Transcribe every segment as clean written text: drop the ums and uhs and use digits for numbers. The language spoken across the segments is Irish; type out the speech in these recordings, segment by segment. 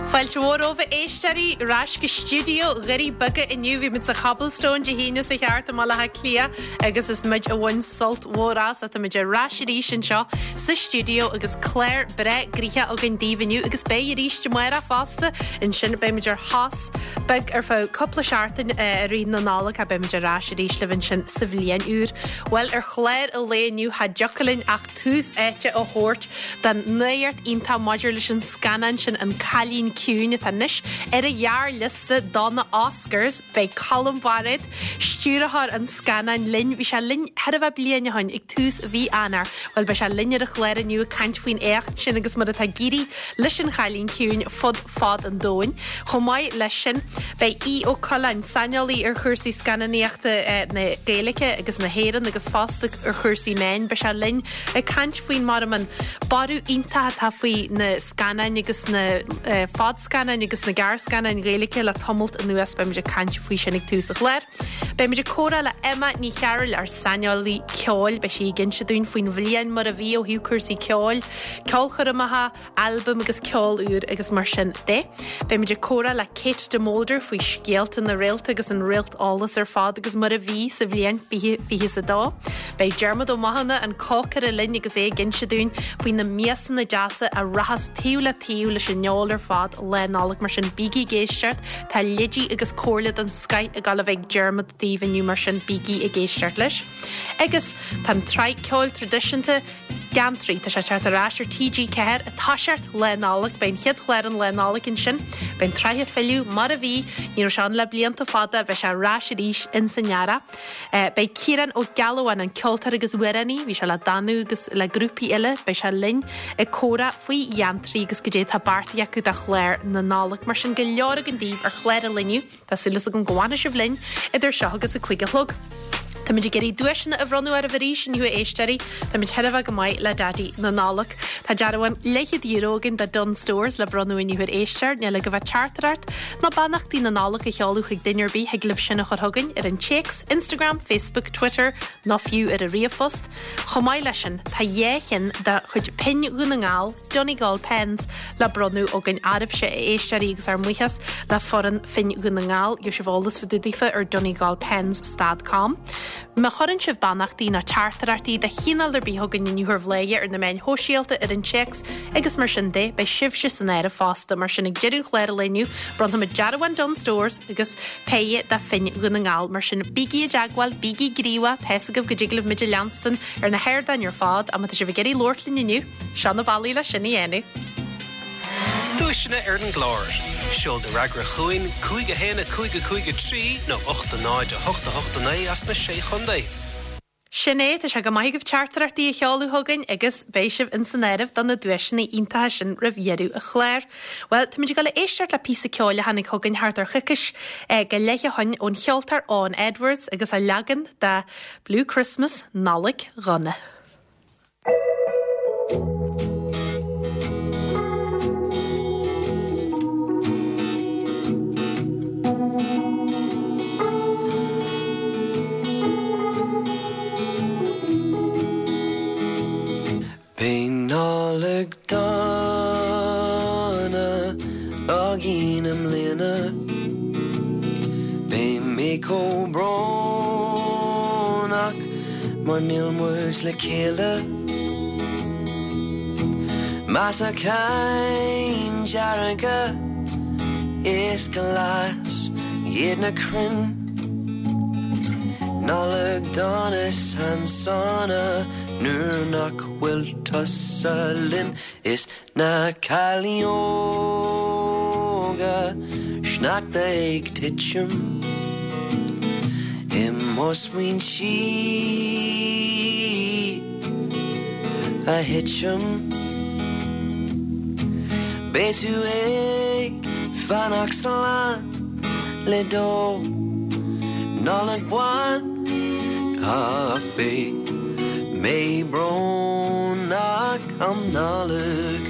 Fáilte mhór romhaibh a éisteoirí ar ais go stiúideo Dhoirí Beaga inniu. Bhí muid sa Chobblestone Dé hAoine seo thart i mBaile Átha Cliath agus is muid a bhain sult mhór as. Tá muid ar ais arís anseo sa stiúideo agus clár breá gnoitheach againn daoibh inniu agus beidh arís amárach fosta. Ansin beidh muid ar shos beag ar feadh cúpla seachtain i rith na Nollag ach beidh muid ar ais arís libh ansin sa bhliain úr. Bhuel ar chlár an lae inniu cha dtiocfadh linn ach tús áite a thabhairt don nuacht iontach maidir leis an scannán sin An Cailín Ciúin atá anois ar an ghearrliosta do na Oscars. Beidh Colm Bairéad, stiúrthóir an scannáin, linn. Bhí sé linn chóir a bheith bliain ó shin ag tús mhí Eanáir. Bhuel, beidh sé linn ar an chlár inniu ag caint faoin éacht sin agus mar atá ag éirí leis An Chailín Ciúin fud fad an domhain. Chomh maith leis sin, beidh Aodh Ó Coileáin, saineolaí ar chúrsaí scannánaíochta na Gaeilge agus na hÉireann agus fosta ar chúrsaí meáin, beidh sé linn ag caint faoin mar an borradh iontach atá faoi na scannáin agus na fadscannáin agus na gearrscannáin Ghaeilge le tamalt anuas. Beidh muid ag caint faoi sin ag tús an chláir. Beidh muid ag comhrá le Emma Ní Chearúil, ár saineolaí ceoil. Beidh sí ag inse dúinn faoin bhliain mar a bhí ó thaobh cúrsaí ceoil, ceolchoirmeacha, albaim agus ceol úr agus mar sin de. Beidh muid ag comhrá le Kate de Molder faoi scéalta na réalta agus an réalteolas ar fad agus mar a bhí sa bhliain 2022. Beidh Diarmuid Ó Mathúna, an cócaire linn agus é ag inse dúinn faoi na miasanna deasa a rachas taobh le taobh leis an fheoil ar fad Lá Nollag mar sin bígí ag éisteacht, tá leidí agus comhairle den scoith ag dul a bheith ag Diarmuid daoibh inniu mar sin bígí ag éisteacht leis. Agus tá an tsraith ceoil traidisiúnta Geantraí. Tá sé ag teacht ar ais ar TG4 ag toiseacht Lá Nollag. Beidh an chéad chlár an Lá Nollag ansin. Beidh an tsraith ag filleadh mar a bhí. Ní raibh sé ann le blianta fada. Beidh sé ar ais arís in san earrach. Beidh Ciarán Ó Gealbháin, an ceoltóir agus amhránaí, bhí sé le Danú agus le grúpaí eile, beidh sé linn ag comhrá faoi Gheantraí agus goidé atá beartaithe acu do chlár na Nollag. Mar sin, go leor againn daoibh ar chlár an lae inniu. Tá súil agam go bhfanfaidh sibh linn idir seo agus a 5 a chlog. Táimid ag iarraidh duaiseanna a bhronnadh oraibh arís inniu a éisteoirí. Táimid chóir a bheith go maith le Daidí na Nollag. Tá dearbhán leathchéad euro againn do Dunnes Stores le bronnadh inniu ar éisteoir. Níl agaibh ach teachtaireacht nó beannachtaí na Nollag a sheoladh chuig duine ar bith thig libh sin a chur chugainn ar an téacs, Instagram, Facebook, Twitter nó fiú ar an ríomhphost. Chomh maith leis sin, tá dhá cheann de chuid pinn Dhún na nGall, Donegal Pens le bronnadh againn oraibhse, a éisteoirí, agus ár mbuíochas le foireann Phinn Dhún na nGall. Gheobhaidh sibh eolas fá dtaobh daofa ar donegalpens.com. Má chuireann sibh beannachtaí nó teachtaireachtaí de chineál ar bith chugainn inniu ar Bhladhaire ar na meáin shóisialta, ar an téacs agus mar sin de, beidh sibhse san áireamh fosta. Mar sin, ag deireadh an chláir an lae inniu, bronnfaimid dearbhán Dunnes Stores agus péire de phinn Dhún na nGall. Mar sin, bígí i dteagmháil, bígí gníomhach, tá's agaibh go dtig libh muid a leanstan ar na hardáin ar fad, ach má tá sibh ag iarraidh labhairt linn inniu, Seo na bealaí le sin a dhéanamh. Duaiseanna ar an gclár. Seol do fhreagra chugainn, 5 1 5 5 3 nó 8 0 8 8 9 as na Sé Chontae. Sin é, tá sé go maith agaibh teachtaireachtaí a sheoladh chugainn agus beidh sibh ins an áireamh do na duaiseanna iontacha sin roimh dheireadh an chláir. Bhuel, táimid ag dul a éisteacht le píosa ceoil a tháinig chugainn thart ar choicís go leith ó shin ón cheoltóir Eoghan Edwards agus a leagan de Blue Christmas, Nollaig Dhona. Beidh Nollaig dona againn i mbliana. Beidh mé chomh brónach mar níl muid le chéile. Measacáin dearga is glas iad na crainn. Nollaig dona is an-sona nuair nach bhfuil tusa linn is na cailíní óga sneachta ag titim i mo smaointe a thitim. Beidh tú ag fanacht slán le do Nollaig bhán ach beidh mé brónach um Nollaig.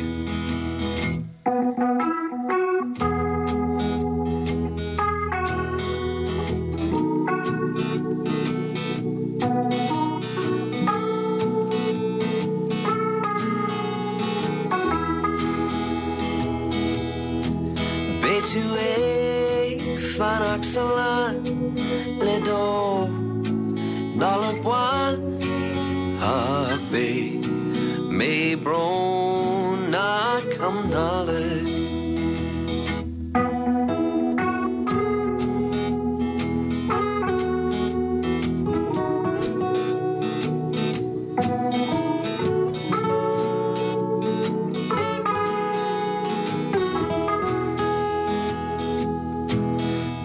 Beidh tú ag fanacht sa lán le do Nollaig bhán ach beidh mé brónach um Nollaig.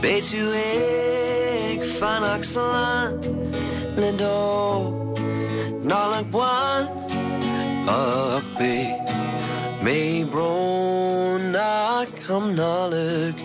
Beidh tú ag fanacht slán le do Nollaig bhán ach beidh mé brónach um Nollaig.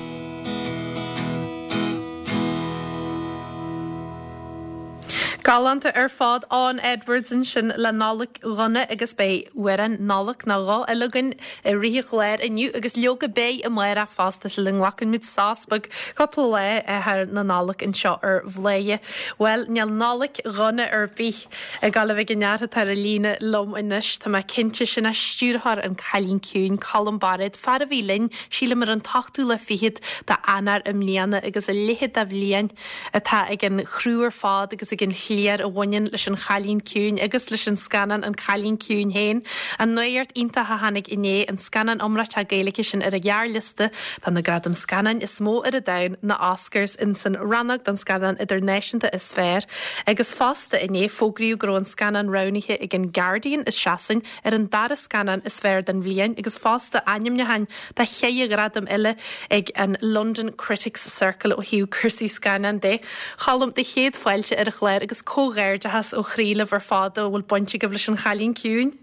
Galánta ar fad, Eoghan Edwards ansin le Nollaig Dhona agus beidh amhrán Nollag nó dhó eile againn i rith an chláir inniu agus leoga beidh amárach fosta sula nglacann muid sos beag cúpla lá thar na Nollag anseo ar Bhladhaire. Bhuel, níl Nollaig dhona ar bith ag dul a bheith ag an fhear atá ar an líne liom anois, tá mé cinnte, sin é stiúrthóir An Cailín Ciúin, Colm Bairéad, fear a bhí linn, sílim ar an t-ochtú lá fichead d'Eanáir i mbliana agus a leithéid de bhliain atá ag an chriú ar fad agus ag an chliar a bhaineann leis An Chailín Ciúin agus leis an scannán An Cailín Ciúin féin. An nuacht iontach a tháinig inné, an scannán iomráiteach Gaeilge sin ar an ghearrliosta do na gradaim scannáin is mó ar an domhan, na Oscars, ins an rannóg don scannán idirnáisiúnta is fearr. Agus fosta inné, fógraíodh go raibh an scannán roghnaithe ag an Guardian i Sasain ar an dara scannán is fearr den bhliain agus fosta ainmniúcháin do cheithre ghradam eile ag an London Critics Circle ó thaobh cúrsaí scannán de. Cholm, do chéad fáilte ar an chlár agus comhghairdeachas ó chroí libh ar fad a bhfuil baint agaibh leis An Chailín Ciúin.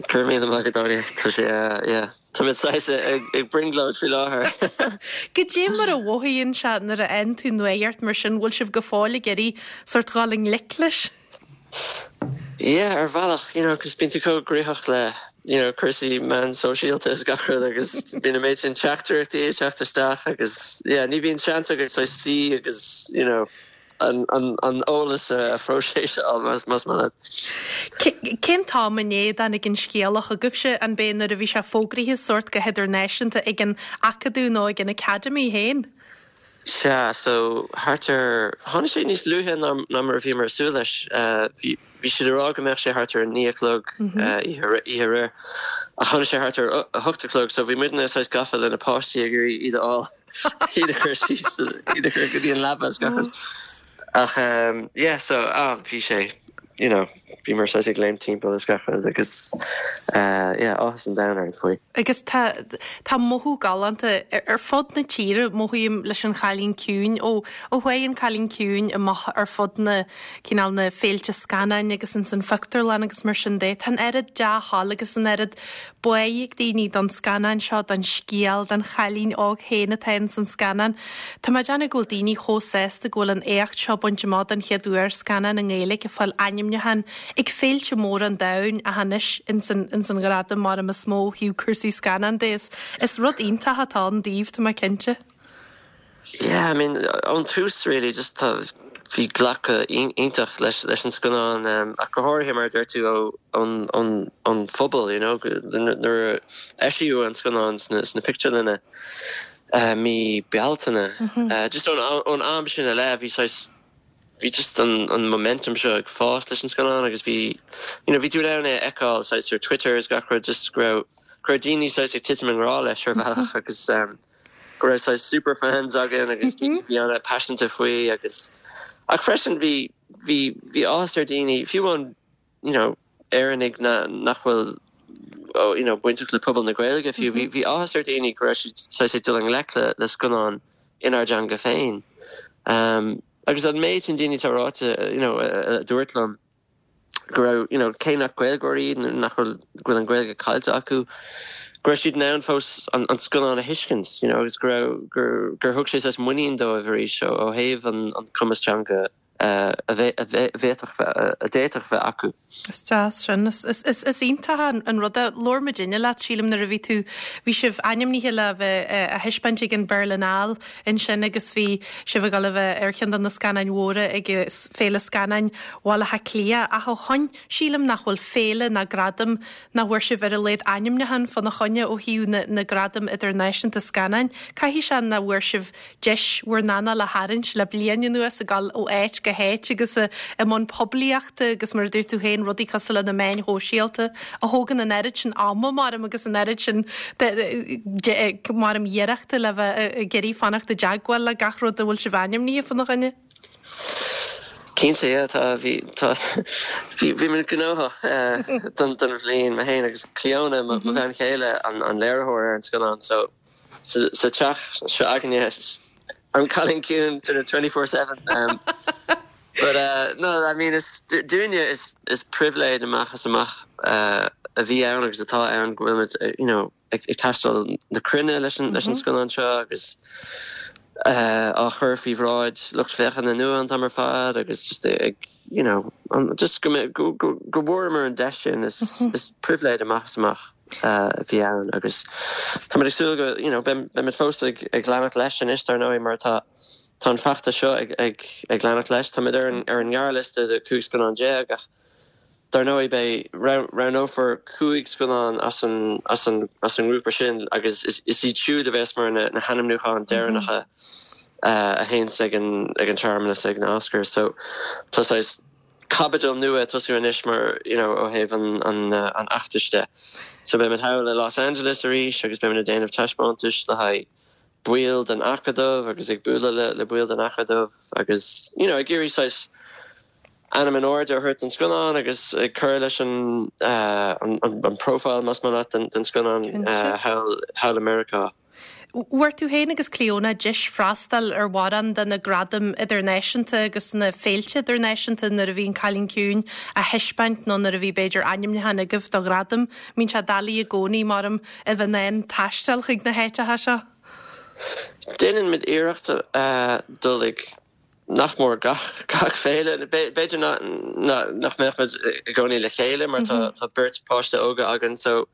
Go raibh míle maith agat, Áine. Tá sé, yeah, tá muid saghas ag brionglóid faoi láthair. Goidé mar a mhothaíonn sé nuair a fhaigheann tú nuacht mar sin, bhfuil sibh go fóill ag iarraidh sórt dhul i ngleic leis? Yeah, ar bhealach, you know, 'cause bíonn tú chomh gnoitheach le, you know, cúrsaí meán sóisialta is gach rud agus bíonn an méid sin teachtaireachtaí ag teacht isteach agus, yeah, ní bhíonn seans agat saghas suí agus, you know, an, an, an eolas a phróiseáil más, más maith leat. Cén t-am inné a dtáinig an scéala chugaibhse, an b'é nuair a bhí sé fógraithe sórt go hidirnáisiúnta ag an Acadamh nó ag an Academy féin? Sea, so thart ar, tháinig sé níos luaithe ná ná mar a bhíomar ag súil leis. Bhí, bhí siad ag rá go mbeadh sé thart ar a 9 a chlog oíche oíche aréir, ach tháinig sé thart ar a 8 a chlog, so bhí muidne saghas gafa le na páistí ag iarraidh iad a fháil, iad a chur síos, iad a chur go dtí an leaba is gach rud. Ach yeah, so, ah, bhí sé, you know, bhíomar saghas ag léimt timpeall is gach rud agus yeah, áthas an domhain orainn faoi. Agus tá, tá mothú galánta ar fud na tíre, mothaím leis An Chailín Ciúin, ó, ó chuaigh An Cailín Ciúin amach ar fud na, cineál na féilte scannáin agus ins an phictiúrlann agus mar sin de, tá an oiread dea-thoil agus an oiread bá ag daoine don scannán seo, don scéal, don chailín óg féin atá ins an scannán. Tá mé ag déanamh go bhfuil daoine chomh sásta go bhfuil an éacht seo bainte amach don chéad uair, scannán i nGaeilge ag fáil ainmniúchán ag féilte móra an domhain ach anois ins an ins an ghradam mar is mó ó thaobh cúrsaí scannán de. Is is rud iontach atá ann daoibh, tá mé cinnte. Yeah, I mean, ón tús really, just tá, bhí glacadh iontach leis leis an scannán, ach go háirithe mar a deir tú ó ón ón ón phobal, you know, nuair a eisíodh an scannán sna sna pictiúrlanna mí Bealtaine, just ón ón am sin i leith bhí saghas bhí just an an momentum seo ag fás leis an scannán agus bhí you know bhí tú in ann é a fheiceáil saghas ar Twitter is gach rud just go raibh go raibh daoine saghas ag titim i ngrá leis ar bhealach agus go raibh saghas super fans againn agus daoine a bhí an-paiseanta faoi agus ach freisin bhí bhí bhí áthas ar daoine fiú amháin you know Éireannaigh na nach bhfuil oh, you know bainteach le pobal na Gaeilge fiú bhí bhí áthas ar daoine go raibh siad saghas ag dul i ngleic le le scannán inár dteanga féin. Um, agus an méid sin daoine atá ráite you know a dúirt liom go raibh, you know, cé nach Gaeilgeoirí iad nó nach bhfuil, go bhfuil an Ghaeilge caillte acu, go raibh siad in ann fós an, an scannán a thuiscint, you know, agus go raibh, gur, gur thug sé saghas muinín dóibh arís ó, ó thaobh an, an cumas teanga. a bhféadfadh a d'fhéadfadh bheith acu. Is deas sin. Is iontach an rud é. Labhair muidinne leat, sílim, nuair a bhí tú, bhí sibh ainmnithe le bheith á thaispeáint ag an Berlinale ansin agus bhí sibh ag dul a bheith ar cheann de na scannáin mhóra ag Féile Scannáin Bhaile Átha Cliath ach ó shoin sílim nach bhfuil féile ná gradam nach bhfuair sibh ar a laghad ainmniúchán fána choinne ó thaobh na ngradam idirnáisiúnta scannáin. Caithfidh sé nach bhfuair sibh deis bhur n-anáil a tharraingt le bliain anuas ag dul ó áit go háit agus i mbun poiblíochta agus mar a dúirt tú féin rudaí cosúil le na meáin shóisialta a thógann an oiread sin ama maram agus an oiread sin maram iarrachta le bheith ag iarraidh fanacht i dteagmháil le gach rud a bhfuil sibh ainmnithe fána choinne. Cinnte, yeah, tá, bhí, tá, bhí, bhí muid gnóthach don, don bhliain, mé féin agus Clíona, mo bhean chéile, an, an léiritheoir ar an scannán, so sa, sa teach seo againne, an Cailín Ciúin sort of 24/7. Um, but uh, no, I mean, is, dúinne is, is pribhléid amach is amach uh, a bhí ann agus atá ann go bhfuil muid, you know, ag taisteal na cruinne leis an scannán seo agus á chur faoi bhráid lucht féachana nua an t-am ar fad agus just ag you know just go go go bhfuaireamar an deis sin is is pribhléid amach is amach a bhí ann agus táimid ag súil go you know beimid fós ag ag leanacht leis anois dar ndóigh mar tá tá an feachtas seo ag ag ag leanacht leis táimid ar an ar an ngearrliosta de 15 scannán ach Dar ndóigh, beidh, roghnófar 5 scannán as an, as an, as an ngrúpa sin agus is, is iad siúd a bheas mar na, na hainmniúcháin deireanacha a théanns ag an, ag an searmanas ag na Oscars. So tá saghas caibidil nua ag tosú anois mar, you know, ó thaobh an, an, an fheachtais de. So beimid thall i Los Angeles arís agus beimid ag déanamh taispeántais le haghaidh baill den Acadamh agus ag bualadh le, le baill den Acadamh agus, you know, ag iarraidh saghas, ainm in airde a thabhairt don scannán agus ag cur leis an an profile, más maith leat, den scannán thall i Meiriceá. Bhfuair tú féin agus Clíona deis freastal ar mhórán de na gradaim idirnáisiúnta agus na féilte idirnáisiúnta nuair a bhí An Cailín Ciúin á thaispeáint nó nuair a bhí b'fhéidir ainmniúchán agaibh do ghradam. Mbíonn sé doiligh i gcónaí, maram, a bheith in ann taisteal chuig na háiteacha seo. Déanann muid iarracht dul ag nach mór gach gach féile. B'fhéidir nach mbeadh muid i gcónaí le chéile mar tá tá beirt páiste óga againn so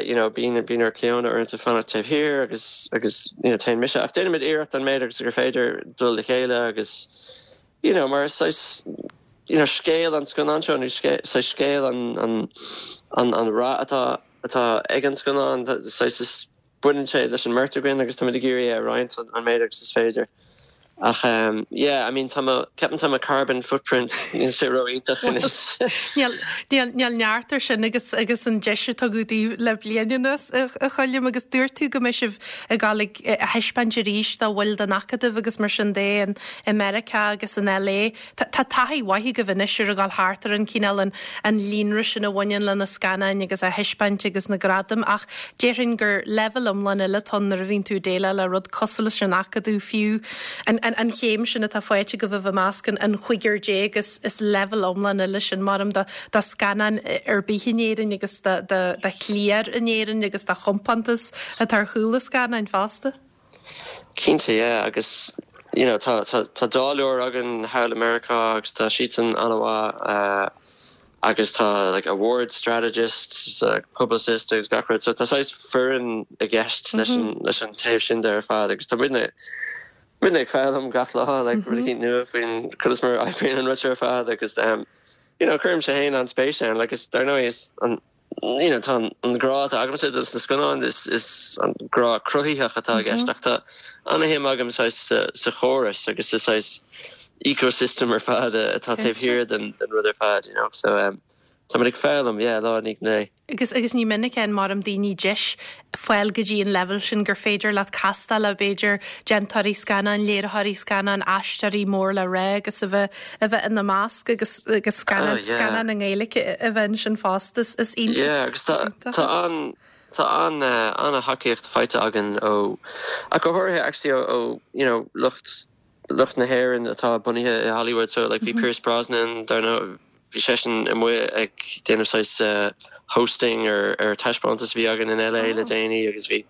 you know bíonn bíonn ar Clíona uaireanta fanacht taobh thiar agus agus you know téann mise ach déanaimid iarracht an méid agus gur féidir dul le chéile agus you know mar is saghas you know scéal an scannán seo nó saghas scéal an an an an rath atá atá ag an scannán saghas is Baineann sé leis an mbeirt againn agus táimid ag iarraidh é a roinnt an méid agus is féidir. Ach yeah, I mean tá mo, ceapaim tá mo carbon footprint, níl sé ró-iontach anois. Níl, níl, níl neart ar sin agus, agus an deis a tugadh daoibh le bliain anuas, a Choilm, agus dúirt tú go mbeidh sibh ag dul ag, á thaispeáint arís do bhaill den Acadamh agus mar sin de in, i Meiriceá agus in LA. Tá taithí mhaith agaibh anois ar a dhul thart ar an cineál, an an líonra sin a bhaineann le na scannáin agus á thaispeáint agus na gradaim ach déarfainn gur leibhéal iomlán eile atá ann nuair a bhíonn tú ag déileáil le rud cosúil leis an Acadamh fiú an an chéim sin atá faighte agaibh a bheith i measc an an chúigear déag is is leibhéal iomlán eile sin maram do do scannán ar bith in Éirinn agus do do do chliar in Éirinn agus do chompántas atá ar chúl na scannáin fosta. Cinnte, yeah, agus you know tá tá tá dáileoir againn thall i Meiriceá agus tá siadsan an-mhaith agus tá like award strategist, publicist agus gach rud so tá saghas foireann i gceist leis an leis an taobh sin de ar fad agus tá muidne muidne ag foghlaim gach lá like rud eicínt nua faoin conas mar a oibríonn an rud seo ar fad agus you know cuirimse féin an-spéis ann like is dar ndóigh is an you know, tá an grá atá agamsa dos na scannáin, is, is an grá cruthaitheach atá i gceist ach tá an-shuim agam saghas sa, sa chóras agus sa saghas ecosystem ar fad atá taobh thiar den, den rud ar fad, you know. So um, tá muid ag foghlaim, yeah, lá i ndiaidh an lae. Agus, agus ní minic a fhaigheann maram daoine deis fáil go dtí an leibhéal sin gur féidir leat castáil le b'fhéidir déantóirí scannán, léiritheoirí scannán, aisteoirí mór le rá agus a bheith a bheith ina measc agus agus scannán scannán i nGaeilge a bheith ansin fosta. Is is iontach. Yeah, agus tá tá an tá an an-thacaíocht faighte againn ó ach go háirithe actually ó ó you know lucht lucht na hÉireann atá bunaithe i Hollywood so like bhí Pierce Brosnan dar ndóigh bhí seisean amuigh ag déanamh saghas hosting ar ar taispeántas a bhí againn in LA le déanaí agus bhí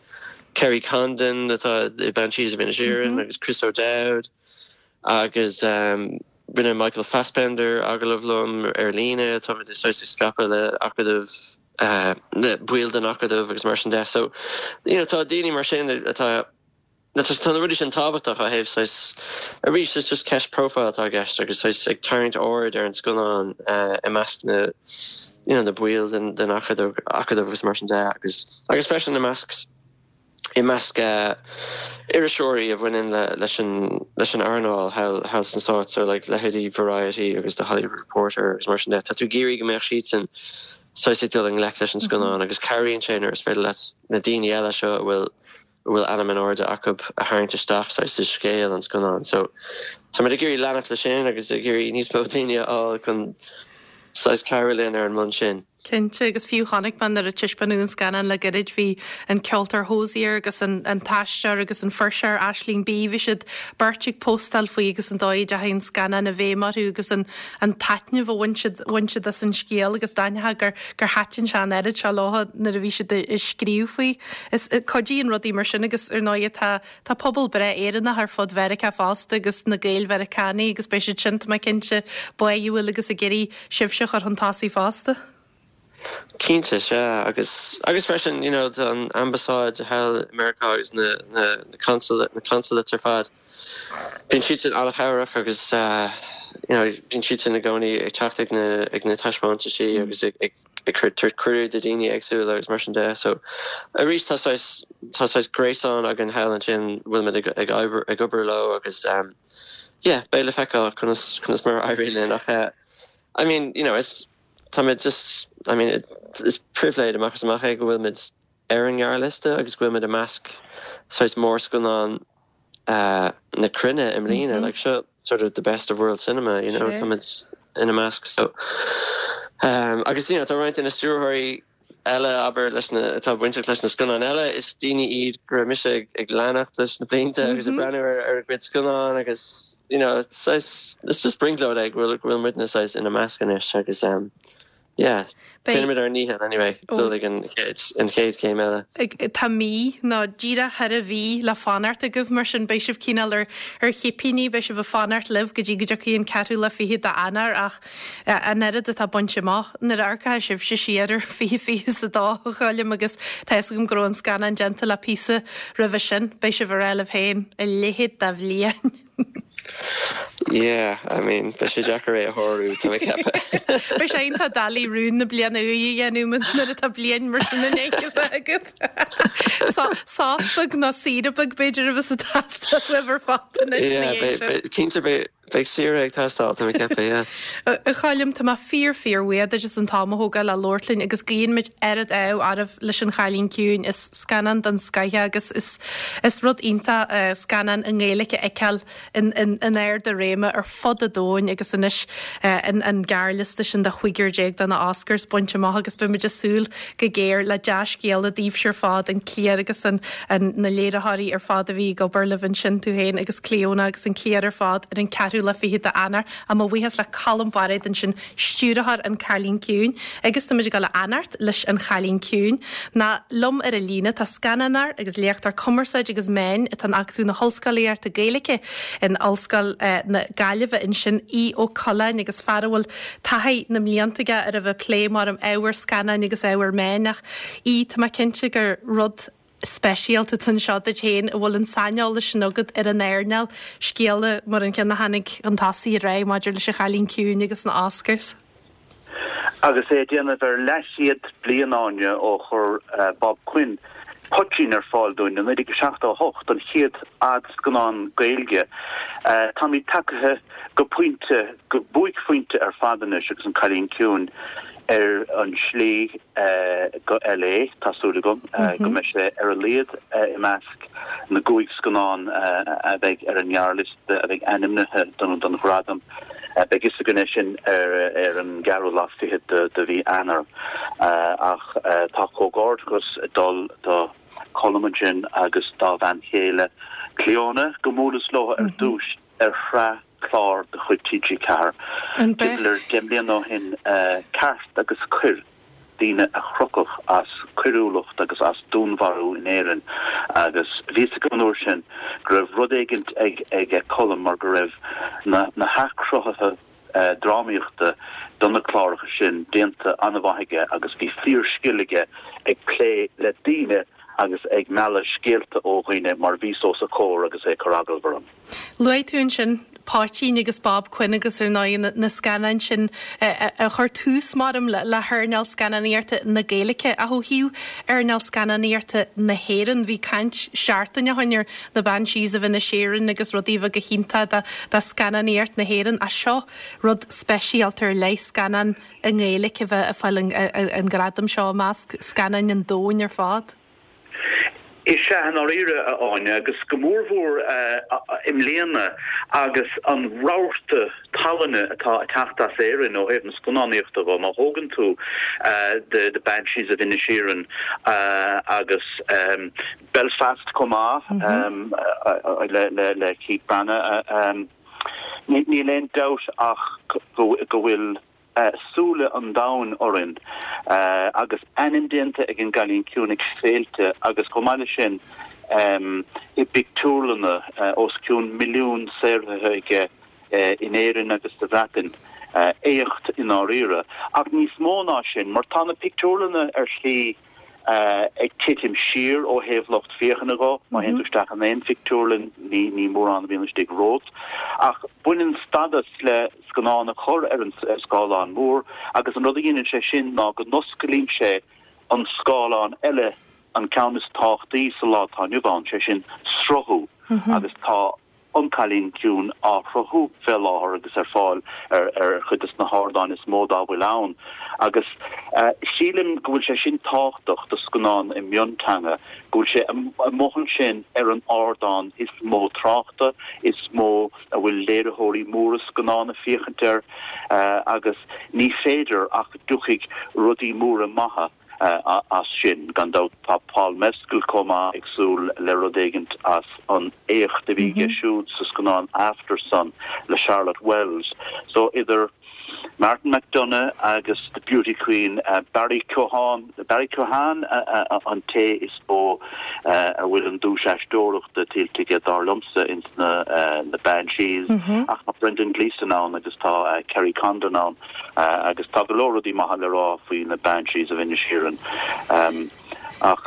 Kerry Condon atá i Banshees of Inisherin agus Chris O'Dowd agus. Rinne Michael Fassbender agallamh liom ar líne, táimid saghas ag scaipeadh le acadamh, le baill den acadamh agus mar sin de. So, you know, tá daoine mar sin atá, tá na rudaí sin tábhachtach ó thaobh saghas, arís, it's just ceist profile atá i gceist agus saghas ag tarraingt aird ar an scannán i measc na, you know, na baill den den acadamh acadamh agus mar sin de agus agus freisin i measc i measc iriseoirí a bhaineann leis an leis an earnáil thall thall sna Stáit, so like leithéidí Variety agus The Hollywood Reporter agus mar sin de. Tá tú ag iarraidh go mbeadh siadsan saghas ag dul i ngleic leis an scannán agus cabhraíonn sé nuair is féidir leat na daoine eile seo a bhfuil a bhfuil ainm in airde acu a tharraingt isteach saghas i scéal an scannáin. So táimid ag iarraidh leanacht leis sin agus ag iarraidh níos mó daoine a fháil chun saghas cabhrú linn ar an mbonn sin. Cinnte, agus fiú chonaic mé nuair a taispeánadh an scannán le gairid, bhí an ceoltóir Hozier agus an an t-aisteoir agus an fuirseoir Aisling Bea, bhí siad beirt ag póstáil faoi agus an dóigh a dteachaigh an scannán i bhfeidhm orthu agus an an taitneamh a bhain siad bhain siad as an scéal agus d'aithneofá gur gur thaitin sé an oiread seo leo nuair a bhí siad ag scríobh faoi. Is cuidíonn rudaí mar sin agus ar ndóigh tá Tá pobal breá Éireannach ar fud Mheiriceá fosta agus na Gael-Mheiriceánaigh agus beidh siad sin, tá mé cinnte, báúil agus ag iarraidh sibhse a chur chun tosaigh fosta. Cinnte, sea. Agus, agus freisin, you know, tá an ambasáid thall i Meiriceá agus na, na, na consulate, na consulates ar fad, bíonn siadsan an-chabhrach agus, you know, bíonn siadsan i gcónaí ag teacht ag na, ag na taispeántaisí agus ag, ag, ag cur tabhairt cuireadh do dhaoine éagsúla agus mar sin de. So arís tá saghas tá saghas gréasán againn thall ansin bhfuil muid ag ag obair ag obair leo agus um, yeah, beidh le feiceáil conas conas mar a éiríonn linn ach eh, I mean, you know, is tá muid just I mean, it, is pribhléid amach is amach é go bhfuil muid ar an ngearrliosta agus go bhfuil muid i measc saghas mórscannán na cruinne i mbliana, like seo sort of the best of world cinema, you know, tá muid ina measc so um, agus you know, tá roinnt de na stiúrthóirí eile abair leis na atá bainteach leis na scannáin eile is daoine iad go raibh mise ag, ag leanacht leis na blianta mm -hmm. agus ag breathnú ar, ar a gcuid scannán agus you know, it's, it's just brionglóid é go bhfuil go bhfuil muidne saghas ina measc anois agus um, Yeah. Déanaimid ár ndícheall anyway dul ag an chéad an chéad chéim eile. Tá mí, nó díreach thar mhí le fanacht agaibh, mar sin beidh sibh cineál ar ar chipíní, beidh sibh ag fanacht libh go dtí go dtiocfaidh an ceathrú lá fichead d'Eanáir ach an oiread atá bainte amach nuair a amharcfá sibhse siar ar 2022 a Choilm agus tá fhios agam go raibh an scannán déanta le píosa roimhe sin, beidh sibh ag rá libh féin, a leithéid de bhliain. Yeah, I mean, beidh sé deacair é a shárú, tá mé ag ceapadh. Beidh sé iontach doiligh rún na bliana úire a dhéanamh nuair atá bliain mar sin i ndiaidh a bheith agat. Sos beag nó saoire beag b'fhéidir a bheas ag teastáil uaibh ar fad anois ina dhiaidh sin. Cinnte beidh saoire ag teastáil, tá mé ag ceapadh, yeah. A Choilm, tá mé fíor fíor bhuíoch duit as an t-am a thógáil le labhairt linn agus guíonn muid oiread ádh oraibh leis An Chailín Ciúin. Is scannán den scoith é agus is Is rud iontach scannán i nGaeilge a fheiceáil in ard a réime ar fud an domhain agus anois an gearrliosta sin de chúigear déag do na Oscars bainte amach agus beimid ag súil go géar le dea-scéala daoibhse ar fad, an cliar agus an na léiritheoirí ar fad a bhí ag obair libh ansin, tú féin agus Clíona agus an cliar ar fad ar an ceathrú lá fichead d'Eanáir. Mo bhuíochas le Colm Bairéad ansin stiúrthóir An Cailín Ciúin, agus tá muid ag dul a fhanacht leis An Chailín Ciúin. Ná liom ar an líne tá scannánóir agus léachtóir cumarsáide agus meáin atá in Acadamh na hOllscolaíochta Gaeilge in Ollscoil na Gaillimhe ansin, Aodh Ó Coileáin, agus fear a bhfuil taithí na mblianta aige ar a bheith ag plé mar ábhar scannáin agus ábhar meáin ach Aodh, tá mé cinnte gur rud speisialta atá anseo duit féin a bhfuil an saineolas sin agat ar an earnáil, scéala mar an ceann a tháinig chun tosaigh aréir maidir leis An Chailín Ciúin agus na Oscars. Agus é ag déanamh ar leathchéad bliain, Áine, ó chuir Bob Quinn Poitín ar fáil dúinn i 1978, an chéad fhadscannán Gaeilge, táimid tagtha go pointe, go buaicphointe ar fad anois agus An Cailín Ciúin ar an slí go LA, tá súil agam go mbeidh sé ar a laghad i measc na gcúig scannán a bheidh ar an ngearrliosta a bheidh ainmnithe don ghradam. Beidh fhios againn é sin ar an gceathrú lá fichead de mhí Eanáir. Ach tá comhghairdeachas ag dul do Cholm ansin agus dá bhean chéile Clíona, go mbuaileas leo ar dtús ar shraith clár de chuid TG4 timpeall ar 10 mbliana ó shin, Ceart agus Coir. daoine a crochadh as coiriúlacht agus as dúnmharú in Éirinn agus bhí fhios agam an uair sin go raibh rud éigint ag ag Colm mar go raibh na na hathchruthuithe drámaíochta do na cláracha sin déanta an-mhaith aige agus bhí fíor-scil aige ag plé le daoine agus ag mealladh scéalta ó dhaoine mar bhíos os a chomhair agus é ag cur agallamh orm. Luaigh tú ansin Poitín agus Bob Quinn agus ar ndóigh na scannáin sin a chuir tús, maram, le hearnáil scannánaíochta na Gaeilge. Ach ó thaobh earnáil scannánaíochta na hÉireann, bhí caint seachtain ó shin ar na Banshees of Inisherin agus rudaí a bheith go hiontach do scannánaíocht na hÉireann. Ach seo rud speisialta ar leith, scannán i nGaeilge a bheith ag fáil an gradam seo i measc scannáin an domhain ar fad. Is ea, i ndáiríre, a Áine, agus go mórmhór i mbliana agus an rabharta tallainne atá ag teacht as Éirinn ó thaobh na scannánaíochta dhó. Má thógann tú The Banshees of Inisherin agus Belfast chomh maith le Keith Branagh, níl aon dabht ach go bhfuil súile an domhain orainn agus ainm déanta ag An Cailín Ciúin ag féilte agus chomh maith leis sin i bpictiúrlanna, os cionn milliún saothraithe aige in Éirinn agus sa Bhreatain. Éacht i ndáiríre. Ach níos mó ná sin, mar tá na pictiúrlanna ar shlí ag titim siar ó thaobh lucht féachana dho. Má théann tú isteach in aon phictiúrlann, ní ní mórán a bhíonn istigh romhat. Ach baineann stádas le scannán a chur ar an scáileán mór agus an rud a dhéanann sé sin ná go n-osclaíonn sé an scáileán eile, an ceann is tábhachtaí sa lá atá inniu ann, sé sin sruthú agus tá An Cailín Ciúin á shruthú fé láthair agus ar fáil ar chuid de na hardáin is mó dá bhfuil ann agus sílim go bhfuil sé sin tábhachtach do scannán i mionteanga, go bhfuil sé amuigh ansin ar an ardán is mó tráchta, is mó a bhfuil léiritheoirí móra scannán ag féachaint air agus ní féidir ach go dtiocfaidh rudaí móra maithe as sin. Gan dabht tá Paul Mescal chomh maith ag súil le rud éigint as an éacht a bhí aige siúd sa scannán Aftersun le Charlotte Wells. So idir Martin McDonagh agus The Beauty Queen, Barry Keoghan, Barry Keoghan an té is mó a bhfuil an duais aisteoireachta tuillte aige dar liomsa ins na Banshees ach tá Brendan Gleeson ann agus tá Kerry Condon ann. Agus tá go leor rudaí maithe le rá faoi na Banshees of Inisherin. Ach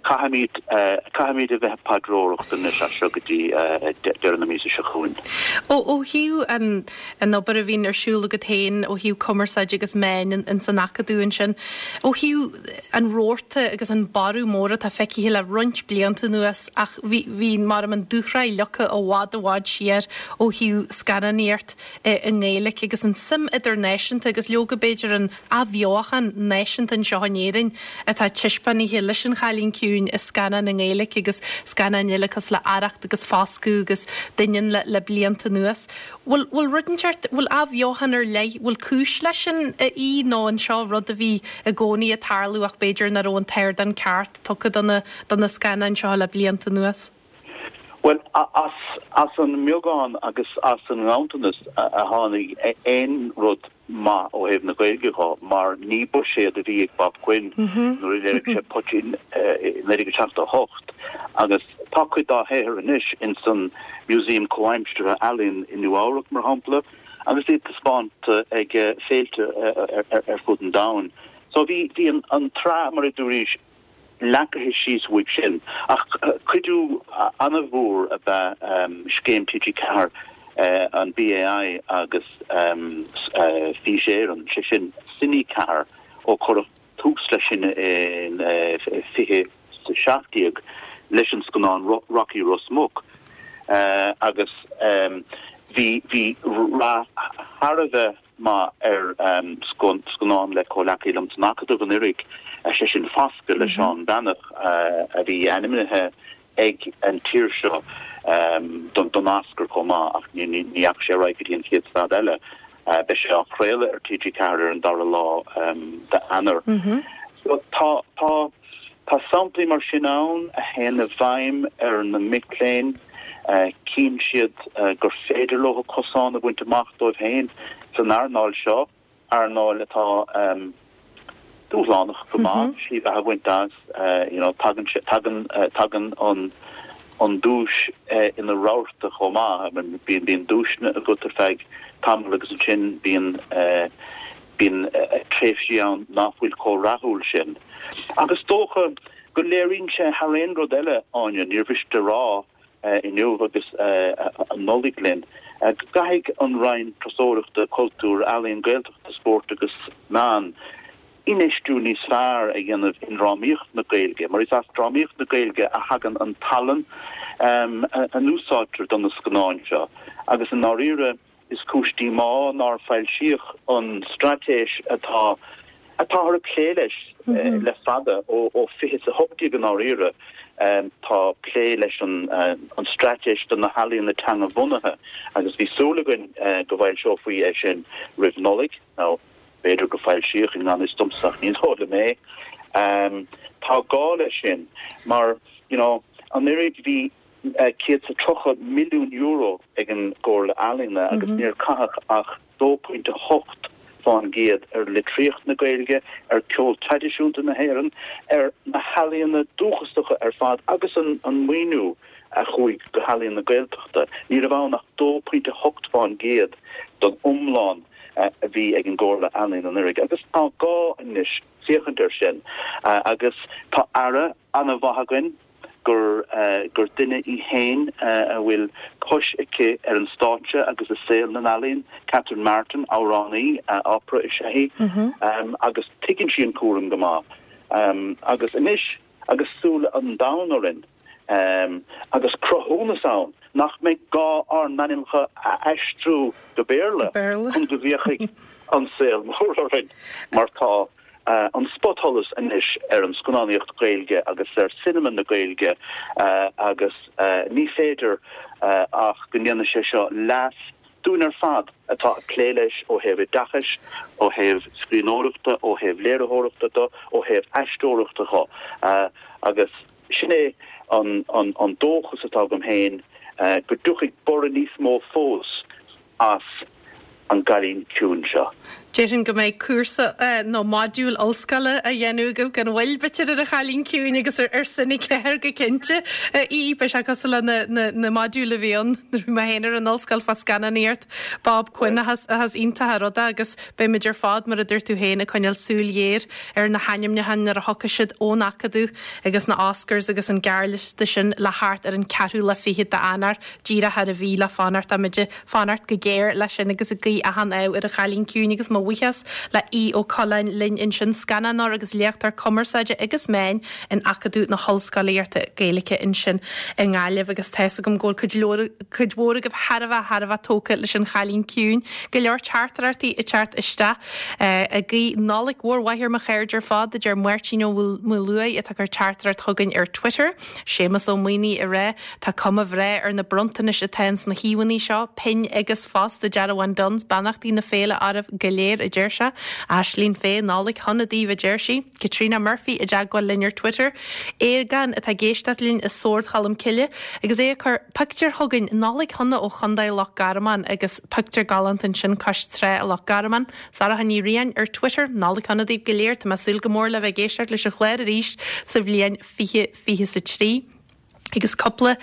caithfimid, caithfimid a bheith ag paidreoireacht anois as seo go dtí deireadh na míosa seo chugainn. Ó thaobh an, an obair a bhíonn ar siúl agat féin ó thaobh cumarsáide agus meáin ins an Acadamh ansin, ó thaobh an rabharta agus an borradh mór atá feicthe le roinnt blianta anuas ach bhí, bhí mar an dúshraith leagtha i bhfad i bhfad siar ó thaobh scannánaíocht i nGaeilge agus an suim idirnáisiúnta agus leoga b'fhéidir an athbheochan náisiúnta anseo in Éirinn atá taispeánaithe leis An Chailín Ciúin i scannáin i nGaeilge agus scannáin eile cosúil le Arracht agus Foscadh agus Doineann le le blianta anuas. Bhfuil bhfuil rud inteacht, bhfuil athbheochan ar leith, bhfuil cúis leis sin a Aoidh nó an seo rud a bhí i gcónaí ag tarlú ach b'fhéidir nach raibh an t-ardán ceart tugtha do na do na scannáin seo le blianta anuas? Bhuel, as an mbeagán agus as an nganntanas a tháinig aon rud maith ó thaobh na Gaeilge dho, mar ní buiséad a bhí ag Bob Quinn nuair a léirigh sé Poitín i 1978, agus tá cuid dá shaothar anois ins an Museum Comhaimseartha Ealaíon i Nua Eabhrac, mar shampla, agus iad taispeánta ag féilte ar fud an domhain. So bhí an tsraith, mar a dúraís, leagtha síos uaidh sin. Ach cuidiú an-mhór ab ea scéim TG4, an BAI agus Fís Éireann, sé sin Cine 4, ó cuireadh tús leis sin in 2017 leis an scannán Rocky Ros Muc agus bhí rath thar a bheith maith ar scannán le comhleacaí liom san Acadamh anuraidh, sé sin Foscadh le Seán Breathnach, a bhí ainmnithe ag an tír seo don Oscar chomh maith, ach ní dheachaigh sé ar aghaidh go dtí an chéad stad eile. Beidh sé á chraoladh ar TG4 ar an dara lá d'Eanáir. So tá, tá. Tá samplaí mar sin ann a théann i bhfeidhm ar na mic léinn, cíonn siad gur féidir leo cosán a bhaint amach dóibh féin san earnáil seo, earnáil atá. dúshlánach go maith slí bheatha a bhaint as, you know, tagann sé, tagann, tagann an, an duais ina rabharta chomh maith, I mean, bíonn, bíonn duaiseanna agat ar feadh tamaill agus ansin bíonn, bíonn tréimhsí ann nach bhfuil chomh rathúil sin. Agus is dócha go léiríonn sé thar aon rud eile, Áine, níor mhiste a rá inniu agus an Nollaig linn, go gcaithfidh an Roinn Turasóireachta, Cultúir, Ealaíon, Gaeltachta, Spóirt agus Meán infheistiú níos fearr a dhéanamh i ndrámaíocht na Gaeilge, mar is as drámaíocht na Gaeilge a thagann an tallann a n-úsáidtear do na scannáin seo agus i ndáiríre, Is cúis díomá nár foilsíodh an straitéis atá atáthar ag plé leis le fada, ó 2018 i ndáiríre. Tá plé leis an straitéis do na healaíona teanga-bhunaithe agus bhí súil againn go bhfoilseofaí é sin roimh Nollaig, nó b'fhéidir gur foilsíodh i ngan fhios domsa ach ní dóigh liom é. Tá gá leis sin mar, you know, anuraidh bhí €130 milliún ag an gComhairle Ealaíona agus níor caitheadh ach 2.8% ar litríocht na Gaeilge, ar ceol traidisiúnta na hÉireann, ar na healaíona dúchasacha ar fad agus an maoiniú a chuaigh go healaíon na Gaeltachta, ní raibh ann ach 2.8% den iomlán a bhí ag an gComhairle Ealaíon anuraidh agus tá gá anois féachaint air sin agus tá Aire an-mhaith againn, gur gur duine í féin a bhfuil cois aici ar an stáitse agus i saol na n-ealaíon, Catherine Martin, amhránaí opera is ea í, agus tuigeann sí an cúram go maith. Agus anois agus súile an domhain orainn, agus cruthúnas ann nach mbeidh gá ár n-ainmneacha a aistriú go Béarla chun go bhféachfaidh an saol mór orainn, mar tá an spotsholas anois ar an scannánaíocht Ghaeilge agus ar cinema na Gaeilge agus ní féidir ach go ndéanfaidh sé seo leas dúinn ar fad atá ag plé leis ó thaobh oideachais, ó thaobh scríbhneoireachta, ó thaobh léiritheoireachta de, ó thaobh aisteoireachta de agus sin é an dóchas atá agam féin go dtiocfaidh borradh níos mó fós as An Cailín Ciúin seo. Déarfainn go mbeidh cúrsa nó modúl ollscoile á dhéanamh agaibh gan mhoill, b'fhéidir, ar An Chailín Ciúin agus ar Cine 4 go cinnte. Í, beidh sé cosúil le na modúil a bhí ann nuair a bhí mé féin ar an ollscoil fá scannánaíocht Bob Quinn ach is iontach an rud é agus beimid ar fad, mar a dúirt tú féin, ag coinneáil súil ghéar ar na hainmniúcháin nuair a thiocfaidh siad ón Acadamh agus na Oscars agus an gearrliosta sin le theacht ar an ceathrú lá fichead d'Eanáir, díreach thar mhí le fanacht. Táimid ag fanacht go géar leis sin agus ag guí achan ádh ar An Chailín Ciúin agus mo bhuíochas le Aodh Ó Coileáin linn ansin, scannánóir agus léachtóir cumarsáide agus meáin in Acadamh na hOllscolaíochta Gaeilge ansin i nGaillimh agus tá's agam go bhfuil cuid leor, cuid mhór agaibh thar a bheith, thar a bheith tógtha leis An Chailín Ciúin. Go leor teachtaireachtaí ag teacht isteach. Ag guí Nollaig mhór mhaith ar mo chairde ar fad, a deir Máirtín Ó Maoluaidh atá ag cur teachtaireacht chugainn ar Twitter. Séamus Ó Maonaigh ag rá, Tá cuma bhreá ar na bronntanais atá ins na híomhánna seo, pinn agus fosta dearbháin Dunnes, beannachtaí na féile oraibh go léir, a deir sé. Aislinn Fay, Nollaig shona daoibh, a deir sí. Caitríona Murphy i dteagmháil linn ar Twitter. Aogán atá ag éisteacht linn i Sord Cholm Cille agus é ag cur pictiúr chugainn, Nollaig shona ó Chontae Loch Garman agus pictiúr galánta ansin cois trá i Loch Garman. Sarah Ní Riain ar Twitter, Nollaig shona daoibh go léir, tá mé ag súil go mór le bheith ag éisteacht leis an chlár arís sa bhliain 2023. Agus cúpla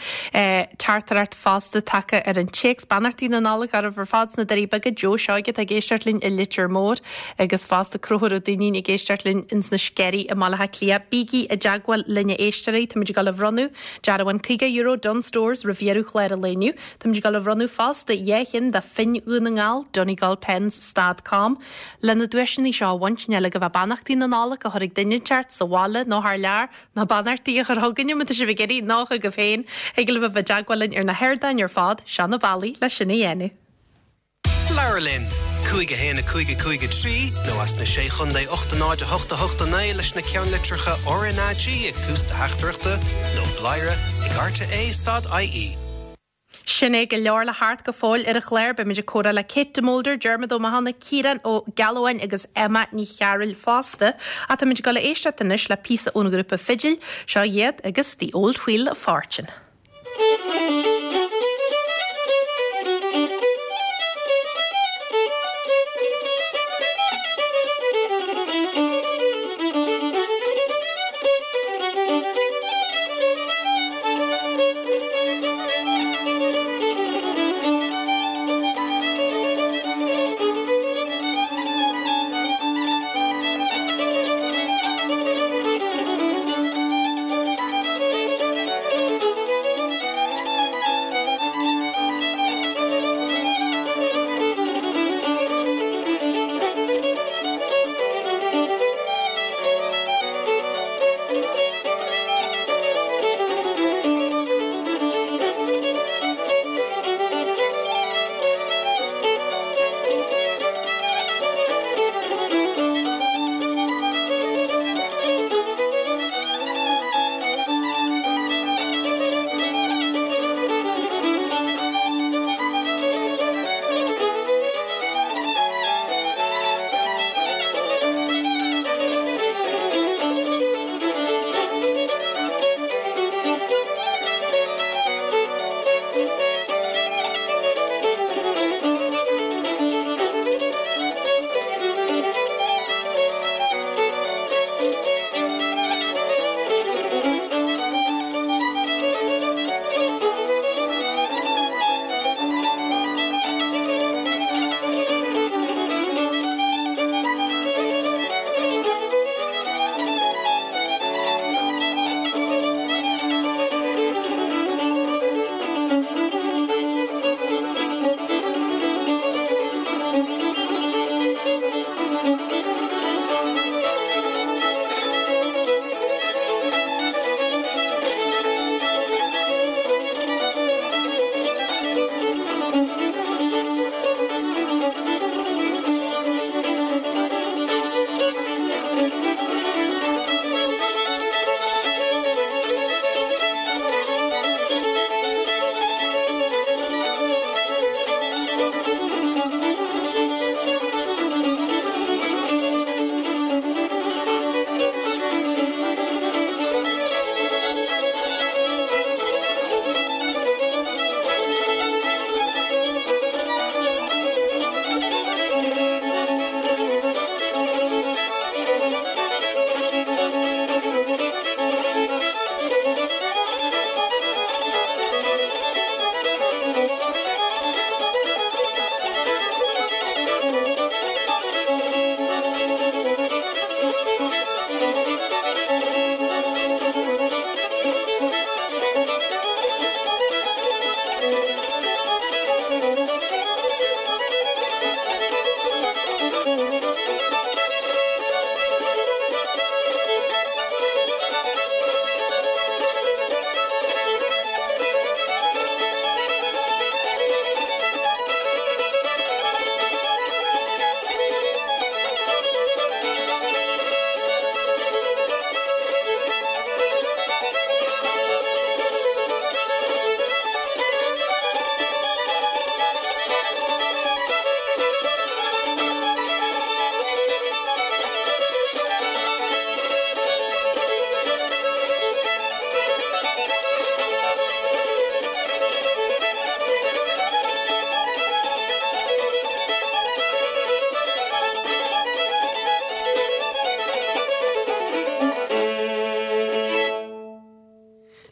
teachtaireacht fosta tagtha ar an téacs. Beannachtaí na Nollag oraibh ar fad sna Doirí Beaga, Joe Seoige atá ag éisteacht linn i Leitir Móir agus fosta Conchúr Ó Duinnín ag éisteacht linn ins na Sceirí i mBaile Átha Cliath. Bígí i dteagmháil linn a éisteoirí, táimid ag dul a bhronnadh dearbhán €50 Dunnes Stores roimh dheireadh chlár an lae inniu. Táimid ag dul a bhronnadh fosta 2 cheann de phinn Dhún na nGall, Donegal Pens stad com. Le na duaiseanna seo a bhaint, níl agaibh ach beannachtaí na Nollag a chur ag duine inteacht sa bhaile nó thar lear, Nó beannachtaí a chur chugainne má tá sibh ag iarraidh, nó chugaibh féin. Thig libh a bheith i dteagmháil linn ar na hardáin ar fad, seo na bealaí le sin a dhéanamh. Labhair linn! 5 1 5 5 3 nó as na Sé Chontae 8 0 8 8 9 leis na ceannlitreacha RnaG ag tús do theachtaireachta nó bladhaire ag rte stad ie. Sin é, go leor le theacht go fóill ar an chlár. Beimid ag comhrá le Kate de Molder, Diarmuid Ó Mathúna, Ciarán Ó Gealbháin agus Emma Ní Chearúil fosta. Ach táimid ag dul a éisteacht anois le píosa ón ghrúpa Fidil. Seo iad agus The Old Wheel of Fortune.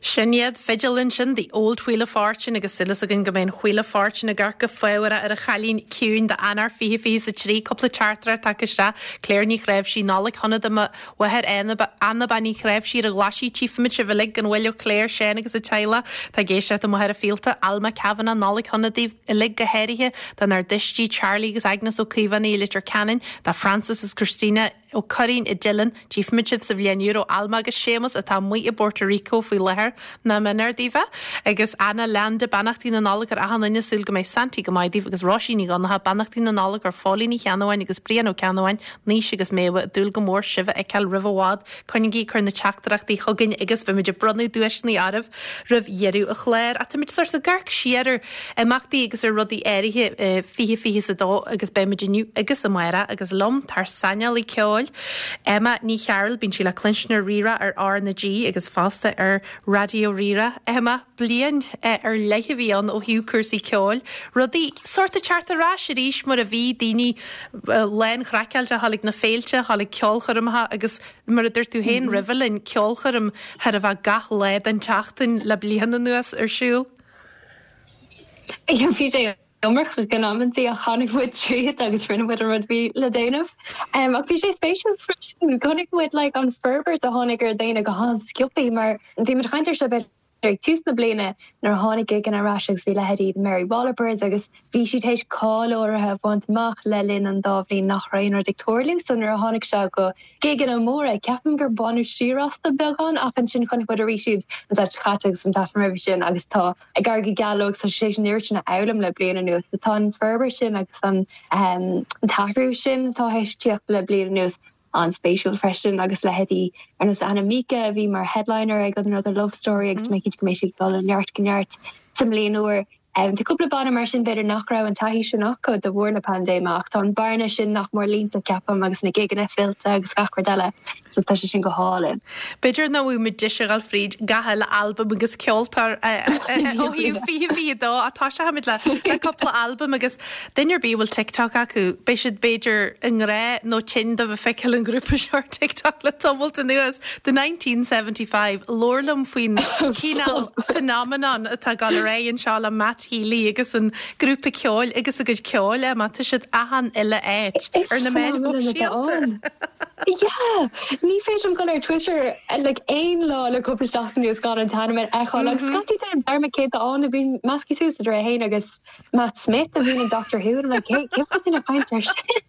Sin iad, fidil ansin, The Old Wheel of Fortune agus súil againn go mbeidh an Wheel of Fortune ag amharc go fábharach ar an Chailín Ciúin d'Eanáir 2023. Cúpla teachtaireacht tagtha isteach, Claire Ní Chnáimhsí, Nollaig shona do mo mháthair Anna Bean Uí Chnáimhsí ar an Ghlaisigh, Tchífimid sibh uilig gan mhoill ó Claire, Seán agus a teaghlach atá ag éisteacht i Machaire Fíolta, Alma Kavanagh, Nollaig shona daoibh uilig go háirithe dár dtuistí Charlie agus Agnes Ó Caomhánaigh i Leitir Ceanainn, do Francis is Christina, Ó Curraoin i dTeileann, tchífimid sibh sa bhliain úr ó Alma agus Séamus atá amuigh i bPorto Rico faoi láthair, nach méanar daoibh é. Agus Anna Leanda, beannachtaí na Nollag ar achan duine, súil go mbeidh Santaí go maith daoibh agus Róisín Ní Dhonncha, beannachtaí na Nollag ar Phóilín Ní Cheannabháin agus Brian Ó Ceannabháin, Naoise agus Méabha, ag dúil go mór sibh a fheiceáil roimh i bhfad. Coinnígí ag cur na teachtaireachtaí chugainn agus beimid ag bronnadh duaiseanna oraibh roimh dheireadh an chláir. Ach táimid sort ag amharc siar ar imeachtaí agus ar rudaí áirithe i 2022 agus beimid inniu agus amárach agus liom tá ár saineolaí ceoil, Emma Ní Chearúil, bíonn sí le cluinstin ar Rí-Rá ar R na G agus fosta ar Raidió Rí-Rá. Emma, bliain ar leith a bhí ann ó thaobh cúrsaí ceoil, rudaí sórt ag teacht ar ais arís mar a bhí, daoine lán-chraiceáilte a dhul ag na féilte, a dhul ag ceolchoirmeacha agus mar a dúirt tú féin roimhe linn, ceolchoirm chóir a bheith gach lá den tseachtain le bliain anuas ar siúl. Bhí sé iomarcach in amantaí ach tháinig muid tríd agus rinne muid an rud a bhí le déanamh. Ach bhí sé spéisiúil freisin, chonaic muid like an forbairt a tháinig ar dhaoine go han-sciobtha mar bhí muid ag caint ar seo b'fhéidir ag tús na bliana nuair a tháinig gigeanna ar ais agus bhí leithéidí The Mary Wallopers agus bhí siad théis cáil áirithe a bhaint amach le linn an dá bhliain nach raibh aon rud ag tarlú so nuair a tháinig sé go gigeanna móra ceapaim gur baineadh siar astu beagán ach ansin chonaic muid arís iad an tseachtain seo caite agus an tseachtain roimhe sin agus tá ag éirí go geal leo agus tá siad théis an oiread sin a fhoghlaim le bliain anuas so tá an forbairt sin agus an t-athrú sin atá théis tíocht le bliain anuas an-spéisiúil freisin agus leithéidí ar nós Anna Mika a bhí mar headliner ag Another Love Story agus tá mé cinnte go mbeidh siad ag dul ó neart go neart sa mbliain úr. Tá cúpla banna mar sin b'fhéidir nach raibh an taithí sin acu de bharr na paindéime ach tá an bearna sin nach mór líonta ceapaim agus na gigeanna fillte agus gach rud eile so tá sé sin go hálainn. B'fhéidir nach bhfuil muid deis a dhul fríd gach uile albam agus ceoltóir ó thaobh 2022 ach toiseochaimid le cúpla albam agus Duine ar bith a bhfuil TikTok acu, beidh siad b'fhéidir i ngrá nó tinn de bheith ag feiceáil an ghrúpa seo ar TikTok le tamalt anuas. The 1975, labhair liom faoin cineál phenomenon atá ag dul ar aghaidh anseo le Matt Healy agus an grúpa ceoil agus a gcuid ceoil, Emma, tá siad achan uile áit ar na meáin shóisialta. Yeah! Ní féidir liom dul ar Twitter like aon lá le cúpla seachtain anuas gan an t-ainm a fheiceáil agus scaití déanaim dearmad cé atá ann, bíonn measctha suas idir é féin agus Matt Smith a bhíonn in Doctor Who and I'm like cé cé bhfuil duine ag caint air sin?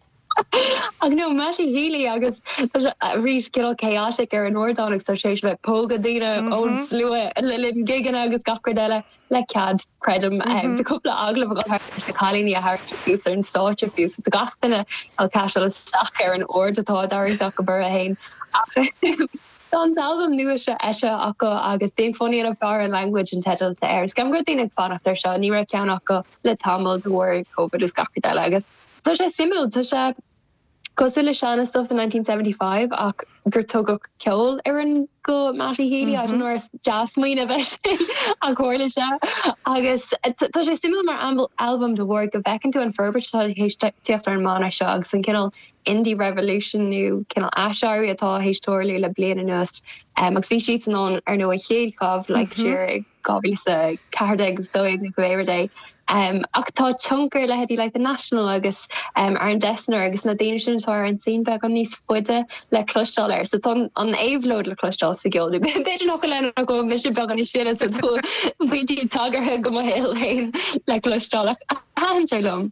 Ach no, Matty Healy agus tá sé arís cineál chaotic ar an ardán agus tá sé tar éis bheith ag pógadh daoine ón slua le linn gigeanna agus gach rud eile le cead, creidim. Tá cúpla agallamh ag dul thart leis na cailíní a tharraingt suas ar an stáitse fiú so tá gach duine ag caiseáil isteach ar an aird atá á dtarraingt acu orthu féin. Ach Tá an t-albam nua seo eisithe acu agus Being Funny in a Foreign Language an teideal atá air. Is ceapaim go raibh daoine ag fanacht air seo, ní raibh ceann acu le tamall de bharr Covid agus gach rud eile agus tá sé suimiúil, tá sé cosúil le seana stuff The 1975 ach gur tugadh ceol ar an go Matty Healy, I don't know ar dea-smaoineamh é sin ach tharla sé agus tá sé suimiúil mar albam de bharr go bhfeiceann tú an forbairt atá théis tíocht ar an mbanna seo agus an cineál indie revolution nó cineál aiséirí atá théis tarlú le bliain anuas. Agus bhí siadsan ann ar ndóigh an chéad chabhlaigh siar i 2014 agus 12 nó cibé rud é. Ach tá tionchar leithéidí like The National agus Aaron Dessner agus na daoine sin atá ar an scene beagán níos faide le cloisteáil air. So tá an éabhlóid le cloisteáil sa gceol. B'fhéidir nach bhfuil ann ach go bhfuil mise beagán níos sine so tá pointí tagartha go mo shaol féin le cloisteáil ach thaitin sé liom.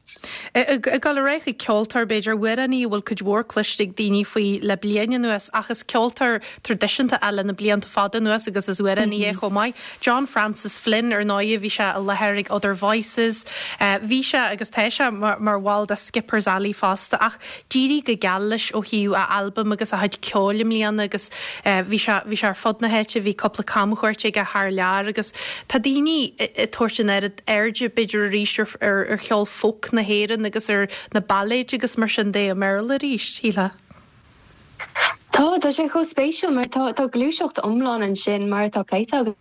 Ag dul ar aghaidh chuig ceoltóir, b'fhéidir, amhránaí a bhfuil cuid mhór cloiste ag daoine faoi le bliain anuas, ach is ceoltóir traidisiúnta é le na blianta fada anuas agus is amhránaí é chomh maith. John Francis Flynn, ar ndóigh, bhí sé i láthair ag Other Voices, bhí sé agus tá sé mar bhall de Skipper's Alley fosta, ach d'éirigh go geal leis ó thaobh a albaim agus a chuid ceoil i mbliana agus bhí sé, bhí sé ar fud na háite, bhí cúpla camchuairt aige thar lear agus tá daoine ag tabhairt an oiread airde b'fhéidir arís ar ar cheol folk na hÉireann agus ar na bailéid agus mar sin de i mBéarla arís, shílfeá. Tá, tá sé chomh spéisiúil mar tá, tá gluaiseacht iomlán ansin mar atá pléite againn.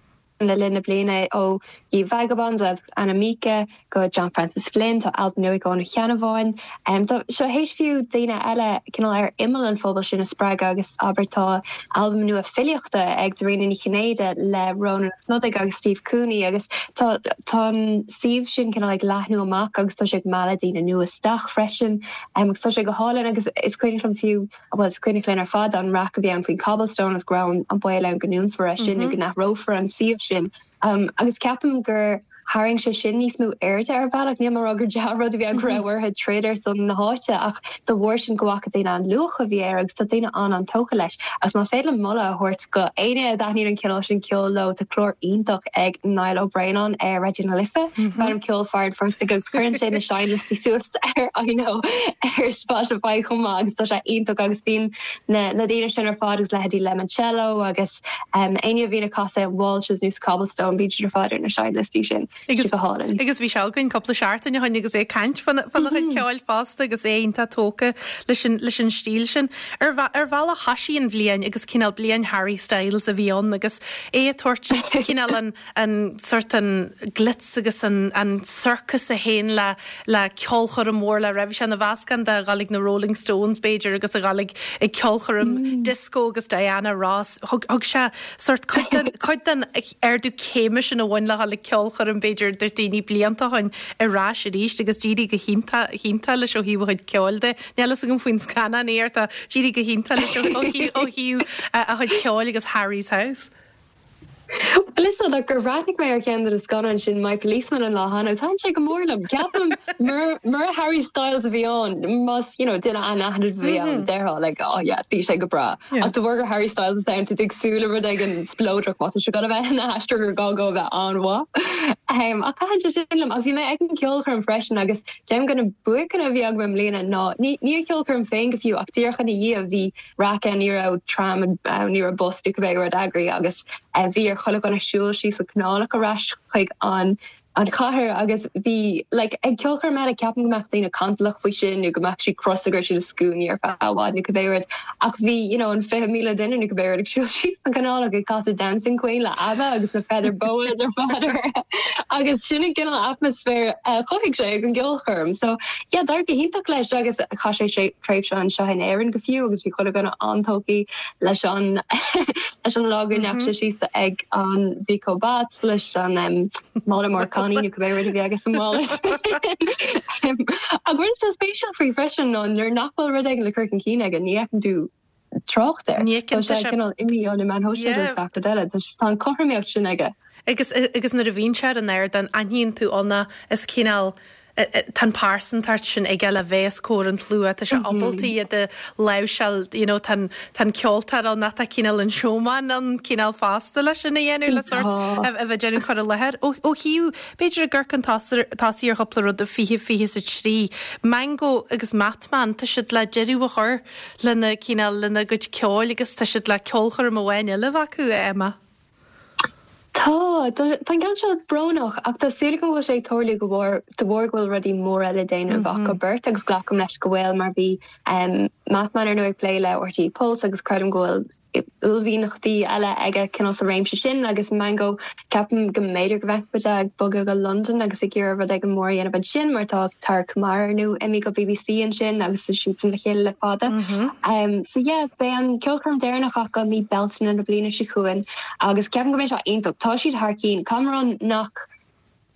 le linn na bliana ó Ye Vagabonds agus Anna Mieke go John Francis Flynn, tá albam nua ag Eoin Ó Ceannabháin. Tá seo théis fiú daoine eile cineál ar imeall an phobail sin a spreagadh agus abair tá albam nua filíochta ag Dairena Ní Chinnéide le Rónán Ó Snodaigh agus Steve Cooney agus tá tá an suíomh sin cineál ag leathnú amach agus tá sé ag mealladh daoine nua isteach freisin agus tá sé go hálainn agus is cuimhneach liom fiú bhuel is cuimhneach linn ar fad an raic a bhí ann faoin Cobblestone agus go raibh an baol ann go ndúnfar é sin nó go n-athrófar an suíomh sin agus ceapaim gur tharraing sé sin níos mó airde ar bhealach. Níl mé ag rá gur dea-rud a bhí ann go raibh orthu troid ar son na háite ach de bharr sin go bhfaca daoine an luach a bhí air agus tá daoine an-an-tógtha leis. Agus más féidir liom moladh a thabhairt go éinne a dtaitníonn an cineál sin ceoil leo, tá clár iontach ag Niall Ó Braonáin ar Raidió na Life, darb ainm Ceol Fear an Phortaigh agus cuireann sé na seinnliostaí suas ar I know ar Spotify chomh maith agus tá sé iontach agus bíonn na na daoine sin ar fad agus leithéidí Lemoncello agus Éinne a bhíonn ag casadh i Walsh's nó sa Cobblestone, bíonn siad ar fad ar na seinnliostaí sin. Tá sé go hálainn. Agus bhí sé againn cúpla seachtain ó shin agus é ag caint fána chuid ceoil fosta agus é iontach tógtha leis an leis an stíl sin. Ar ar bhealach thoisigh an bhliain agus cineál bliain Harry Styles a bhí ann agus é ag tabhairt cineál an an sort an glitz agus an an sorcas a théann le le ceolchoirm mhór le raibh sé ina mheascán de dhul ag na Rolling Stones b'fhéidir agus a dhul ag ag ceolchoirm disco agus Diana Ross. Thug thug sé sort cuid den cuid den ardú céime sin a bhain le dhul ag ceolchoirm b'fhéidir do daoine blianta ó shin ar ais arís agus d'éirigh go hiontach hiontach leis ó thaobh a chuid ceoil de. Níl fhios agam faoin scannán ach tá d'éirigh go hiontach leis ó ó thaobh a chuid ceoil agus Harry's House. Bhuel, is dócha gur bhreathnaigh mé ar cheann de na scannáin sin, My Policeman, an lá cheana agus thaitin sé go mór liom. Ceapaim, mura Harry Styles a bhí ann, más, you know, duine anaithnid a bhí ann, déarfá, like, oh yeah, bhí sé go breá. Ach de bharr gur Harry Styles atá ann, tá tú ag súil le rud éigin spleodrach, má tá sé ag dul a bheith ina aistear gur gá dó a bheith an-mhaith. Ach thaitin sé sin liom. Ach bhí mé ag an gceolchoirm freisin agus ceann de na buaiceanna a bhí agam i mbliana ná, ní an cheolchoirm féin go fiú, ach díreach ina dhiaidh, bhí, raic ann, ní raibh tram ann, ní raibh bus nó cibé rud eagraithe agus bhí ar chuile dhuine siúl síos an Canálach ar ais chuig an an chathair agus bhí like ag ceolchoirm eile ceapaim go mbeadh daoine cantalach faoi sin nó go mbeadh siad crosta go raibh siad i scuainí ar feadh i bhfad nó cibé rud ach bhí you know an 20,000 duine nó cibé rud ag siúl síos an Canálach ag casadh Dancing Queen le ABBA agus na feather boas ar fad orthu agus sin an cineál atmaisféar a chothaigh sé ag an gceolchoirm so Yeah, d'éirigh go hiontach leis agus chaith sé tréimhse anseo in Éirinn go fiú agus bhí chuile dhuine an-tógtha leis an leis an lá go ndeachaigh sé síos ag an Vico Bats leis an mála mór cannaí nó cibé rud a bhí aige sa mhála sin. Ach rud atá spéisiúil faoi freisin ná nuair nach bhfuil rud éigin le cur chun cinn aige ní fheiceann tú trácht air. Ní fheiceann Tá sé cineál imithe ó na meáin shóisialta agus gach rud eile. Tá an chothromaíocht sin aige. Agus agus nuair a bhíonn sé ar an ardán, aithníonn tú ann é, is cineál, tá an pearsantacht sin aige le bheith os comhair an tslua, tá sé ábalta iad a láimhseáil, you know, tá an tá an ceoltóir ann ach tá cineál an showman ann cineál fosta leis sin a dhéanamh le sort a bheith ag déanamh cur i láthair. Ó ó thaobh, b'fhéidir ag amharc chun tosaigh ar chúpla rud i 2023, Mango agus Mattman, tá siad le deireadh a chur lena cineál, lena gcuid ceoil agus tá siad le ceolchoirm amháin eile a bheith acu, a Emma. Tá, tá an ceann seo brónach ach tá súil agam go bhfuil sé ag tarlú go bharr, de bharr go bhfuil rudaí móra le déanamh acu beirt agus glacaim leis go bhfuil mar bhí Mattman ar ndóigh ag plé le RTÉ Pulse agus creidim go bhfuil uaillmhianachtaí eile aige cineál sa réimse sin agus Mango Ceapaim go mb'fhéidir go bhfeicfidh muid é ag bogadh go Londain agus ag iarraidh rud éigin mór a dhéanamh ansin mar tá Tara Kumar ar ndóigh imithe go BBC ansin agus tá siadsan le chéile le fada. So yeah, beidh an ceolchoirm deireanach acu mí Bealtaine na bliana seo chugainn agus ceapaim go mbeidh sé iontach. Tá siad thar cinn. Caithfidh mé a rá nach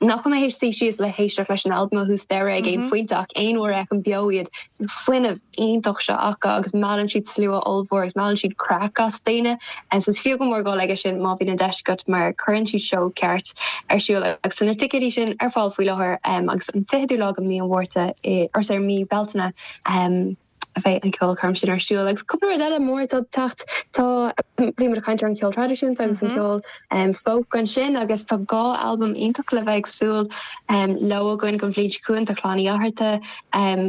nach bhfuil mé théis suí síos le héisteacht leis an albam ó thús deireadh ag aon phointe ach aon uair a fheicim beo iad, an fuinneamh iontach seo acu agus meallann siad slua ollmhór agus meallann siad craic as daoine. So is fiú go mór dul aige sin má bhíonn an deis agat mar cuireann siad seó ceart ar siúl agus tá na ticéidí sin ar fáil faoi láthair agus an 20ú lá de mí an Mhárta, or sorry, mí Bealtaine. a bheidh an ceolchoirm sin ar siúl. Agus cúpla rud eile mór atá ag teacht, tá, bhí muid ag caint ar an cheol traidisiúnta agus an ceol folk ansin agus tá dhá albam iontach le bheith ag súil leo againn don bhliain seo chugainn, tá Clann Uí Fhátharta,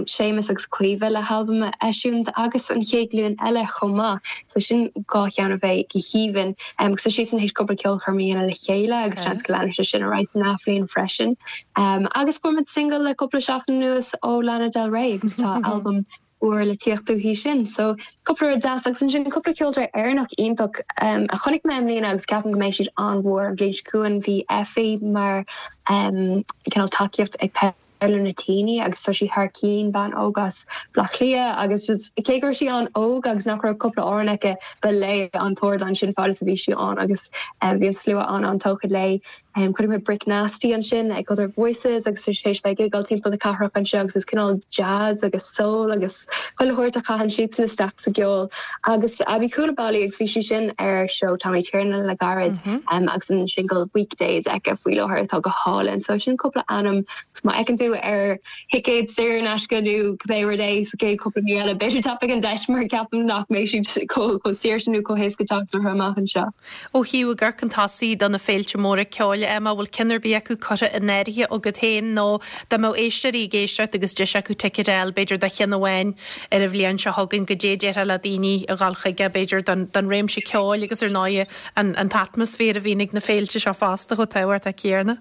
Séamus agus Caoimhe le halbam a eisiúint agus an Chéad Ghlúin Eile chomh maith. So sin dhá cheann a bheidh go haoibhinn. Agus tá siadsan théis cúpla ceolchoirm a dhéanamh le chéile agus seans go leanfaidh sé sin ar aghaidh san athbhliain freisin. Agus fuair muid singil le cúpla seachtain anuas ó Lana Del Rey agus tá albam. úr le tíocht uaithi sin. So cúpla rud deas agus ansin cúpla ceoltóir Éireannach iontach a chonaic mé i mbliana agus ceapaim go mbeidh siad an-mhór an bhliain seo chugainn. Bhí Effie mar cineál tacaíocht ag Paolo Nutini agus tá sí thar cinn, bean óg as Baile Átha Cliath agus just cé go raibh sí an-óg agus nach raibh cúpla amhrán aici ba léi an t-ardán sin fad is a bhí sí ann agus bhí an slua an-an-tógtha léi. Chonaic mé Brick Nasty ansin ag Other Voices agus tá sé tar éis bheith ag gigeáil timpeall na cathrach anseo agus is cineál jazz agus soul agus chuile shórt a chaitheann siadsan isteach sa gceol. Agus Aby Coulibaly agus bhí sí sin ar seó Tommy Tiernan le gairid agus an singil Weekdays aici faoi láthair atá go hálainn. So sin cúpla ainm agus má fheiceann tú ar thicéad saor in aisce nó cibé rud é sa gcéad cúpla mí eile, b'fhéidir tapaigh an deis mar ceapaim nach mbeidh siad chomh saor sin nó chomh héasca teacht orthu amach anseo. Ó thaobh ag amharc chun tosaigh do na féilte móra ceoil, Emma, bhfuil ceann ar bith acu curtha in áirithe agat féin nó dá mbeadh éisteoirí ag éisteacht agus deis acu ticéad a fháil, b'fhéidir do cheann amháin ar an bhliain seo chugainn, goidé a déarfá le daoine a dhul chuige, b'fhéidir don réimse ceoil agus ar ndóighe an t-atmaisféar a bhíonn ag na féilte seo fosta chomh tábhachtach céanna.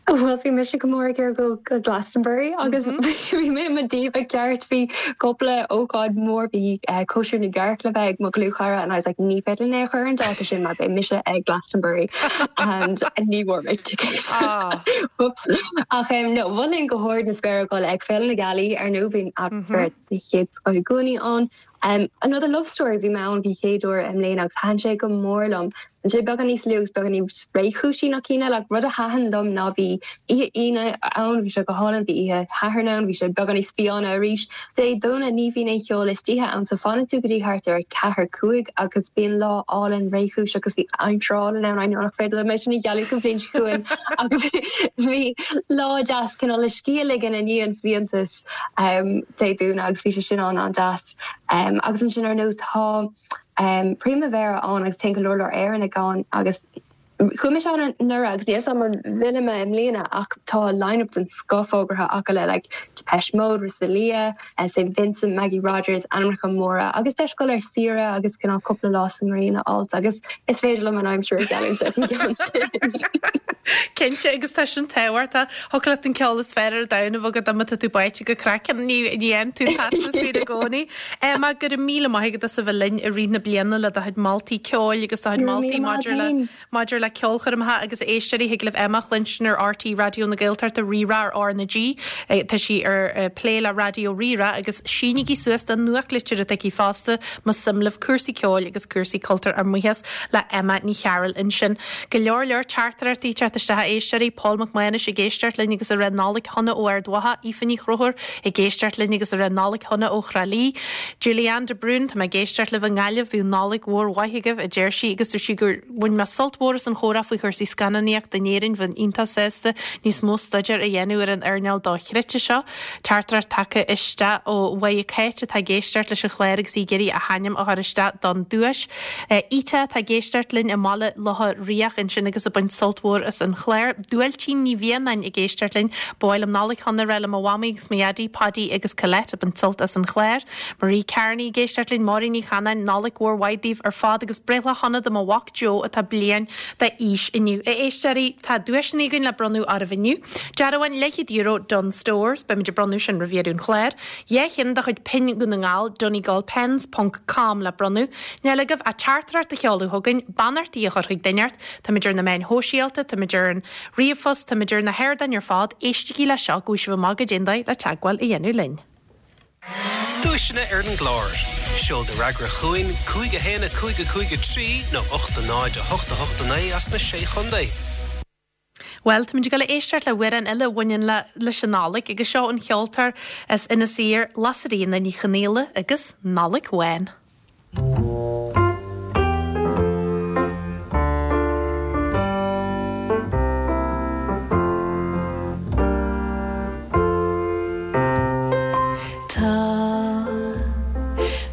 Bhuel, bhí mise go mór ag iarraidh dul go Glastonbury agus bhí mé i mo diva ceart. Bhí cúpla ócáid mhór, bhí cóisir na gcearc le bheith ag mo dhlúthchara and I was like ní féidir linn é a chur ar an dáta sin mar beidh mise ag Glastonbury and ní bhfuair mé ticéad. Whoops. Ach no, mholfainn go hard na spéire dul ag Féile na Gealaí ar ndóigh, bíonn atmaisféar den chéad scoth i gcónaí ann. Another Love Story, bhí mé ann don chéad uair i mbliana agus thaitin sé go mór liom. Bhí sé beagán níos lú agus beagán níos réchúisí ná cinn eile ach rud a thaitin liom ná bhí oíche Aoine ann, bhí sé go hálainn, bhí oíche Shathairn ann, bhí sé beagán níos fiáine arís. Dé Domhnaigh ní bhíonn aon cheol istoíche ann so fanann tú go dtí thart ar 4, 5 agus bíonn lá álainn réchúiseach agus bhí aimsir álainn ann, I know nach féidir liom é sin a ghealladh don bhliain seo chugainn ach bhí lá deas cineál le scíth a ligean i ndiaidh an bhfiántas. Dé Domhnaigh agus bhí sé sin an-an-deas. Agus ansin ar ndóigh tá Primavera ann agus téann go leor leor Éireannaigh ann agus chuaigh mise ann anuraidh agus níl 'fhios agam an bhfillfidh mé i mbliana ach tá line-up den scoth fógartha acu le like Depeche Mode, Rosalía, St Vincent, Maggie Rogers, ainmneacha móra agus deis dul ar saoire agus cineál cúpla lá sa ngrian a fháilt agus is féidir liom an aimsir a gheallúint ar an gceann sin. Cinnte agus tá sin tábhachtach. Thiocfadh leat an ceol is fearr ar domhan a bheith agat má tá tú báite go craiceann, ní fhaigheann tú an t-atmaisféar i gcónaí. Emma, go raibh míle maith agat as a bheith linn i rith na bliana le do chuid moltaí ceoil agus do chuid moltaí maidir le maidir le ceolchoirmeacha agus éisteoirí. Thig libh Emma a chluinstin ar RTÉ Raidió na Gaeltachta, Rí-Rá ar R na G. Tá sí ar plé le Raidió Rí-Rá agus sínigí suas don nuachtlitir atá aici fosta más suim libh cúrsaí ceoil agus cúrsaí cultúir ár mbuíochas le Emma Ní Chearúil ansin. Go leor leor teachtaireachtaí ag teacht isteach a éisteoirí, Paul Mac Mánais ag éisteacht linn agus ag rá Nollaig shona ó Ard Mhacha, Aoife Ní Chonchúir ag éisteacht linn agus ag rá Nollaig shona ó Thrá Lí, Julianne de Brún, tá mé ag éisteacht libh i nGaillimh, bíodh Nollaig mhór mhaith agaibh, a deir sí agus dúirt sí gur bhain mé sult mhór as an chomhrá faoi chúrsaí scannánaíochta in Éirinn, bheinn iontach sásta níos mó staidéir a dhéanamh ar an earnáil dochreidte seo. Teachtaireacht tagtha isteach ó Mháire Cáit atá ag éisteacht leis an chlár agus í ag iarraidh a hainm a chur isteach don duais. Ita atá ag éisteacht linn i mBaile Locha Riach ansin agus ag baint sult mhór as an chlár. Duailtín Ní Mhianáin ag éisteacht linn. Ba mhaith liom Nollaig shona a rá le mo mhamaí agus mo dhaidí, Paidí agus Colette ag baint sult as an chlár. Marie Carney ag éisteacht linn, Máirín Ní Chanáin, Nollaig mhór mhaith daoibh ar fad agus breithlá shona do mo mhac Joe atá bliain d'aois inniu. A éisteoirí, tá duaiseanna againn le bronnadh oraibh inniu. Dearbhán leathchéad euro Dunnes Stores, beimid ag bronnadh sin roimh dheireadh an chláir. 2 cheann de chuid pinn Dhún na nGall, Donegalpens ponc com le bronnadh. Níl agaibh ach teachtaireacht a sheoladh chugainn, beannachtaí a chur chuig duine inteacht. Táimid ar na meáin shóisialta, táimid ar an ríomhphost, táimid ar na hardáin ar fad. Éistigí le seo go bhfaighidh sibh amach goidé an dóigh le teagmháil a dhéanamh linn. Duaiseanna ar an gclár. Seol do fhreagra chugainn, 5 1 5 5 3 nó 8 0 8 8 9 as na Sé Chontae. Bhuel, táimid ag dul a éisteacht le hamhrán eile a bhaineann le leis an Nollaig agus seo an cheoltóir as Inis Oírr, Lasairfhíona Ní Chonghaile agus Nollaig Bhán. Tá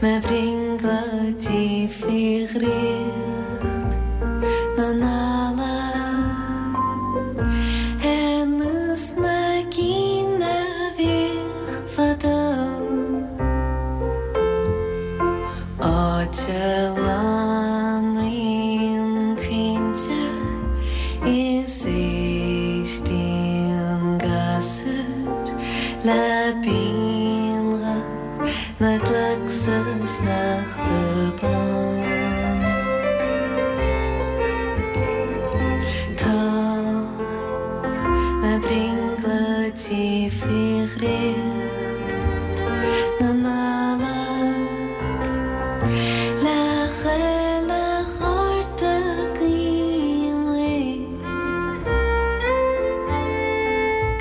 mo bhrionglóidí faoi dhraíocht na Nollag ar nós na gcinn a bhíodh fadó. Áit a lonraíonn crainnte is éistíonn gasúir le bionghuth. faoi dhraíocht na Nollag Le chuile chárta guím duit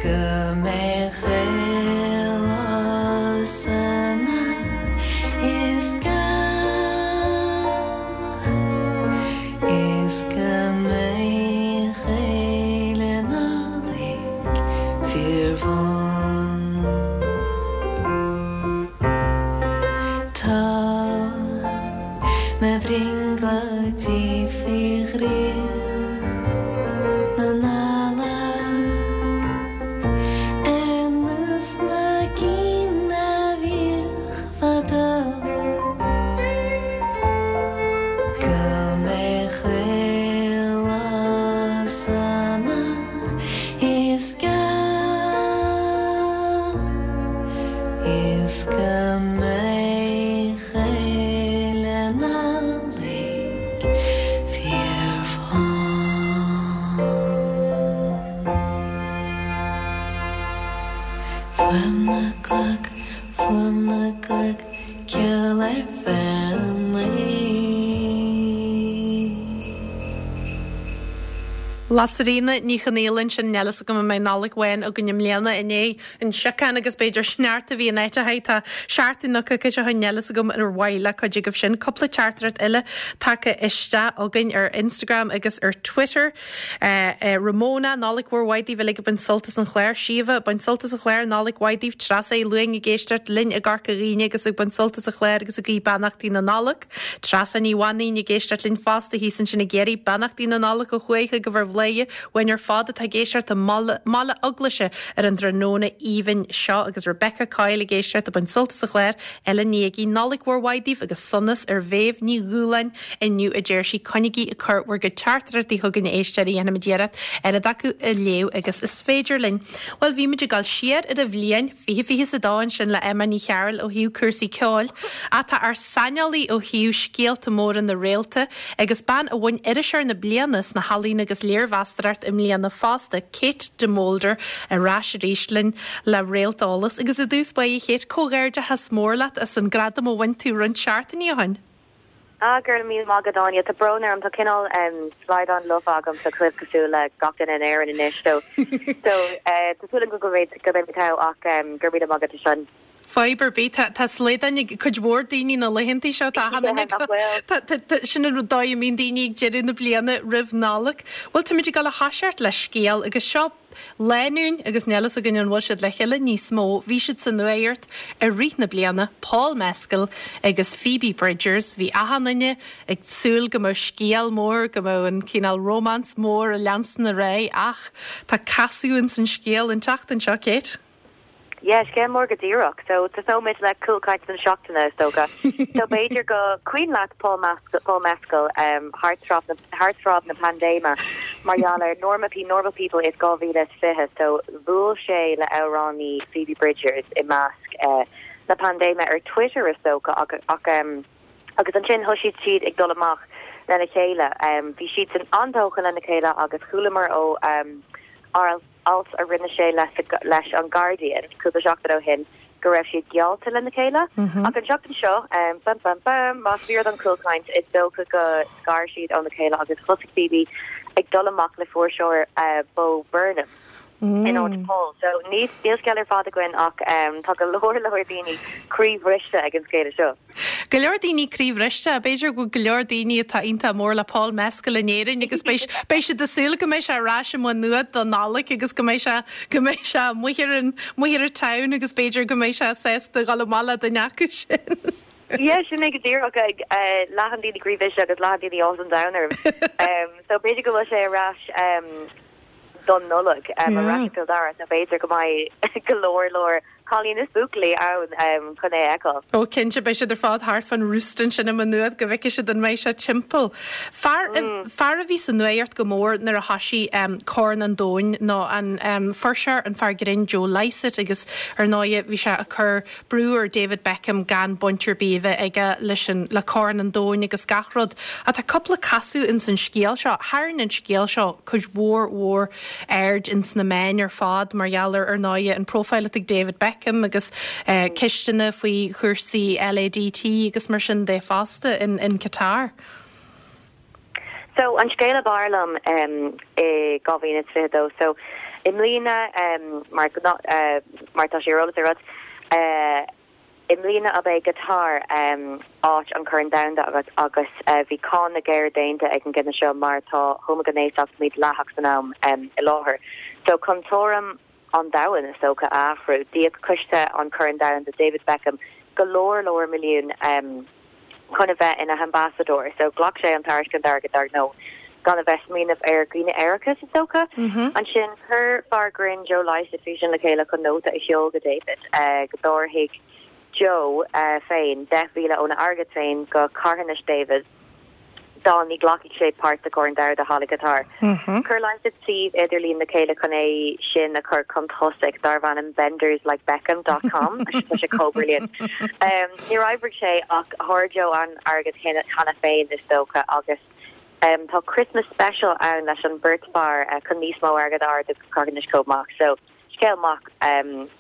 Go mbeidh chuile lá sona is geal. Is go mbeidh chuile Nollaig fíorbhuan. Tá mo bhrionglóidí faoi dhraíocht na Nollag ar nós na gcinn a bhíodh fadó. Go mbeidh chuile lá sona is geal is go mbeidh chuile Nollaig fíorbhuan. Fuaim na gclog Fuaim na gclog, ceol ar feadh an lae. Lasairfhíona Ní Chonaola ansin, níl fhios agam an mbeidh Nollaig bhán againn i mbliana i ndiaidh an siocán agus b'fhéidir sneachta a bhí in áiteacha. Tá seachtain nó coicís ó shin, níl fhios agam ar mhaith le cuid agaibh sin. Cúpla teachtaireacht eile tagtha isteach againn ar Instagram agus ar Twitter. Ramona, Nollaig mhór mhaith daoibh uilig ag baint sult as an chlár. Síomha, Baint sult as an chlár, Nollaig mhaith daoibh. Treasa Uí Luain ag éisteacht linn i gCorca Dhuibhne agus ag baint sult as an chlár agus ag guí beannachtaí na Nollag. Treasa Ní Mhainín ag éisteacht linn fosta thíos ansin i gCiarraí. Beannachtaí na Nollag ó thuaidh chugaibh ar Bhladhaire uainn ar fad atá ag éisteacht i mBaile Eaglaise ar an dtráthnóna aoibhinn seo agus Rebecca Coyle ag éisteacht ag baint sult as an chlár. Ellen Ní Fhiaigh, Nollaig mhór mhaith daoibh agus sonas ar Mhéabh Ní Dhúláin inniu a deir sí. Coinnigí ag cur bhur gcuid teachtaireachtaí chugainn a éisteoirí, dhéanfaimid iarracht oiread acu a léamh agus is féidir linn. Bhuel, bhí muid ag dul siar ar an bhliain 2022 ansin le Emma Ní Chearúil ó thaobh cúrsaí ceoil, ach tá ár saineolaí ó thaobh scéalta móra na réalta agus bean a bhain Iriseoir na Bliana sna healaíona agus léirmheastóireacht i mbliana fosta, Kate de Molder, ar ais arís linn le Réalteolas. Agus i dtús báire, a Kate, comhghairdeachas mór leat as an gradam a bhain tú roinnt seachtainí ó shin. Ah, go raibh míle maith agat, Áine. Tá brón orm, tá cineál slaghdán lofa agam sa chluib cosúil le gach duine in Éirinn anois. So, so tá súil agam go mbeidh go mbeidh mé togha ach go raibh míle maith agat as sin. Fadhb ar bith, tá tá slaghdán ag cuid mhór daoine na laethanta seo, tá achan duine ag tá tá tá sin an dóigh a mbíonn daoine ag deireadh na bliana roimh Nollaig. Bhuel, táimid ag dul a thoiseacht le scéal agus seo Lánúin agus níl fhios againn an bhfuil siad le chéile níos mó, bhí siad sa nuacht i rith na bliana, Paul Mescal agus Phoebe Bridgers, bhí achan duine ag súil go mbeadh scéal mór, go mbeadh an cineál romance mór ag leanstan ar aghaidh ach tá casadh ins an scéal an tseachtain seo, Kate. Yeah, scéal mór go díreach. So, tosóimid le cúlchaint na seachtaine, is dócha. So, b'fhéidir gur cuimhin leat Paul Mescal, Paul Mescal um, thart tráth na, thart tráth na paindéime mar gheall ar Norma P, Normal People is 2020. So, bhuail sé le amhránaí Phoebe Bridgers i measc uh, na paindéime ar Twitter is dócha ach, ach um, agus ansin thosaigh siad ag dul amach lena chéile. Um, bhí siad san an-tógtha lena chéile agus chualamar ó um, alt a rinne sé leis an Guardian cúpla seachtain ó shin go raibh siad geallta lena chéile. Ach an tseachtain seo, bam bam bam, más fíor don chúlchaint, is dócha go scar siad óna chéile agus thosaigh Phoebe ag dul amach le fuirseoir Bo Burnham in áit Paul. So níl scéal ar fad againn ach tá go leor leor daoine croíbhriste ag an scéala seo. Go leor daoine croíbhriste, b'fhéidir go bhfuil go leor daoine atá iontach mór le Paul Mescal in Éirinn agus beidh beidh siad ag súil go mbeidh sé ar ais i Maigh Nuad don Nollaig agus go mbeidh sé go mbeidh sé amuigh ar an amuigh ar an town agus b'fhéidir go mbeidh sé sásta dhul amach le duine acu sin. Yeah, sin é go díreach ag leath an daoine croíbhriste agus leath an daoine áthas an domhain orm. So b'fhéidir go bhfuil sé ar ais don Nollaig ar ais i gCill Dara so b'fhéidir go mbeidh go leor leor. cailíní is buachaillí ann chun é a fheiceáil. Ó cinnte, beidh siad ar fad thart fán roost ansin i Maigh Nuad go bhfeicfidh siad an mbeidh sé timpeall. Fear, fear a bhí sa nuaíocht go mór nuair a thoisigh Corn an Domhain ná an fuirseoir, an fear grinn Joe Lycett agus ar ndóighe bhí sé ag cur brú ar David Beckham gan baint ar bith a bheith aige leis an, le Corn an Domhain agus gach rud. Ach tá cúpla casadh ins an scéal seo. Tharraing an scéal seo cuid mhór mhór aird ins na meáin ar fad mar gheall ar, ar ndóighe, an profile atá ag David Beckham agus ceisteanna faoi chúrsaí LADT agus mar sin de fosta in, in Qatar. So, an scéal ab fhearr liom i 2022, so, i mbliana, mar, mar tá sé ar eolas agat, i mbliana ab é Qatar áit an Chorn Domhanda agus agus bhí cáineadh géar déanta ag an gcinneadh seo mar tá homaighnéasacht mídhleathach san am i láthair. So, chun tuairim an domhain, is dócha, a athrú, d'íoc coiste an Chorn Domhanda David Beckham go leor leor milliún chun a bheith ina ambassadóir. So ghlac sé an tairiscint airgid dar ndóigh, gan a bheith smaoineamh ar dhaoine aeracha, is dócha. Ansin chuir fear grinn Joe Lycett físeán le chéile chun nóta a sheol go David go dtabharfaidh Joe féin 10,000 óna airgead féin go carthanas David. dá ní ghlacfaidh sé páirt sa Chorn Domhanda thall i gCatar. Chuir Lycett suíomh idirlín le chéile chun é sin a chur chun tosaigh, darbh ainm benderslikebeckham dot com. Tá sé chomh brilliant. Níor oibrigh sé ach fuair Joe an airgead cheana féin, is dócha, agus tá Christmas special ann leis an beirt fear chun níos mó airgead a ardú go carthanais chomh maith. So. Scéal maith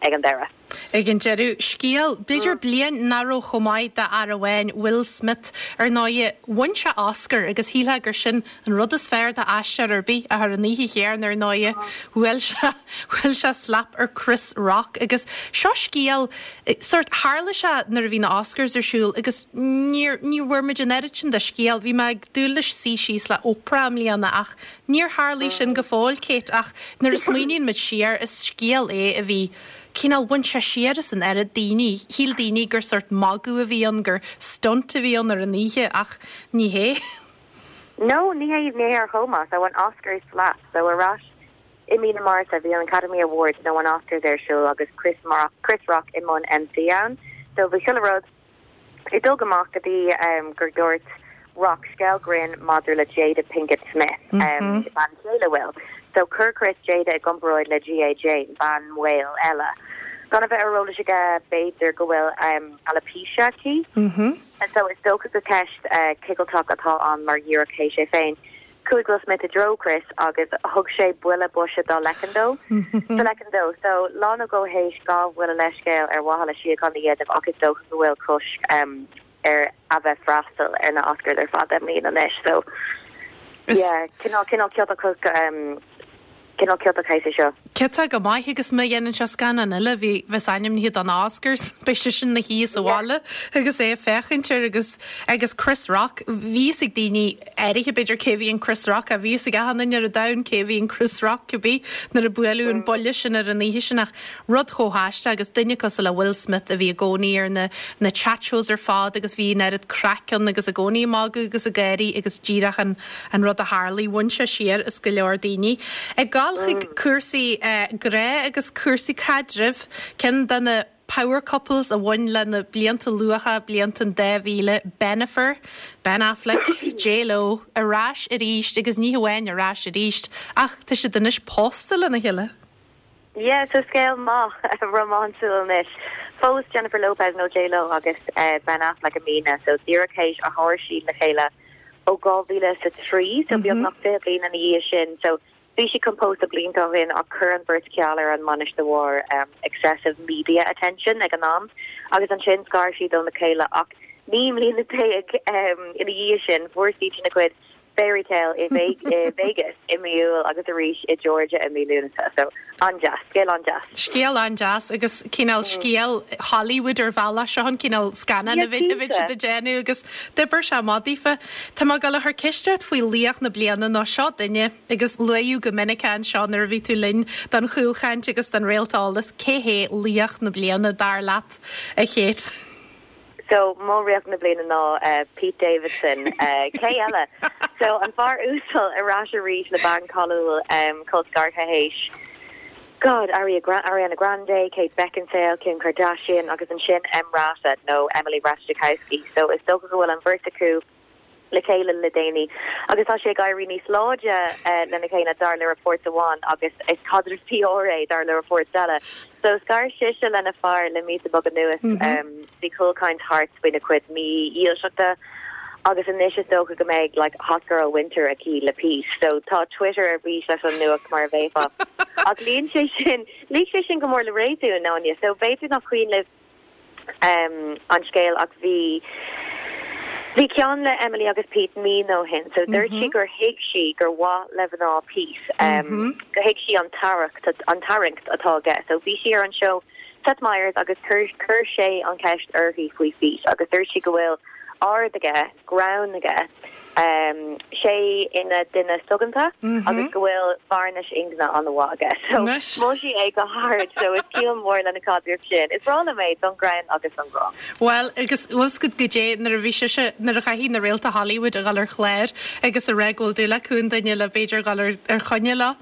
ag an deireadh. Ag an deireadh. Scéal, b'fhéidir bliain nach raibh chomh maith d'fhear amháin, Will Smith. Ar ndóighe, bhain sé Oscar agus shílfeá gur sin an rud is fearr d'aisteoir ar bith ach ar an oíche chéanna ar ndóighe, bhuail sé, bhuail sé slap ar Chris Rock agus seo scéal, sórt, tharla sé nuair a bhí na Oscars ar siúl agus níor, ní bhfuair muid an oiread sin de scéal. Bhí mé ag dúil leis suí síos le Oprah i mbliana ach Níor tharlaigh sin go fóill, Kate, ach nuair a smaoiníonn muid siar, is scéal é a bhí, cineál, bhain sé siar as an oiread daoine. Shíl daoine gur sórt magadh a bhí ann, gur stunt a bhí ann ar an oíche, ach ní hé. No, ní hé, ní hé ar chuma. So, an Oscars slap. So, ar ais i mí na Márta, bhí an Academy Awards nó an Oscars ar siúl agus Chris, Chris Rock i mbun MC ann. So, bhí chuile rud. Ag dul go maith go dtí gur dúirt Rock scéal grinn maidir le Jada Pinkett Smith, bean chéile Will. So chuir Chris Jada i gcomparáid le G.I. Jane, bean mhaol eile. Gan a bheith ar eolas aige b'fhéidir go bhfuil alopecia aici. So is dócha gur ceist cigilteach atá ann mar dhíreach théis é féin. Chuaigh Will Smith i dtreo Chris agus thug sé buille boise dá leiceann dó. Sa leiceann dó. So, lá nó dhó théis ghabh Will a leithscéal ar mhaithe le síocháin a dhéanamh ach is dócha go bhfuil cosc air a bheith freastal ar na Oscars ar feadh 10 mbliana anois. So, yeah, cineál, cineál ciotach, cineál ciotach é seo. Ciotach go maith agus má dhéanann sé scannán eile a bheas ainmnithe don Oscars, beidh seisean ina shuí sa bhaile agus é ag féachaint air agus agus Chris Rock, bhí fhios ag daoine áirithe b'fhéidir cé a bhí in Chris Rock ach bhí fhios ag achan duine ar an domhan cé a bhí in Chris Rock cibé nuair a buaileadh an buille sin ar an oíche sin ach Rud chomh haisteach agus duine cosúil le Will Smith a bhí i gcónaí ar na na chat shows ar fad agus bhí an oiread craic ann agus i gcónaí ag magadh agus ag gáirí agus díreach an an rud a tharlaigh, bhain sé siar as go leor daoine. Ag gabháil chuig cúrsaí grá agus cúrsaí caidrimh, ceann de na power couples a bhain le na blianta luatha, blianta an 2000, Bennifer, Ben Affleck, J Lo, ar ais arís agus ní hamháin ar ais arís ach tá siad anois pósta lena chéile. Yeah, so scéal maith rómánsúil anois. Phós Jennifer Lopez nó J Lo agus Ben Affleck i mbliana, so díreach théis a phós siad le chéile ó 2003, so beagnach 20 bliain ina dhiaidh sin. So bhí siad chun pósadh blianta ó shin ach chuir an bheirt ceal ar an mbainis de bharr excessive media attention ag an am agus ansin scar siad óna chéile ach 19 mbliana ina dhiaidh sin fuair siad ina gcuid Fairy Tale i Vegas i mí Iúil agus arís i Georgia i mí Lúnasa. So, an-deas. Scéal an-deas. Scéal an-deas agus cineál scéal Hollywood ar bhealach. Seo an cineál scannán a bheadh siad ag déanamh agus d'oibir sé amach daofa. Tá mé ag dul a chur ceist ort faoi laoch na bliana nó seo duine agus luaíodh go minic é anseo nuair a bhí tú linn don chúlchaint agus don Réalt Eolais. Cé hé laoch na bliana dar leat, a Kate? So, mo laoch na bliana ná Pete Davidson. Cé eile? So, an fear uasal ar ais arís le bean cáiliúil, col scartha théis. God, Ariana Grande, Kate Beckinsale, Kim Kardashian agus ansin EmRata nó Emily Ratajkowski. So is dócha go bhfuil an bheirt acu le chéile le déanaí agus tá sé ag éirí níos láidre lena chéile dar le reports amháin agus is caidreamh PR é dar le reports eile. So scar sise lena fear le míosa beag anuas. Bhí cúlchaint thart faoina cuid mídhílseachta agus anois is dócha go mbeidh like hot girl winter aici le Pete. So tá Twitter ar bís leis an nuacht mar a bheifeá. Ach luíonn sé sin, luigh sé sin go mór le réasún, Áine. So b'fhéidir nach cuimhin libh an scéal ach bhí bhí ceann le Emily agus Pete mí nó shin so dúirt sí gur thuig sí gur mhaith le mná Pete gur thuig sí an tarraingt an tarraingt atá aige so bhí sí ar an seó Seth Meyers agus chuir chuir sé an cheist uirthi faoi Pete agus dúirt sí go bhfuil aird aige greann aige sé ina duine soghonta agus go bhfuil vearnais ingne an-mhaith aige. So mhol sí é go hard so is ciall mór lena caidreamh sin. Is breá liom é don ghreann agus don ghrá. Bhuel, agus bhfuil 's agat goidé nuair a bhí sise, nuair a chaithfidh na réalta Hollywood a dhul ar chlár agus a rá go bhfuil dúil acu i nduine le b'fhéidir dhul ar ar choinne leo.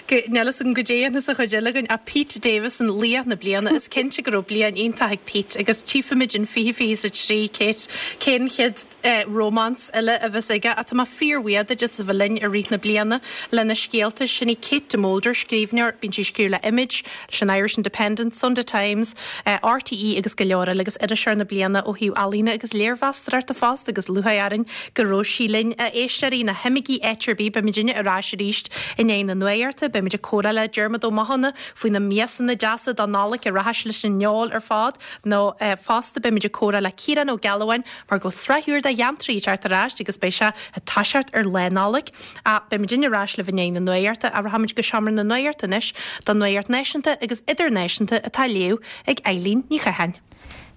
Go, níl 'fhios agam goidé a dhéanfas an chuid eile againn ach Pete Davidson, laoch na bliana, is cinnte go raibh bliain iontach ag Pete agus tchífimid in 2023 Kate, cén chéad romance eile a bheas aige ach tá mé fíorbhuíoch duit as a bheith linn i rith na bliana le na scéalta. Sin í Kate de Molder, scríbhneoir, bíonn sí ag scríobh le Image, leis an Irish Independent, Sunday Times, RTÉ agus go leor eile agus Iriseoir na Bliana ó thaobh ealaíne agus léirmheastóireachta fosta agus lúcháir orainn go raibh sí linn. A éisteoirí, ná himígí áit ar bith, beimidinne ar ais arís i ndiaidh na nuachta, beimid ag comhrá le Diarmuid Ó Mathúna faoi na miasanna deasa don Nollaig a rachas leis an fheoil ar fad nó fosta beimid ag comhrá le Ciarán Ó Gealbháin mar go bhfuil sraith úr de Gheantraí ag teacht ar ais agus beidh sé ag toiseacht ar Lá Nollag. Ach beimidinne ar ais libh i ndiaidh na nuachta ach rachaimid go seomra na nuachta anois don nuacht náisiúnta agus idirnáisiúnta atá á léamh ag Eilín Ní Chatháin.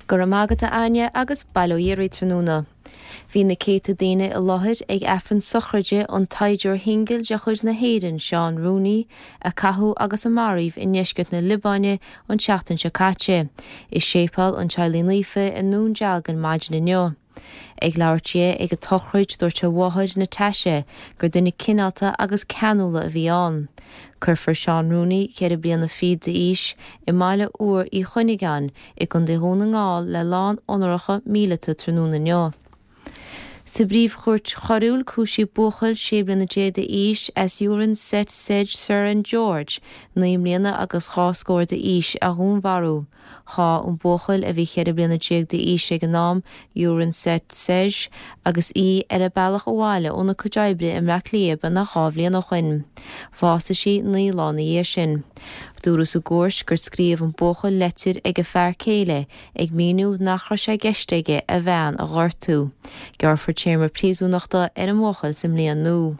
Go raibh maith agat a Áine agus bail ó Dhia oraibh tráthnóna. Bhí na céadta daoine i láthair ag Aifreann sochraide an tsaighdiúir shingil de chuid na hÉireann, Seán Rooney, a caitheadh agus a maraíodh i ndeisceart na Liobáine an tseachtain seo caite, i Séipéal an Teaghlaigh Naofa i nDún Dealgan maidin inniu. Ag labhairt di ag an tsochraid dúirt a mháthair Natasha gur duine cineálta agus ceanúla a bhí ann. Cuirfear Seán Rooney, ceithre bliana fichead d'aois, i mBaile Úr Uí Chuinneagáin i gContae Dhún na nGall le lán onóracha míleata tráthnóna inniu. Sa bPríomh-Chúirt Choiriúil cúisíodh buachaill 16 bliana d'aois as Yuran Set Sej Suran George, 9 mbliana agus dhá scór d'aois, a dhúnmharú. Sháigh an buachaill, a bhí 14 bliana d'aois ag an am, Yuran Set Sej agus í ar a bealach abhaile óna cuid oibre i mBleá Cliath beagnach dhá bhliain ó shoin. Bhásaigh sí 9 lá ina dhiaidh sin. Dúradh sa gcúirt gur scríobh an buachaill leitir ag a fear céile ag míniú nach raibh sé i gceist aige a bhean a ghortú. Gearrfar téarma príosúnachta ar an mbuachaill sa mbliain nua.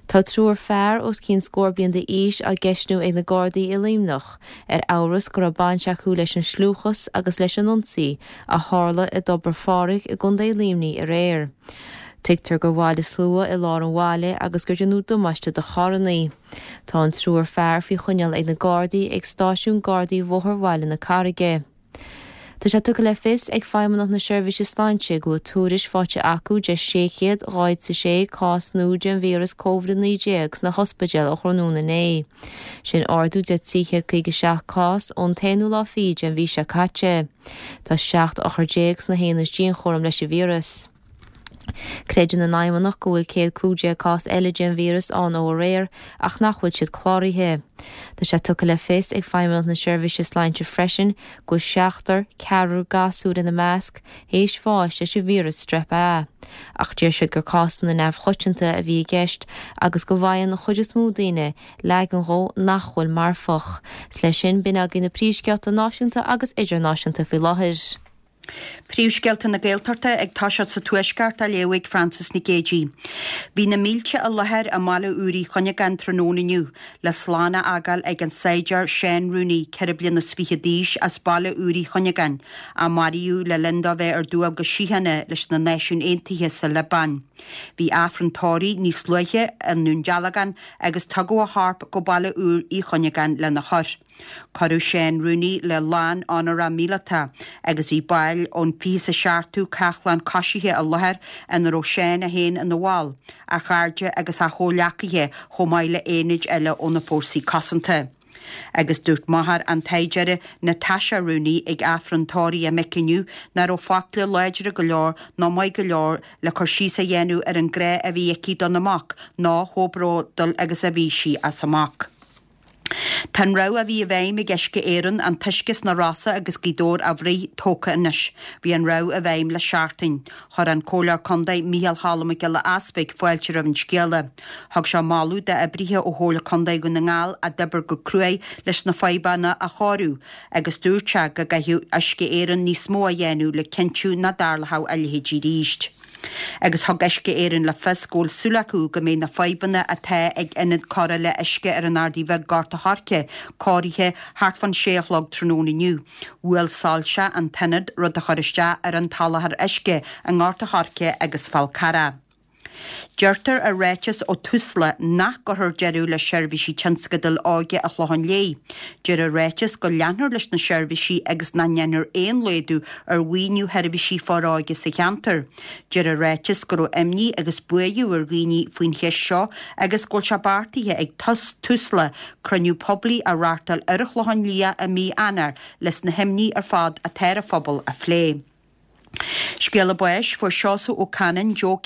Tá triúr fear os cionn scór bliain d'aois á gceistniú ag na Gardaí i Luimneach ar amhras go raibh baint acu leis an scliúchas agus leis an ionsaí a tharla i dTobar Phádraig i gContae Luimnigh aréir. Tuigtear gur bhailigh slua i lár an bhaile agus gur déanadh damáiste do charrannaí. Tá an triúr fear faoi choinneáil ag na Gardaí ag stáisiún Gardaí Bhóthar Bhaile na Carraige. Tá sé tugtha le fios ag Feidhmeannacht na Seirbhíse Sláinte go bhfuil tuairisc faighte acu de 646 cás nua den víreas Covid-19 sna hospidéil ó thráthnóna inné. Sin ardú de 357 cás ón t-aonú lá fichead den mhí seo caite. Tá 17 othar sna haonaid dianchúraim leis an víreas. Creideann an Fheidhmeannacht go bhfuil 115 cás eile den víreas ann ó aréir ach nach bhfuil siad cláraithe. Tá sé tugtha le fios ag Feidhmeannacht na Seirbhíse Sláinte freisin go bhfuil seachtar, ceathrar gasúr ina measc, théis bháis leis an víreas Strep A. Ach deir siad gur cásanna neamhchoitianta a bhí i gceist agus go bhfaigheann an chuid is mó daoine leagan dhó nach bhfuil marfach. 'S leis sin, b'in agaibh na príomhscéalta náisiúnta agus idirnáisiúnta faoi láthair. Príomhscéalta na Gaeltachta ag toiseacht sa Tuaisceart á léamh ag Frances Nic Géadaigh. Bhí na mílte i láthair i mBaile Úr Uí Chuinneagáin tráthnóna inniu le slán a fhágáil ag an saighdiúir Seán Rooney, 24 bliana d'aois, as Baile Úr Uí Chuinneagáin, a maraíodh le linn dó bheith ar dualgas síochána leis na Náisiúin Aontaithe sa Liobáin. Bhí Aifreann tórraimh níos luaithe i nDún Dealgán agus tugadh a chorp go Baile Úr Uí Chuinneagáin lena chur. Cuireadh Seán Rooney le lán onóracha míleata agus bhí baill ón 27ú Cachlán Coisithe i láthair ina raibh Seán é féin ina bhall, a chairde agus a chomhghleacaithe chomh maith le aonaid eile ó na Fórsaí Cosanta. Agus dúirt máthair an tsaighdiúra, Natasha Rooney, ag Aifreann tórraimh a mic inniu nach raibh focla láidre go leor ná maith go leor le cur síos a dhéanamh ar an grá a bhí aici dona mac ná chomh bródúil agus a bhí sí as a mac. Tá an rabhadh a bhí i bhfeidhm ag Uisce Éireann, an t-uisce sna Rosa agus Gaoth Dobhair a bhruith, tógtha anois. Bhí an rabhadh i bhfeidhm le seachtain. Chuir an Comhairleoir Contae Micheál Cholm Mac Giolla Easpaig fáilte roimh an scéala. Thug sé moladh d'oibrithe ó Chomhairle Contae Dhún na nGall a d'oibir go cruaidh leis na fadhbanna a chóiriú agus dúirt sé go gcaithfeadh Uisce Éireann níos mó a dhéanamh le cinntiú nach dtarlódh a leithéidí arís. Agus thug Uisce Éireann le fios go bhfuil súil acu go mbeidh na fadhbanna atá ag ionad cóireála uisce ar an Ardaidh Bheag, Gort a' Choirce, cóirithe thart fán sé a chlog tráthnóna inniu. Bhuail soilse an t-ionad, rud a chuir isteach ar an tsoláthar uisce i nGort a' Choirce agus Fál Carrach. Deirtear i ráiteas ó Tusla nach gcuirfear deireadh le seirbhísí tionscadail óige an Chlocháin Léith. Deir an ráiteas go leanfar leis na seirbhísí agus nach ndéanfar aon laghdú ar mhaoiniú sheirbhísí foróige sa cheantar. Deir an ráiteas go raibh imní agus buaireamh ar dhaoine faoin cheist seo agus go bhfuil sé beartaithe ag Tusla cruinniú poiblí a reáchtáil ar an Chlochán Liath i mí Eanáir leis na himní ar fad atá ar an phobal a phlé. Scéala báis, Fuair Seosamh Ó Canainn, Joe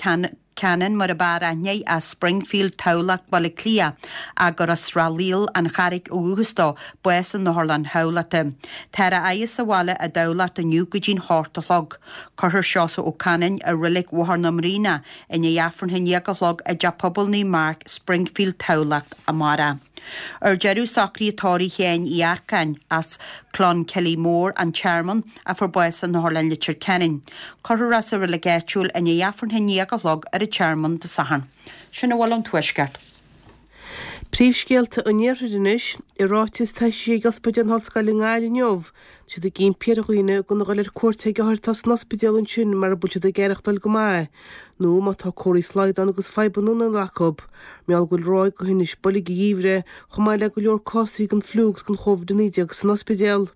Cannon mar ab fhearr aithne air, as Springfield, Tamhlacht, Baile Átha Cliath, ach gur as Srath Lial, An Charraig ó dhúchas dó, bás in Otharlann Thamhlachta. Táthar á fhaire sa bhaile i dTamhlacht inniu go dtí'n hocht a chlog. Cuirfear Seosamh Ó Canainn i Reilig Bhóthar na mBraonach i ndiaidh Aifreann a haon déag a chlog i dTeach Pobail Naomh Marc, Springfield, Tamhlacht, amárach. Ar deireadh, socruithe tórraimh Sheáin Uí Earcáin, as Clonkilly Mór, An Tearmann, a fuair bás in Otharlann Leitir Ceanainn. Cuirfear é sa reilig áitiúil i ndiaidh Aifreann a haon déag a chlog ar an Tearmann Dé Sathairn. Sin a bhfuil ón Tuaisceart. Príomhscéalta an Iarthair anois. I ráiteas atá eisithe ag Ospidéal na hOllscoile i nGaillimh inniu, tá siad ag impí ar dhaoine gan a dhul ar cuairt ag othair atá san ospidéal ansin mara bhfuil siad ag aireachtáil go maith nó má tá comharthaí slaghdán agus fadhbanna anála acu, mar gheall go bhfuil ráig de thinnis boilg an gheimhridh chomh maith le go leor cásanna den fliú agus den Chóvid-19 san ospidéal.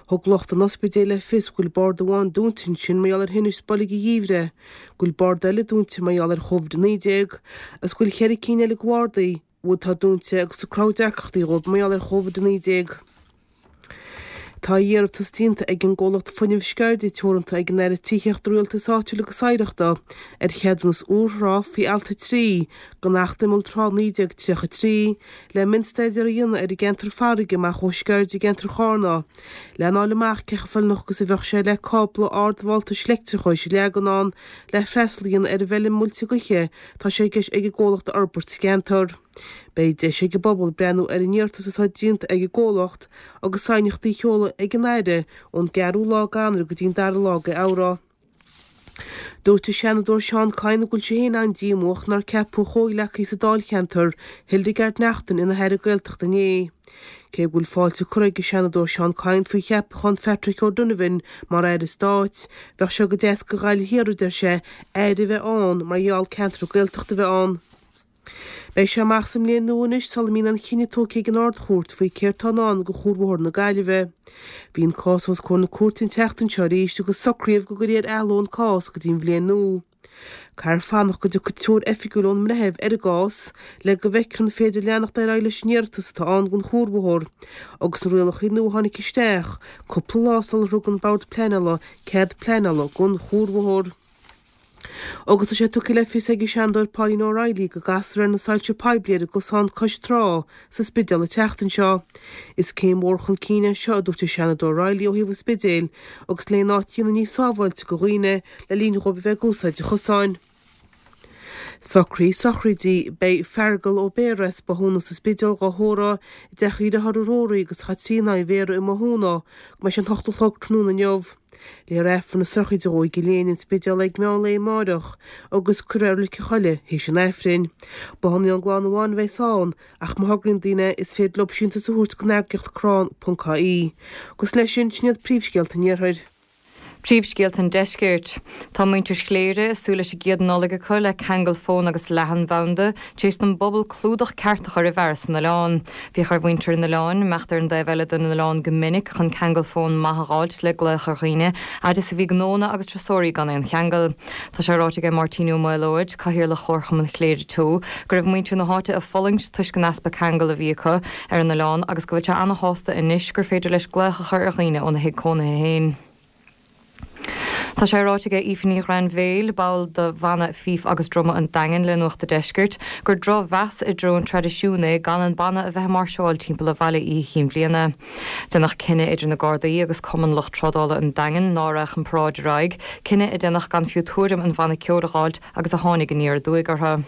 Thug lucht an ospidéil le fios go bhfuil bord amháin dúnta ansin mar gheall ar thinnis boilg an gheimhridh, go bhfuil bord eile dúnta mar gheall ar Chóvid-19 agus go bhfuil cheithre cinn eile de bhardaí atá dúnta agus ag cruthú deacrachtaí dhóibh mar gheall ar Chóvid-19. Tá iarratas déanta ag an gcomhlacht Fuinneamh Sceirde Teoranta ag an Aire Tithíochta, Rialtais Áitiúil agus Oidhreachta ar cheadúnas úr trá faoi Alt 3 den Acht Imeall Trá 1933 le mionstaidéar a dhéanamh ar an gceantar farraige amach ó Sceirde i gceantar Chárna, lena fháil amach cé chomh feiliúnach agus a bheadh sé le cábla ardvoltais leictreachais a leagan ann le freastal a dhéanamh ar an bhfeilm muilte gaoithe atá sé i gceist ag an gcomhlacht a fhorbairt sa gceantar. Beidh deis ag an bpobal breathnú ar an iarratas atá déanta ag an gcomhlacht agus aighneachtaí a sheoladh ag an Aire ón gceathrú lá d'Eanáir go dtí an dara lá d'Fheabhra. Dúirt an Seanadóir Seán Kyne go bhfuil sé féin an-díomúach nár ceapadh a chomhghleacaí sa dáilcheantar, Hildegarde Naughton, ina hAire Gaeltachta inné. Cé go bhfuil fáilte curtha ag an Seanadóir Seán Kyne faoi cheapachán Phatrick O'Donovan mar Aire Stáit, bheadh sé go deas do Ghaillimh Thiar, a deir sé, Aire a bheith ann mar gheall ceantar Gaeltachta a bheith ann. Beidh sé amach sa mbliain nua anois sula mbíonn aon chinneadh tógtha ag an Ard-Chúirt faoi céard atá i ndán do Chuarbhóthar na Gaillimhe. Bhí an cás os comhair na cúirte an tseachtain seo arís agus socraíodh go gcuirfí ar athló an cás go dtí an bhliain nua. Caithfear fanacht go dtiocfaidh treoir oifigiúil ón mbreitheamh ar an gcás le go bhfeicfear an féidir leanacht ar aghaidh leis an iarratas atá ann don chuarbhóthar agus na rialacha nua a tháinig isteach cúpla lá sular thug an Bord Pleanála cead pleanála don chuarbhóthar. Agus tá sé tugtha le fios ag an Seanadóir Pauline O'Reilly go gcasfar ar na soilse poiblí ar an gcosán cois trá sa Spidéal an tseachtain seo. Is céim mhór chun cinn é seo, a dúirt an Seanadóir O'Reilly ó thaobh an Spidéil agus le an áit a dhéanamh níos sábháilte do dhaoine le linn dhóibh a bheith ag úsáid an chosáin. Socruithe sochraide, Beidh Feargal Ó Béarra as Bothúna sa Spidéal dhá thórramh i dteach a dhearthár Rory agus Chaitríona Uí Bhéarra i mBothúna go mbeidh sé an hocht a chlog tráthnóna inniu. Léifear Aifreann na sochraide dhó i gCill Éinne, An Spidéal ag meán lae amáireach agus cuirfear é i Reilig an Choilligh théis an Aifrinn. Bláthanna ón gclann amháin a bheas ann ach má thograíonn daoine is féidir leo síntiús a thabhairt don eagraíocht crann.ie. Agus leis sin, sin iad príomhscéalta an Iarthair. Príomhscéalta an Deiscirt. Tá muintir Chléire ag súil leis an gcéad Nollaig acu le ceangal fóin agus leathanbhanda tar éis don bpobal clúdach ceart a chur i bhfearas an oileáin. Bhíodh ar mhuintir an oileáin imeacht ar an dtaobh eile den oileán go minic chun ceangal fóin maith a dh'fháilt le glaoch ar dhaoine, fhad is a bhí gnónna agus turasóirí gan aon cheangal. Tá sé ráite aige Máirtín Ó Maolóid, Cathaoirleach Chomharchumann Chléire Teo, go raibh muintir na háite ag fulaingt toisc an easpa ceangail a bhí acu ar an oileán agus go bhfuil sé ana-shásta anois gur féidir leis glaoch a chur ar dhaoine óna thigh cónaithe féin. Tá sé ráite aige Aoife Ní Ghrainbhéil, ball de bhanna Fife agus Druma an Daingin le Nuacht a' Deiscirt, gur drochmheas i dtreo an traidisiúin é gan an banna a bheith ag máirseáil timpeall an bhaile Oíche Chinn Bhliana. Déanadh cinneadh idir na Gardaí agus Cumann Lucht Trádála an Daingin ná raghadh an paráid ar aghaidh, cinneadh a déanadh gan fiú tuairim an bhanna ceoil a dh'fháilt agus a tháinig aniar aduaidh orthu.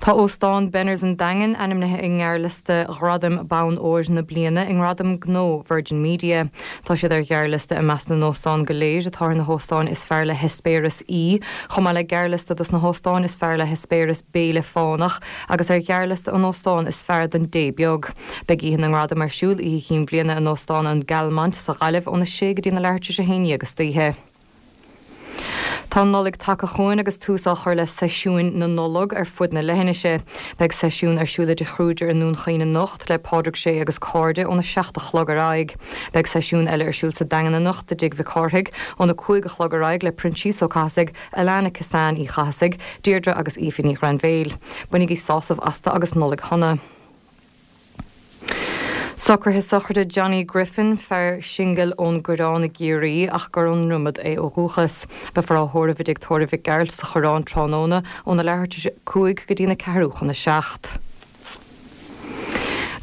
Tá Óstán Benners an Daingin ainmnithe i ngearrliosta Ghradaim Bonn Óir na Bliana i nGradaim Gnó Virgin Media. Tá siad ar ghearrliosta i measc na n-óstán go léir atá ar na hóstáin is fearr le heispéireas aoi, chomh maith le gearrliosta dos na hóstáin is fearr le heispéireas béile fánach agus ar ghearrliosta an óstán is fearr don dtae beag. Beidh Oíche na nGradam ar siúl Oíche Chinn Bhliana in Óstán an Galmont sa Ghaillimh óna sé go dtí na leathuair tar éis a haon dhéag istoíche. Tá an Nollaig tagtha chugainn agus tús á chur le seisiúin na Nollag ar fud na leithinise. Beidh seisiún ar siúl i dTigh Kruger i nDún Chaoin anocht le Pádraig Sé agus cairde óna 7 a chlog ar aghaidh. Beidh seisiún eile ar siúl sa Daingean anocht i dTigh Mhic Cárthaigh óna 5 a chlog ar aghaidh le Proinsias Ó Cathasaigh, Alana Kissane Uí Chathasaigh, Deirdre agus Aoife Ní Ghrainbhéil. Bainigí sásamh astu agus Nollaig Shona. Socruithe sochraide Johnny Griffin, fear singil ón gCoireán i gCiarraí ach gur ón nDromad é ó dhúchas. Beifear á thórramh i dTigh Tórraimh Mhic Gearailt sa Choireán tráthnóna óna leathuair tar éis a 5 go dtína ceathrú chun a 7.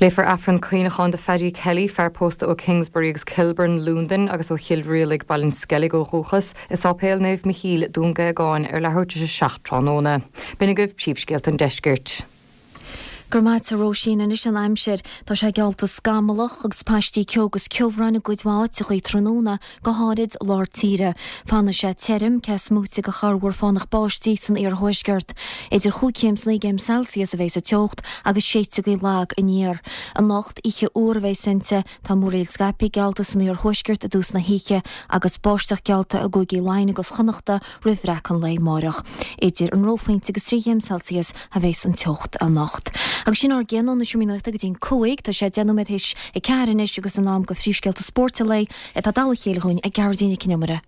Léifear Aifreann cuimhneacháin do Phaddy Kelly, fear pósta ó Kingsbury agus Kilburn, Londain, agus ó Chill Rialaig, Baile an Sceilg ó dhúchas, i Sáipéal Naomh Michíl, Dún Géagáin, ar leathuair tar éis a 7 tráthnóna. B'in agaibh príomhscéalta an deiscirt. Go raibh maith a't a Róisín. Anois an aimsir. Tá sé geallta scamallach agus paistí ceo agus ceobhráin i gcuid mhaith áiteachaí tráthnóna, go háirid lár tíre. Fanfaidh sé tirim, cé is móite de chorrmhúr fánach báistí san iarthuaisceart. Idir chúig chéim is naoi gcéim Celsius a bheas an teocht agus séidfidh gaoth lag aniar. Anocht, oíche fhuar a bheas inti. Tá múraíl scaipthe geallta san iarthuaisceart i dtús na hoíche agus báisteach geallta i gcúigí Laighean agus Chonnachta roimh bhreac an lae amáireach. Idir an reophointe agus 3 chéim Celsius a bheas an teocht anocht. Agus sin ár gcéad ó na Seomraí Nuachta go dtí'n 5. Tá sé 10 nóiméad théis a 4 anois agus in am do phríomhscéalta spóirt an lae atá dall a chéile chugainn ag Gearóidín Nic Con Iomaire.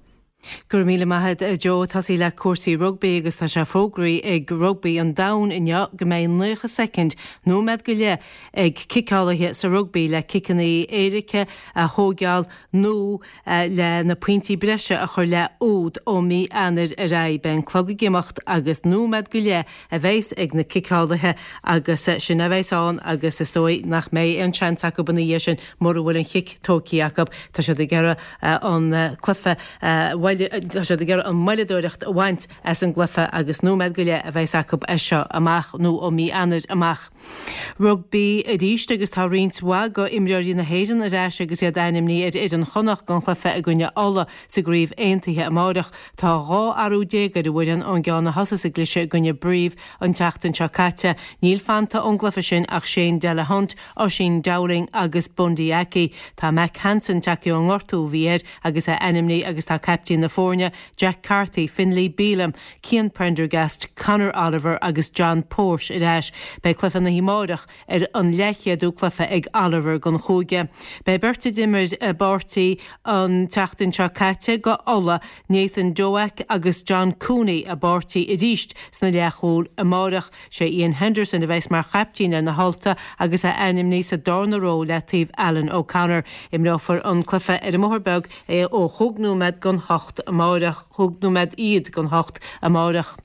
Go raibh míle maith a't a Joe. Tosaí le cúrsaí rugbaí agus tá sé fógraithe ag Rugbaí an Domhain inniu go mbeidh 90 soicind, nóiméad go leith, ag ciceálaithe sa rugbaí le ciceanna éirice a thóigeáil nó le na pointí breise a chur le úd ó mí Eanáir ar aghaidh. Beidh an clog ag imeacht agus nóiméad go leith a bheas ag na ciceálaithe agus sin a bheas ann agus is dóigh nach mbeidh aon seans acu ina dhiaidh sin mura bhfuil an chic tógtha acu. Tá siad ag iarraidh an cluiche a tá siad ag iarraidh an mhoilleadóireacht a bhaint as an gcluiche agus nóiméad go leith a bheas acu as seo amach nó ó mí Eanáir amach. Rugbaí arís agus tá roinnt mhaith de imreoirí na hÉireann ar ais agus iad ainmnithe ar fhoireann Chonnacht don chluiche i gcoinne Uladh sa gCraobh Aontaithe amárach. Tá 12 athrú ar an bhfoireann ón gceann a thosaigh sa gcluiche i gcoinne Brive an tseachtain seo caite. Níl fanta ón gcluiche sin ach Shane Delahunt, Oisín Dowling agus Bundee Aki. Tá Mack Hansen tagtha ón ngortú a bhí air agus é ainmnithe agus tá caiptín na foirne, Jack Carthy, Finlay Bealham, Cian Prendergast, Conor Oliver agus John Porte ar ais. Beidh cluiche na hoíche amáireach ar an leathchéadú cluiche ag Oliver don chúige. Beidh beirt a d'imir i bpáirtí an tseachtain seo caite do Ulaidh, Nathan Doak agus John Cooney i bpáirtí arís sna leathchúil amáireach. Sé Iain Henderson a bheas mar chaiptín ar na hUltaigh agus é ainmnithe sa darna ró le taobh Alan O'Connor. Imreofar an cluiche ar an mBóthar Beag ó chúig nóiméad don hocht amáireach. chúig nóiméad iad don hocht amáireach.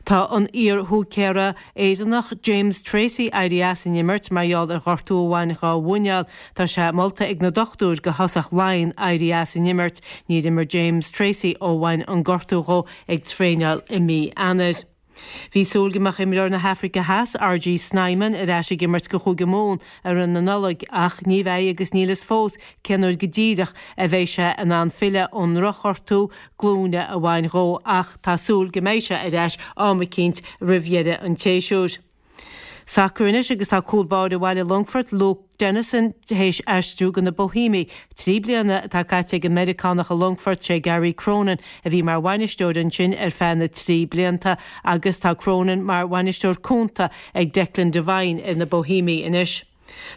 Tá an iar-húicéara Éireannach James Tracy éirithe as an imirt mar gheall ar ghortú a bhain dhá mhuineál. Tá sé molta ag na dochtúir go thosach Laighean éirí as an imirt. Níor imir James Tracy ó bhain an gortú dhó ag traenáil i mí Eanáir. Bhí súil go mbeadh imreoir na hAfraice Theas, RG Snyman, ar ais ag imirt go Chúige Mumhan i rith na Nollag ach ní bheidh agus níl fhios fós cén uair go díreach a bheidh sé in ann filleadh ón ndrochghortú glúine a bhain dhó ach tá súil go mbeidh sé ar ais am eicínt roimh dheireadh an tséasúir. Sacar anois agus tá cúl báire bhaile Longfoirt, Luke Dennison, théis aistriú go na Boihéimigh. 3 bliana atá caite ag an Meiriceánach i Longfort, sé Gary Cronin a bhí mar bhainisteoir ansin ar feadh na dtrí blianta agus tá Cronin mar bhainisteoir cúnta ag Declan Devine ar na Boihéimigh anois.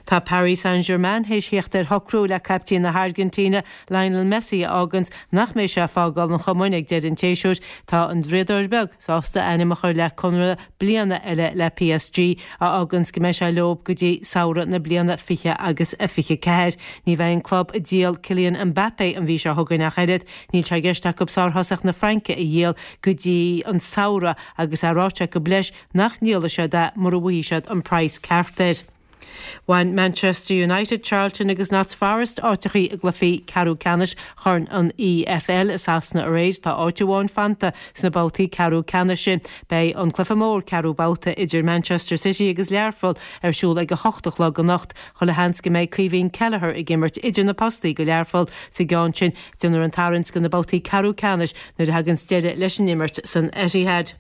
Tá Paris Saint-Germain théis theacht ar shocrú le caiptín na hAirgintíne, Lionel Messi, a fháganns nach mbeidh sé ag fágáil an chumainn ag deireadh an tséasúir. Tá an Draíodóir Beag sásta a ainm a chur le conradh bliana eile le PSG, a fháganns go mbeidh sé leo go dtí samhradh na bliana 20 agus a 24. Ní bheidh an club ag díol Kylian Mbappé an mhí seo chugainn ach oiread. Níl sé i gceist acu sárthosach na Fraince a dhíol go dtí an samhradh agus é ráite acu leis nach ndíolfaidh siad é mura bhfaighidh siad an praghas ceart air. Bhain Manchester United, Charlton agus Notts Forest áiteachaí i gcluichí ceathrú ceannais Chorn an EFL i Sasana aréir. Tá áit amháin fanta sna babhtaí ceathrú ceannais sin. Beidh an cluiche mór ceathrú babhta idir Manchester City agus Learpholl ar siúl ag a hocht a chlog anocht. Chuile sheans go mbeidh Caoimhín Kelleher ag imirt idir na postaí do Learpholl sa gceann sin. Déanfar an tarraingt do na babhtaí ceathrú ceannais nuair a thaganns deireadh leis an imirt san Etihad.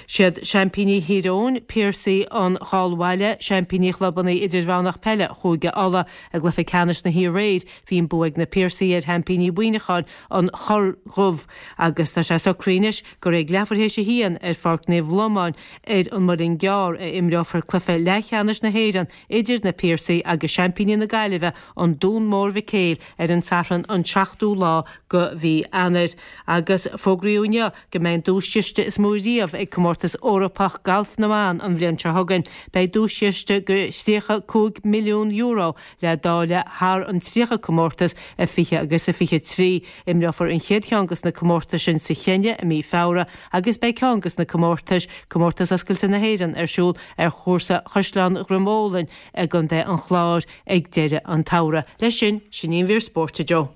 Siad seaimpíní Thír Eoghain, Piarsaigh an Cháil Bhaile, seaimpíní chlubanna idirmheánach peile Chúige Uladh. I gcluiche ceannais na hoíche aréir, bhí an bua ag na Piarsaigh ar sheaimpíní Mhuineacháin, an Chorr Dhubh, agus tá sé socraithe anois gur ag leathuair théis a haon ar Pháirc Naomh Lomán ar an Muileann gCearr a imreofar cluiche leathcheannais na hÉireann idir na Piarsaigh agus seaimpíní na Gaillimhe, an Dún Mór Mhic Éil, ar an Satharn an 7ú lá de mhí Eanáir. Agus fógraíodh inniu go mbeidh an duaischiste is mó riamh ag Comórtas Eorpach Gailf na mBan an bhliain seo chugainn. Beidh duaischiste de €35 milliún le dáileadh thar an 30 comórtas i 20 agus i 23. Imreofar an chéad cheann de na comórtais sin sa Chéinia i mí Feabhra agus beidh ceann de na comórtais, Comórtas Oscailte na hÉireann, ar siúl ar chúrsa Chaisleán Dhroim Ólainn i gContae an Chláir ag deireadh an tsamhraidh. Leis sin, sin í an mhír spóirt, a Joe.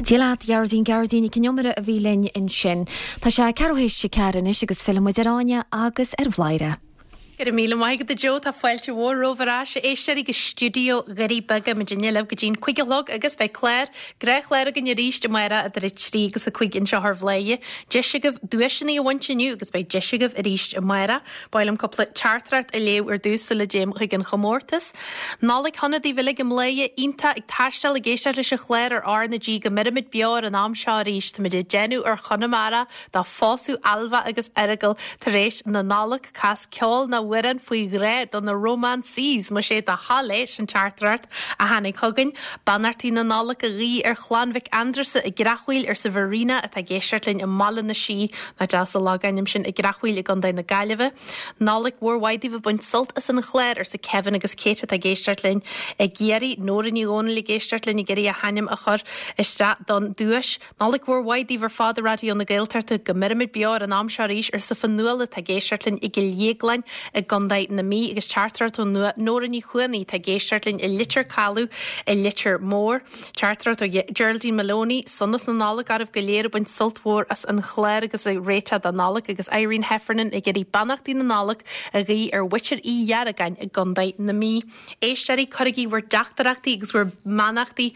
Dia leat, a Ghearóidín, Gearóidín Nic an Iomaire a bhí linn ansin. Tá sé ceathrú théis a ceathair anois agus fillfidh muid ar Áine agus ar Bhladhaire. Go raibh míle maith agat a Joe, tá fáilte mhór romhaibh ar ais, a éisteoirí, go stiúideo Dhoirí Beaga. Muidinne libh go dtí'n 5 a chlog agus beidh clár, gnáthchlár againn arís amárach idir 3 agus 5 anseo ar Bhladhaire. Deis agaibh duaiseanna a bhaint inniu agus beidh deis agaibh arís amárach. Ba mhaith liom cúpla teachtaireacht a léamh ar dtús sula dtéim chuig an chomórtas. Nollaig shona daoibh uilig i mBladhaire iontach ag taisteal ag éisteacht leis an chlár ar R na G go mbeirimid beo ar an am seo arís. Táimid ag déanamh ar Chonamara do phósadh Ailbhe agus Fheargal tar éis na Nollag. Cas ceol nó amhrán faoi ghrá do na romances. Más é do thoil é, sin teachtaireacht a tháinig chugainn. Beannachtaí na Nollag a ghuí ar chlann Mhic Aindreasa i gCreachmhaoil arsa Verena atá ag éisteacht linn i mBaile na Sí, nach deas an logainm sin, i gCreachmhaoil i gContae na Gaillimhe. Nollaig mhór mhaith daoibh ag baint sult as an chlár, arsa Kevin agus Kate atá ag éisteacht linn i gCiarraí. Nóra Ní Dhomhnaill ag éisteacht linn ag iarraidh a hainm a chur isteach don duais. Nollaig mhór mhaith daoibh ar fad i Raidió na Gaeltachta. Go mbeirimid beo ar an am seo arís, arsa Fionnuala atá ag éisteacht linn i gCill Dhéagláin i gContae na Mí agus teachtaireacht ó Nóra Ní Chuanaigh atá ag éisteacht linn i Leitir Caladh i Leitir Móir. Teachtaireacht ó Geraldine Maloney, Sonas na Nollag oraibh go léir ag baint sult mhór as an chlár agus ag réiteach don Nollaig agus Irene Heffernan ag iarraidh beannachtaí na Nollag a ghuí ar mhuintir Uí Dheargáin i gContae na Mí. Éisteoirí, cuirigí bhur dteachtaireachtaí agus bhur mbeannachtaí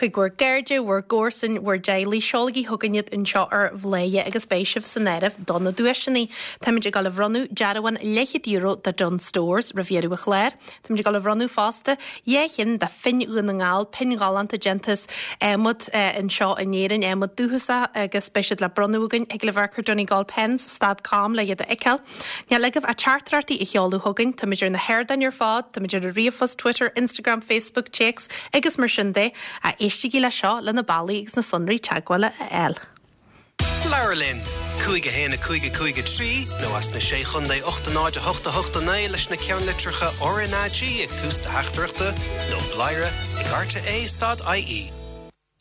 chuig bhur gcairde, bhur gcomharsain, bhur dteaghlaigh. Seolaigí chugainn iad anseo ar Bhladhaire agus beidh sibh san áireamh do na duaiseanna. Táimid ag dul a bhronnadh dearbhán leathchéad euro do Dunnes Stores roimh dheireadh an chláir. Táimid ag dul a bhronnadh fosta 2 cheann de phinn Dhún na nGall, pinn ghalánta déanta as adhmad anseo in Éirinn, adhmad dúchasach agus beidh siad le bronnadh againn. Thig libh amharc ar Donegalpens stad com le iad a fheiceáil. Níl agaibh ach teachtaireachtaí a sheoladh chugainn, táimid ar na hardáin ar fad, táimid ar an ríomhphost, Twitter, Instagram, Facebook, téacs agus mar sin de. Éistigí le seo le na bealaí agus na sonraí teagmhála a fháil. Labhair linn! 5 1 5 5 3 nó as na Sé Chontae 8 0 8 8 9 leis na ceannlitreacha RnaG ag tús do theachtaireachta nó bladhaire ag rte stad ie.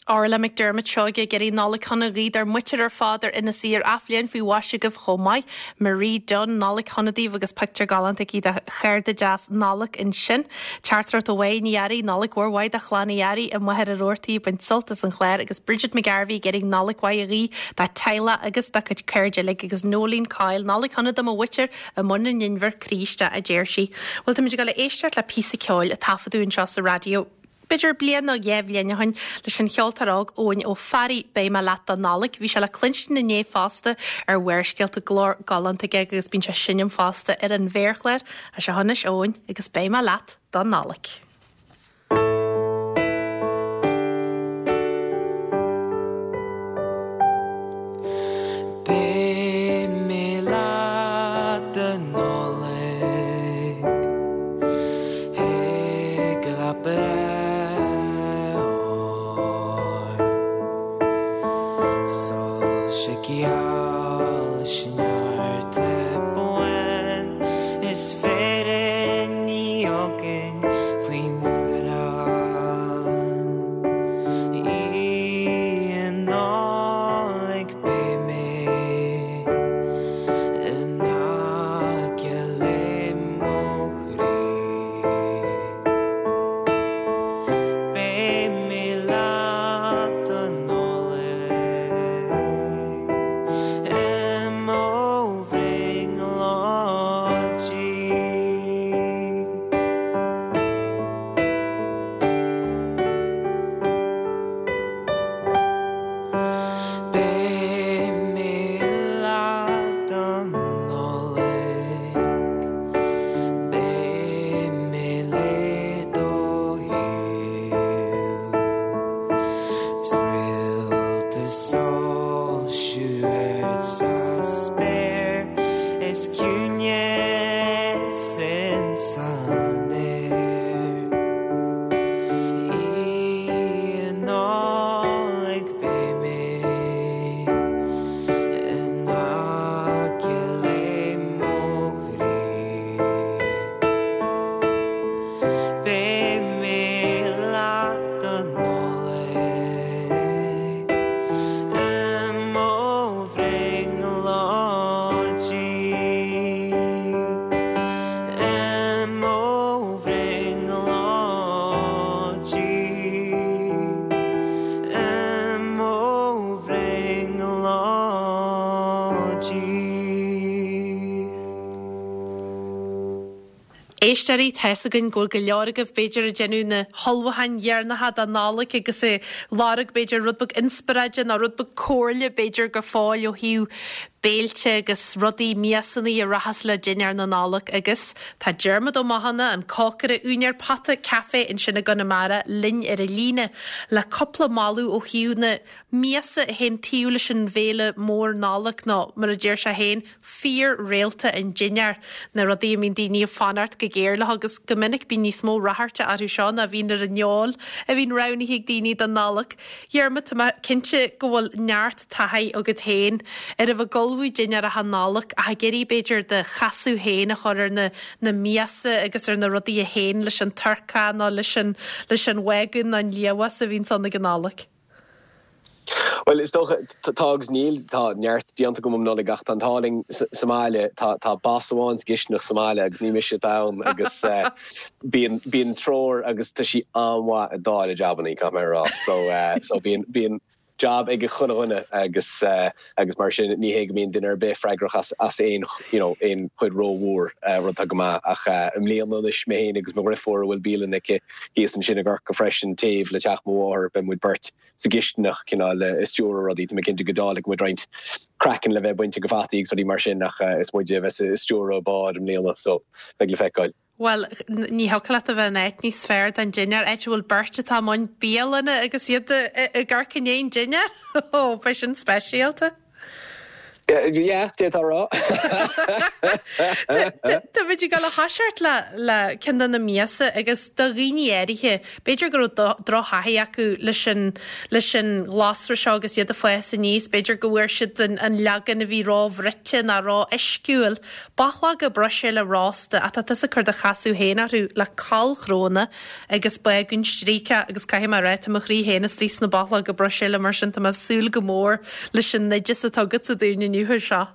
Orla McDermott Seoige ag iarraidh Nollaig shona a ghuí dár muintir ar fad ar Inis Oírr Athbhliain faoi mhaise agaibh chomh maith. Marie Dunne, Nollaig shona daoibh agus pictiúr galánta aici de chárta deas Nollag ansin. Teachtaireacht ó Mhaigh Ní Fhearraigh, Nollaig mhór mhaith do chlann Uí Fhearraigh i Machaire Rabhartaigh ag baint sult as an chlár agus Bridget McGarvey ag iarraidh Nollaig mhaith a ghuí dá teaghlach agus dá cuid cairde uilig agus Noeleen Coyle, Nollaig shona do mo mhuintir i mBun an Inbhir Críste a deir sí. Bhuel táimid ag dul a éisteacht le píosa ceoil a taifeadadh anseo sa raidió. B'fhéidir bliain nó dha bhliain ó shin leis an cheoltóir óg Eoin Ó Fearraigh, Beidh mé leat don Nollaig. Bhí sé le cluinstin inné fosta ar Bharrscéalta, glór galánta aige agus bíonn sé ag seinm fosta ar an mhéarchlár. Seo anois Eoin agus Beidh mé leat don Nollaig. Beidh mé leat don Nollaig. Thig go leat breith óir. Soilse geal is neart buan is firinní againn faoin gcrann. Oíche Nollag beidh mé in aice le mo chroí. Beidh mé leat don Nollaig i mo bhrionglóidí. Beidh mé leat don Nollaig, beidh mé le do thaobh, 's réalta ag soilsiú ard sa spéir is ciúineas insan aer. Oíche Nollag beidh mé in aice le mo chroí. Beidh mé leat don Nollaig i mo bhrionglóidí. I mo bhrionglóidí. I mo bhrionglóidí. Éisteoirí, tá's againn go bhfuil go leor agaibh b'fhéidir ag déanamh na hullmhúcháin dheireanacha don Nollaig agus ag lorg b'fhéidir rud beag inspioráide nó rud beag comhairle b'fhéidir go fóill ó thaobh béilte agus rudaí, miasannaí a rachas le dinnéar na Nollag agus tá Diarmuid Ó Mathúna, an cócaire, úinéir Pota Café ansin i gConamara linn ar an líne le cúpla moladh ó thaobh na miasa a théann taobh leis an bhéile mór Nollag nó mar a deir sé féin, fíor-réalta an dinnéir, na rudaí a mbíonn daoine ag fanacht go géar leo agus go minic bíonn níos mó ráchairte orthu seo ná a bhíonn ar an fheoil a bhíonn roghnaithe ag daoine don Nollaig. Dhiarmuid, tá mé cinnte go bhfuil neart taithí agat féin ar a bheith ag ullmhú dinnéaracha Nollag ach ag iarraidh b'fhéidir do chasadh féin a chur ar na na miasa agus ar na rudaí a théann leis an turcaí nó leis an leis an bhágún nó an liamhás a bhíonns ann ag an Nollaig. Bhuel, is dócha, tá agus níl, tá neart déanta agam um Nollaig ach tá an t-ádh linn sa mbaile, tá tá boss amháin sa gcistineach sa mbaile agus ní mise atá ann agus bíonn bíonn treoir agus tá sí an-mhaith ag dáileadh jabannaí, caithfidh mé a rá. So so bíonn bíonn jab ag chuile dhuine agus agus mar sin ní hé go mbíonn duine ar bith freagrach as as aon you know aon chuid rómhór, rud atá go maith ach i mbliana anois mé féin agus mo dhriofúr a bhfuil bialann aici thíos ansin i gCorcaigh freisin taobh le teach mo mháthar beidh muid beirt sa gcistineach cineál ag stiúradh rudaí. Tá mé cinnte go dáilfidh muid roinnt craiceann le bheith bainte de fhataí agus rudaí mar sin ach is muide a bheas ag stiúradh an bád i mbliana so beidh le feiceáil. Bhuel, ní thiocfadh leat a bheith in áit níos fearr don dinnéar, áit a bhfuil beirt atá i mbun bialanna agus iad ag amharc i ndiaidh an dinnéir. Ó, beidh sin speisialta. Yeah, d'fhéadfá a rá. Táimid ag dul a thoiseacht le le ceann de na miasa agus do dhaoine áirithe, b'fhéidir go raibh drochthaithí acu leis an leis an ghlasra seo agus iad ag fás aníos, b'fhéidir go bhfuair siad an an leagan a bhí róbhruite nó ró-uisciúil. Bachlóga Bruiséile rósta ach tá tusa ag cur do chasadh féin orthu le corrchróna agus bágún stríocach agus caithfidh mé a rá tá mo chroí féin istigh sna bachlóga Bruiséile mar sin tá mé ag súil go mór leis an oideas atá agatsa dúinn inniu air seo.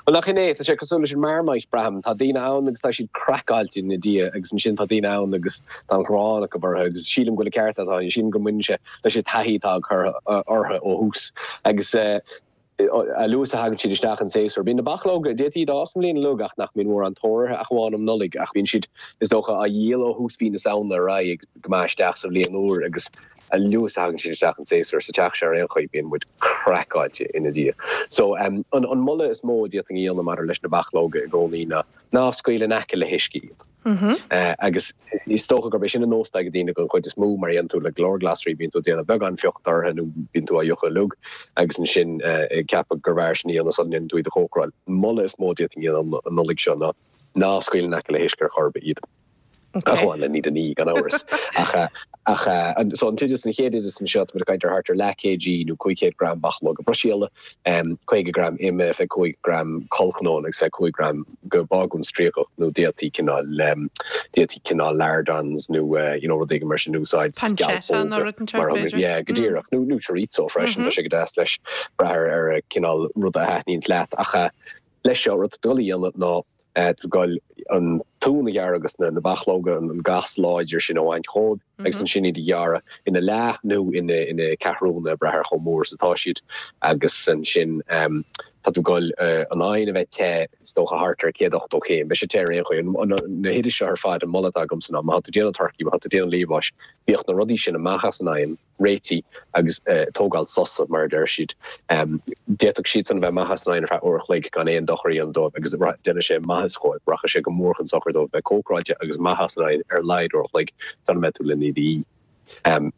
Bhuel nach in é, tá sé cosúil leis an Marmite, braithim. Tá daoine ann agus tá siad craiceáilte ina diaidh agus ansin tá daoine ann agus tá an ghráin acu orthu agus sílim go bhfuil an ceart agat, sílim go mbaineann sé leis an taithí atá acu orthu ó thús agus. A luaithe is a thagann siad isteach an séasúr, bíonn na bachlóga, d'fhéadfaí iad a fhás an bhliain uilig ach nach mbíonn mórán tóir orthu ach amháin um Nollaig ach bíonn siad, is dócha, á dhíol ó thús mhí na Samhna ar aghaidh go maith isteach sa bhliain úr agus a luaithe is a thagann siad isteach an séasúr sa teach seo ar aon chaoi bíonn muid craiceáilte ina ndiaidh. So, an moladh is mó a d'fhéadfainn a dhéanamh maidir leis na bachlóga i gcónaí ná ná scaoil in aice le huisce iad. Agus is dócha gurb é sin an nós atá ag daoine den chuid is mó, mar a dhéanann tú le go leor glasraí, bíonn tú ag déanamh beagán fiuchta orthu nó bíonn tú á fhiuchadh uilig agus ansin ag ceapadh gurbh fhearr sin a dhéanamh sula ndéanann tú iad a chócaráil. An moladh is mó a d'fhéadfainn a dhéanamh an Nollaig seo ná ná scaoil in aice le huisce ar chor ar bith iad. Ach amháin le iad a ní, gan amhras. Ach ach so an t-oideas, an chéad oideas anseo, tá muid ag caint ar thart ar leath kg nó 500 gram bachlóga Bruiséile, 50 gram ime, 25 gram collchnónna agus 25 gram de bhágún stríocach nó d'fhéadfaí cineál, d'fhéadfaí cineál lardons nó you know rud éigin mar sin a úsáid, Pancetta nó scealpóga rud inteacht mar b'fhéidir. yeah go díreach nó nó chorizo freisin, tá sé go deas leis, brath ar ar cineál rud a thaitníonns leat ach leis seo rud atá tú ag dul a dhéanamh ná tá tú ag dul an t-uan a ghearradh agus na bachlóga, an gas láidir sin a bhaint dhóibh agus ansin iad a ghearradh ina leath nó ina ceathrúna, ag brath ar chomh mór is atá siad, agus ansin tá tú ag dul an oigheann a bheith te, is dócha thart ar 180 céim, beidh sé te ar aon chaoi. Na hoidis seo ar fad, an moladh atá agamsa ná má tá tú ag déanamh turcaí, má tá tú ag déanamh liamháis, bíodh na rudaí sin amach as an oigheann, réitithe agus tógáil sosa, mar a deir siad. D'fhéadfadh siadsan a bheith amach as an oigheann ar feadh uair a chloig gan aon dochar a dhéanamh dóibh agus déanfaidh sé maitheas dhóibh, rachaidh sé go mór chun sochair dóibh bheith cócaráilte agus amach as an oigheann ar a laghad uair a chloig sula mbeidh tú lena iad a ithe.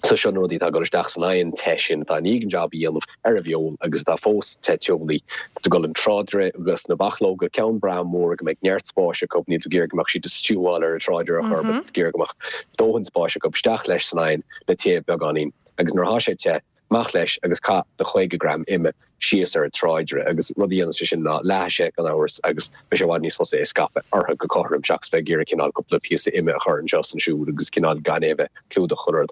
So seo na rudaí atá ag dul isteach san oigheann te sin atá i ndiaidh an jab a dhéanamh ar an bhfeoil agus atá fós te teolaí. Tá tú ag dul an tráidire agus na bachlóga, ceann breá mór go mbeidh neart spáis acu, níl tú ag iarraidh go mbeadh siad ag stiúáil ar an tráidire ar chor ar bith, tá tú ag iarraidh go mbeadh dóthain spáis acu isteach leis san oigheann le téamh beagáinín agus nuair atá sé te, amach leis agus caith do 50 gram ime síos ar an tráidire agus rud a dhéanann sé sin ná leáfaidh sé gan amhras agus beidh sé i bhfad níos fusa é a scaipeadh orthu go cothrom seachas bheith ag iarraidh cineál cúpla píosa ime a chur anseo is ansiúd agus cineál gan é a bheith clúdach chuile rud.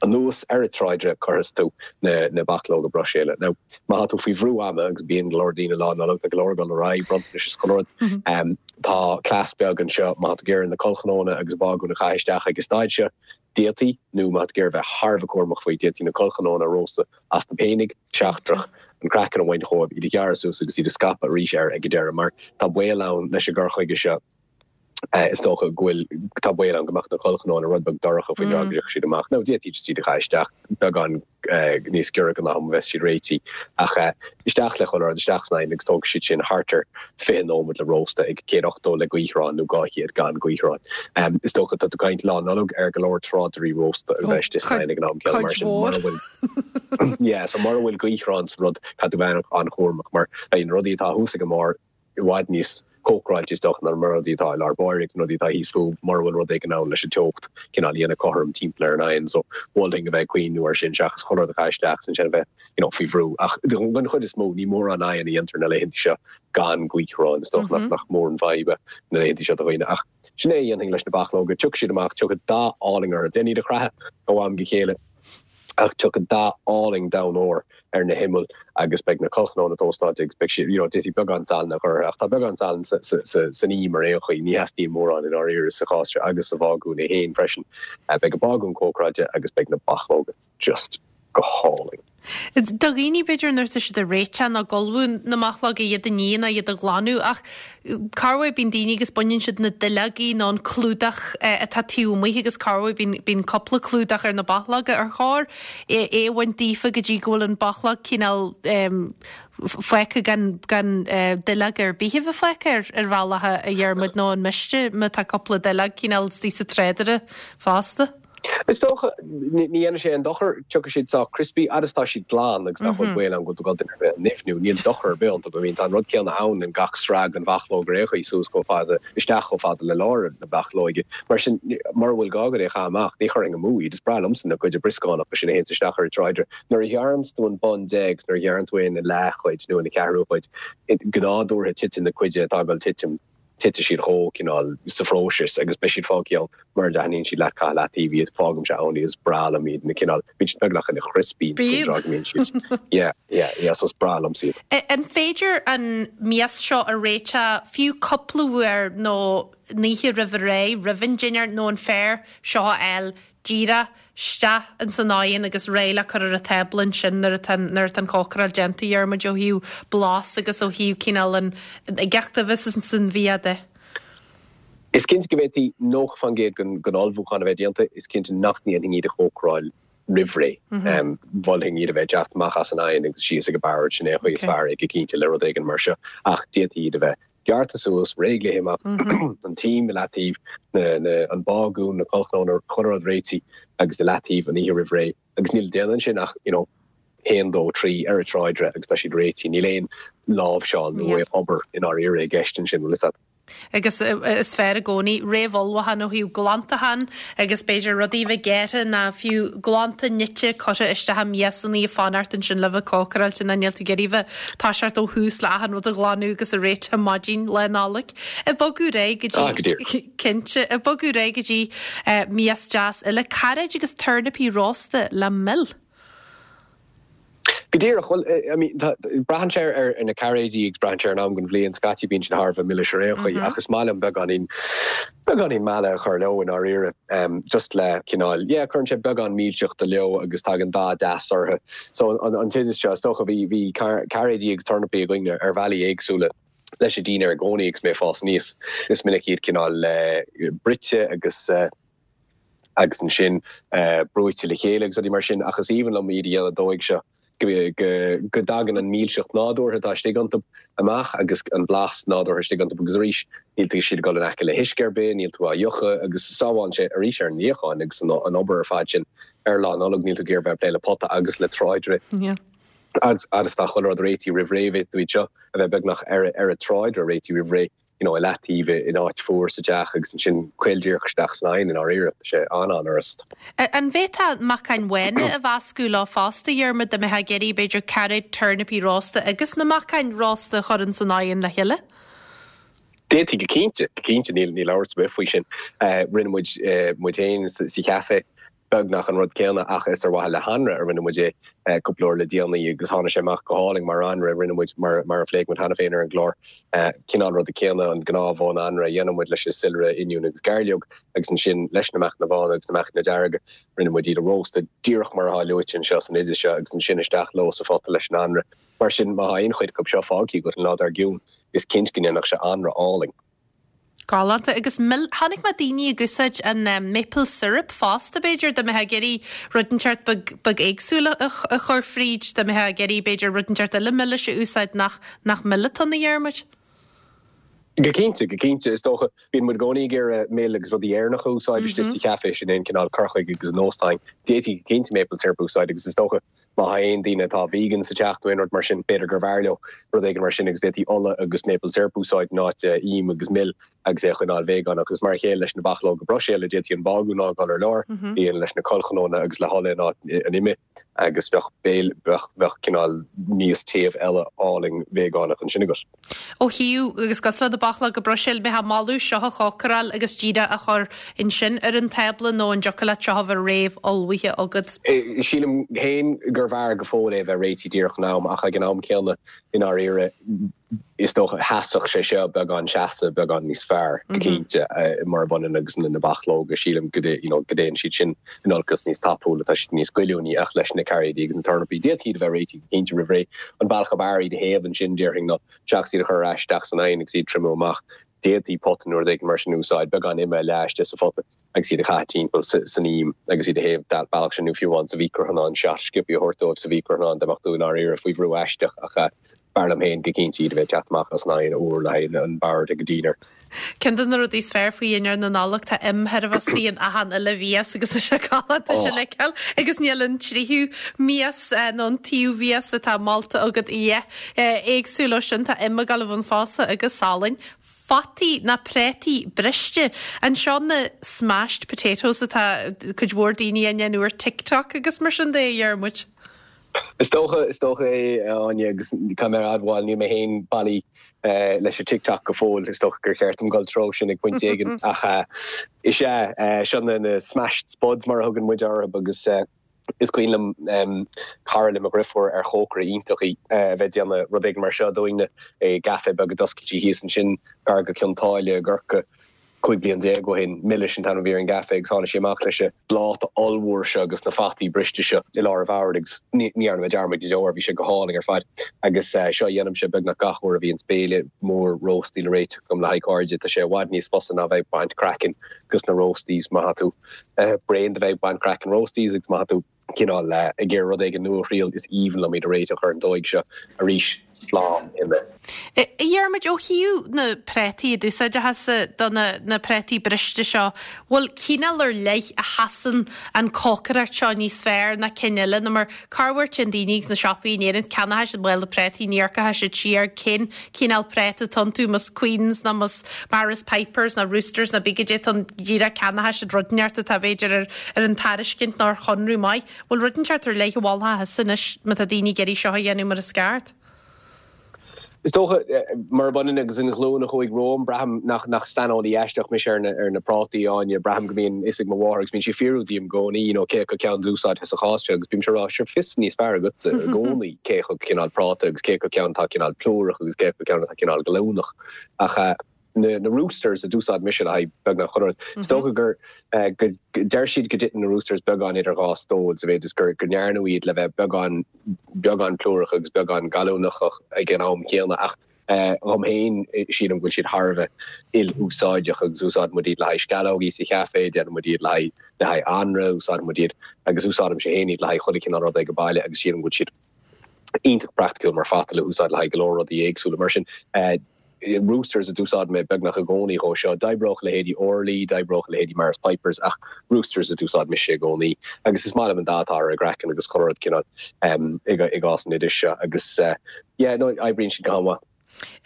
Anuas ar an tráidire cuirfidh tú na na bachlóga Bruiséile. Now má tá tú faoi bhrú ama agus bíonn go leor daoine Lá Nollag, tá go leor ag dul ar aghaidh, bronntanais is chuile rud, tá cleas beag anseo má tá tú ag iarraidh na collchnónna agus bágún a chaitheamh isteach ag an staid seo, d'fhéadfaí, nó má tá tú ag iarraidh bheith thar a bheith cúramach faoi, d'fhéadfaí na collchnónna a róstadh astu féinig, seachtrach, an craiceann a bhaint dhóibh, iad a ghearradh suas agus iad a scaipeadh arís air ag an deireadh mar tá baol ann leis an gcur chuige seo. Is dócha go bhfuil, tá baol ann go mbeadh na collchnónna rud beag dorcha faoin dtráth go dtiocfaidh siad amach. Nó d'fhéadfaí just iad a chaitheamh isteach beagán níos giorra don am a bheas siad réitithe. Ach isteach le chuile rud, isteach san oigheann agus tógfaidh siad sin thart ar 20 nóiméad le róstadh ag 180 le gaothrán nó 200 gan gaothrán. Is dócha, tá tú ag caint Lá Nollag ar go leor tráidirí rósta a bheith istigh san oigheann ag an am céanna mar sin mura bhfuil, yeah, so mura bhfuil gaothrán sa rud, caithfidh tú bheith an-chúramach mar beidh na rudaí atá thuas ag an mbarr, i bhfad níos cócaráilte is dócha ná na rudaí atá i lár báire agus na rudaí atá thíos fúthu mura bhfuil rud éigin ann leis an teocht cineál a dhéanamh cothrom timpeall ar an oigheann so mholfainn a bheith ag cuimhniú air sin seachas chuile rud a chaitheamh isteach agus ansin a bheith you know faoi bhrú ach den chuid is mó ní mórán oigheann a dhéantar na laethanta seo gan gaothrán is dócha nach nach mór an fhadhb é na laethanta seo do dhaoine ach sin é a dhéanfainn leis na bachlóga tiocfaidh siad amach tiocfaidh dath álainn orthu déan iad a chroitheadh ó am go chéile. Ach tiocfaidh dath álainn donn óir ar na himill agus beidh na collchnónna tóstáilte agus beidh siad, you know, d'fhéadfaí beagán salainn a chur orthu ach tá beagán salainn san im ar aon chaoi, ní theastaíonn mórán i ndáiríre sa chás seo agus sa bhágún é féin freisin. Beidh an bágún cócaráilte agus beidh na bachlóga just go hálainn. Do dhaoine, b'fhéidir, nuair atá siad ag réiteach nó ag ullmhú na mbachlóg, iad a ní nó iad a ghlanadh ach corruair bíonn daoine agus baineann siad na duilleogaí nó an clúdach atá taobh amuigh agus corruair bíonn, bíonn cúpla clúdach ar na bachlóga. Ar chóir é a bhaint daofa go dtí go bhfuil an bachlóg cineál fágtha gan, gan duilleog ar bith a bheith fágtha ar, ar bhealach a Dhiarmuid nó an miste má tá cúpla duilleog cineál istigh sa tráidire fosta? Is dócha, ní dhéanfaidh sé aon dochar, tiocfaidh siad sách crispy, fhad is atá siad glan agus nach bhfuil baol ann go bhfuil tú ag dul duine ar bith a nimhniú, níl dochar ar bith iontu. I mean, tá an rud céanna ann in gach sraith den bhachlóg ar aon chaoi, suas chomh fada, isteach chomh fada le lár na bachlóige. Mar sin, mura bhfuil gá agat é a chaitheamh amach, ní chuirfinn amú iad. Is breá liomsa na cuid brioscánacha sin a théanns isteach ar an tráidire. Nuair a ghearranns tú an bun de agus nuair a ghearrann tú é ina leathchuid nó ina ceathrú cuid, go nádúrtha titeann na cuid atá ag dul titim. titfidh siad chomh, cineál, sa phróiseas agus beidh siad fágtha ann mura dtaitníonn siad leat caith i leataobh iad, fágaimse ann iad, is breá liom iad, na cineál, bíonn siad beagnach ina chrispí faoin dtráth go mbíonn siad, yeah, yeah, yeah, so is breá liomsa iad. An féidir an mias seo a réiteach fiú cúpla uair nó an oíche roimh ré, roimh an dinnéar nó an fearr seo a fháil? díreach isteach ins an oigheann agus réidh le cur ar an tábla ansin nuair atá nuair atá an chócaráil déanta, a Dhiarmuid, ó thaobh blas agus ó thaobh cineál an uigeacht a bheas ins an bhia de. Is cinnte go bhféadfaí 90% den ullmhúchán a bheith déanta, is cinnte nach ndéanfainn iad a chócaráil roimh ré. Mholfainn iad a bheith ag teacht amach as an oigheann agus síos ag an bord, sin é an chaoi is fearr é go cinnte le rud éigin mar seo, ach d'fhéadfaí iad a bheith gearrtha suas, réidh le himeacht, an t-im i leataobh, an bágún, na collchnónna, chuile rud réitithe agus i leataobh an oíche roimh ré agus níl le déanamh ansin ach you know haon, dó, trí ar an tráidire agus tá siad réitithe. Níl aon láimhseáil nó obair i ndáiríre i gceist ansin, bhfuil fhios a't. Agus is fearr i gcónaí réamhullmhúchán ó thaobh glantachán agus b'fhéidir rudaí a bheith gearrtha ná fiú glanta nite curtha isteach i miasanna ag fanacht ansin le bheith cócaráilte ná níl tú ag iarraidh bheith ag toiseacht ó thús le achan rud a ghlanadh agus a réiteach maidin Lá Nollag. Ag bogadh ar aghaidh go dtí. Ah, go díreach. Cinnte. Ag bogadh ar aghaidh go dtí mias deas eile, cairéid agus tornapaí rósta le mil. Go díreach. Bhuel, I mean, tá, braitheann sé ar na cairéidí agus braitheann sé ar an am den bhliain. Scaití bíonn siad thar a bheith milis ar aon chaoi ach is maith liom beagáinín, beagáinín meala a chur leo i ndáiríre. Just le cineál, yeah, cuireann sé beagán milseachta leo agus tagann dath deas orthu. So an, an t-oideas seo, is dócha, bhí, bhí cairéidí agus tornapaí againn ar bhealaí éagsúla leis an dinnéar i gcónaí agus mé ag fás aníos. Is minic iad cineál bruite agus, agus ansin brúite le chéile agus rudaí mar sin, ach is aoibhinn liom iad a dhéanamh an dóigh seo, go dtagann an mhilseacht nádúrtha atá istigh iontu amach agus an blas nádúrtha istigh iontu agus arís níl tú siad ag dul in aice le huisce ar bith, níl tú á fhiuchadh agus sábhálann sé arís ar an níochán agus an obair ar fad sin ar Lá Nollag, níl tú ag iarraidh bheith ag plé le pota agus le tráidire agus tá chuile rud réitithe roimh ré, bheadh tú iad seo a bheith beagnach ar an tráidire réitithe roimh ré. you know, i leataobh in áit fuar sa teach agus ansin caol díreach isteach san oigheann i ndáiríre. Tá sé an-an-fhurast. An bhféadfá meacain bhána a mheascadh leo fosta, a Dhiarmaid, dá mbeifeá ag iarraidh, b'fhéidir, cairéid, tornapaí rósta agus na meacain rósta a chur ins an oigheann le chéile? D'fhéadfaí go cinnte, go cinnte, níl níl amhras ar bith faoi sin. Rinne muid muid féin sa chaife beagnach an rud céanna ach is ar mhaithe le hanraith a rinne muid é cúpla uair le déanaí agus tháinig sé amach go hálainn mar anraith. Rinne muid, mar mar a phléigh muid cheana féin ar an gclár, cineál ruda céanna, an gnáth-bhun anraith a dhéanann muid leis an soilire, oinniún agus gairleog agus ansin leis na meacanna bána agus na meacanna dearga, rinne muid iad a róstadh díreach mar atá luaite anseo san oideas seo agus ansin isteach leo sa phota leis an anraith. Mar sin, má tá aon chuid acu seo fágtha agat an lá dár gcionn, is cinnte go ndéanfadh sé anraith álainn. Galánta. Agus mil, chonaic mé daoine ag úsáid an maple syrup fosta b'fhéidir, dá mbeifeá ag iarraidh rud inteacht beag, beag éagsúil a, a chur fríd, dá mbeifeá ag iarraidh b'fhéidir rud inteacht eile milis a úsáid nach, nach mil atá ann a Dhiarmuid. Go cinnte, go cinnte. Is dócha, bíonn muid i gcónaí ag iarraidh mil agus rudaí Éireannacha a úsáid istigh sa chaife, sin é an cineál cur chuige agus nós atá againn. D'fhéadfaí go cinnte maple syrup a úsáid agus is dócha, Má tá aon daoine atá vegan sa teach nó aon rud mar sin, b'fhéidir gurbh fhearr leo rud éigin mar sin agus d'fhéadfaí ola agus maple syrup a úsáid in áit im agus mil agus é a choinneáil véagánach. Agus mar a chéile leis na bachlóga Bruiséile, d'fhéadfaí an bágún a fhágáil ar lár, a dhéanamh leis na collchnónna agus le hola in áit an ime agus bheadh béile, bheadh, bheadh cineál mias téamh eile álainn véagánach ansin agat. Ó thaobh, agus cosúil le na bachlóga Bruiséil, mbeifeá ag moladh seo a chócaráil agus díreach a chur ansin ar an tábla nó an dtiocfadh leat seo a bheith réamh-ullmhaithe agat? Sílim féin gurbh fhearr go fóill é a bheith réitithe díreach in am ach ag an am céanna, i ndáiríre, is dócha, sheasfadh sé seo beagán seasamh beagán níos fearr, go cinnte, murab ionann agus na bachlóga, sílim go you know go dtéann siad sin in olcas níos tapúla, tá siad níos goilliúnaí ach leis na cairéidí agus na tornapaí, d'fhéadfaí iad a bheith réitithe go cinnte roimh ré. An bealach ab fhearr iad a théamh ansin, déarfainn, ná seachas iad a chur ar ais isteach san oigheann agus iad a triomú amach, d'fhéadfaí pota nó rud éigin mar sin a úsáid, beagán ime a leá istigh sa phota agus iad a chaitheamh timpeall san im agus iad a théamh bealach sin nó fiú amháin sa mhícreathonnán, seat sciobtha a thabhairt dóibh sa mhícreathonnán dá mbeadh tú i ndáiríre faoi bhrú aisteach ach b'fhearr liom féin go cinnte iad a bheith ag teacht amach as an oigheann úr le haghaidh an bord ag an dinnéar. Ceann de na rudaí is fearr faoi dhinnéar na Nollag, tá im chóir a bheith istigh in achan uile mhias agus is é galánta sin a fheiceáil agus níl an tríú mias nó an tríú mhias atá molta agat a dhath éagsúil ó sin. Tá im ag dul i bhun fosa agus salainn. Fataí ná préataí briste. Anseo na smashed potatoes atá cuid mhór daoine á ndéanamh ar TikTok agus mar sin de, a Dhiarmuid. Is dócha, is dócha é, a Áine, agus caithfidh mé a admháil, níl mé féin bailí leis an TikTok go fóill, is dócha gur cheart dom dul treo sin ag pointe éigin, ach is ea, seo na smashed spuds mar a thugann muid orthu agus is cuimhin liom cara le mo dhriofúr ar chócaire iontach í a bheith ag déanamh rud éigin mar seo dúinne i gcaife beag a d'oscail sí thíos ansin gar go Cionn tSáile i gCorcaigh. 15 bliain ó shin. Milis an t-ainm a bhí ar an gcaife agus tháinig sí amach leis an bpláta ollmhór seo agus na fataí briste seo i lár an bhoird agus ní dhearna mé dearmad go deo air, bhí sé go hálainn ar fad. Agus seo a dhéanaimse beagnach gach uair a bhíonns béile mór róstaí le réiteach agam le haghaidh cairde, tá sé i bhfad níos fusa ná bheith ag baint craicinn dos na roasties má tá tú bréan de bheith ag baint craicinn roasties agus má tá tú cineál ag iarraidh rud éigin nua a thriail, is aoibhinn liom iad a réiteach ar an dóigh seo arís, slán ime. A Dhiarmuid, ó thaobh na prátaí a d'úsáidfeá-sa do na prátaí briste seo, bhfuil cineál ar leith a sheasann an cócaireacht seo níos fearr ná cinn eile nó mar corruair téann daoine ag na siopaí in Éirinn, ceannóidh siad mála prátaí, ní amharcfaidh siad siar cén cineál práta atá iontu, más Queens nó más Maris Pipers nó Roosters nó pé goidé atá ann, díreach ceannóidh siad rud inteacht atá b'fhéidir ar ar an tairiscint nó ar chonradh maith. Bhfuil rud inteacht ar leith a mholfá thusa anois má tá daoine ag iarraidh seo a dhéanamh mar is ceart? Is dócha, murab ionann agus an ghlúin a chuaigh romham, braithim nach nach saineolaí aisteach mise ar na ar na prátaí, Áine. Braithim go mbíonn fhios ag mo mháthair agus bíonn sí ag fiafraí díom i gcónaí, you know, cé acu ceann d'úsáidfeá sa chás seo agus bímse ag rá, sure, fios níos fearr agatsa i gcónaí cé acu cineál práta agus cé acu ceann atá cineál plúrach agus cé acu ceann atá cineál gallúnach. Ach na na Roosters a d'úsáid mise le haghaidh beagnach chuile rud. Is dócha gur go deir siad go dtiteann na Roosters beagán idir dhá stól sa mhéid is gur go ndearnadh iad le bheith beagán beagán plúrach agus beagán gallúnach ag an am céanna ach dhom féin sílim go bhfuil siad thar a bheith il-úsáideach agus úsáideann muid iad le haghaidh sceallógaí sa chaife, déanann muid iad le haghaidh le haghaidh anraith, úsáideann muid iad agus úsáidimse féin iad le haghaidh chuile chineál rud ag an baile agus sílim go bhfuil siad iontach praiticiúil mar phota le húsáid le haghaidh go leor rudaí éagsúla. Mar sin, Roosters a d'úsáid mé beagnach i gcónaí dhó seo. D'oibreodh leithéidí Orley, d'oibreodh leithéidí Maris Pipers ach Roosters a d'úsáid mise i gcónaí. Agus is maith liom an dath atá ar a gcraiceann agus chuile rud cineál i gcás an oidis seo. Agus yeah, no, oibríonn siad go han-mhaith.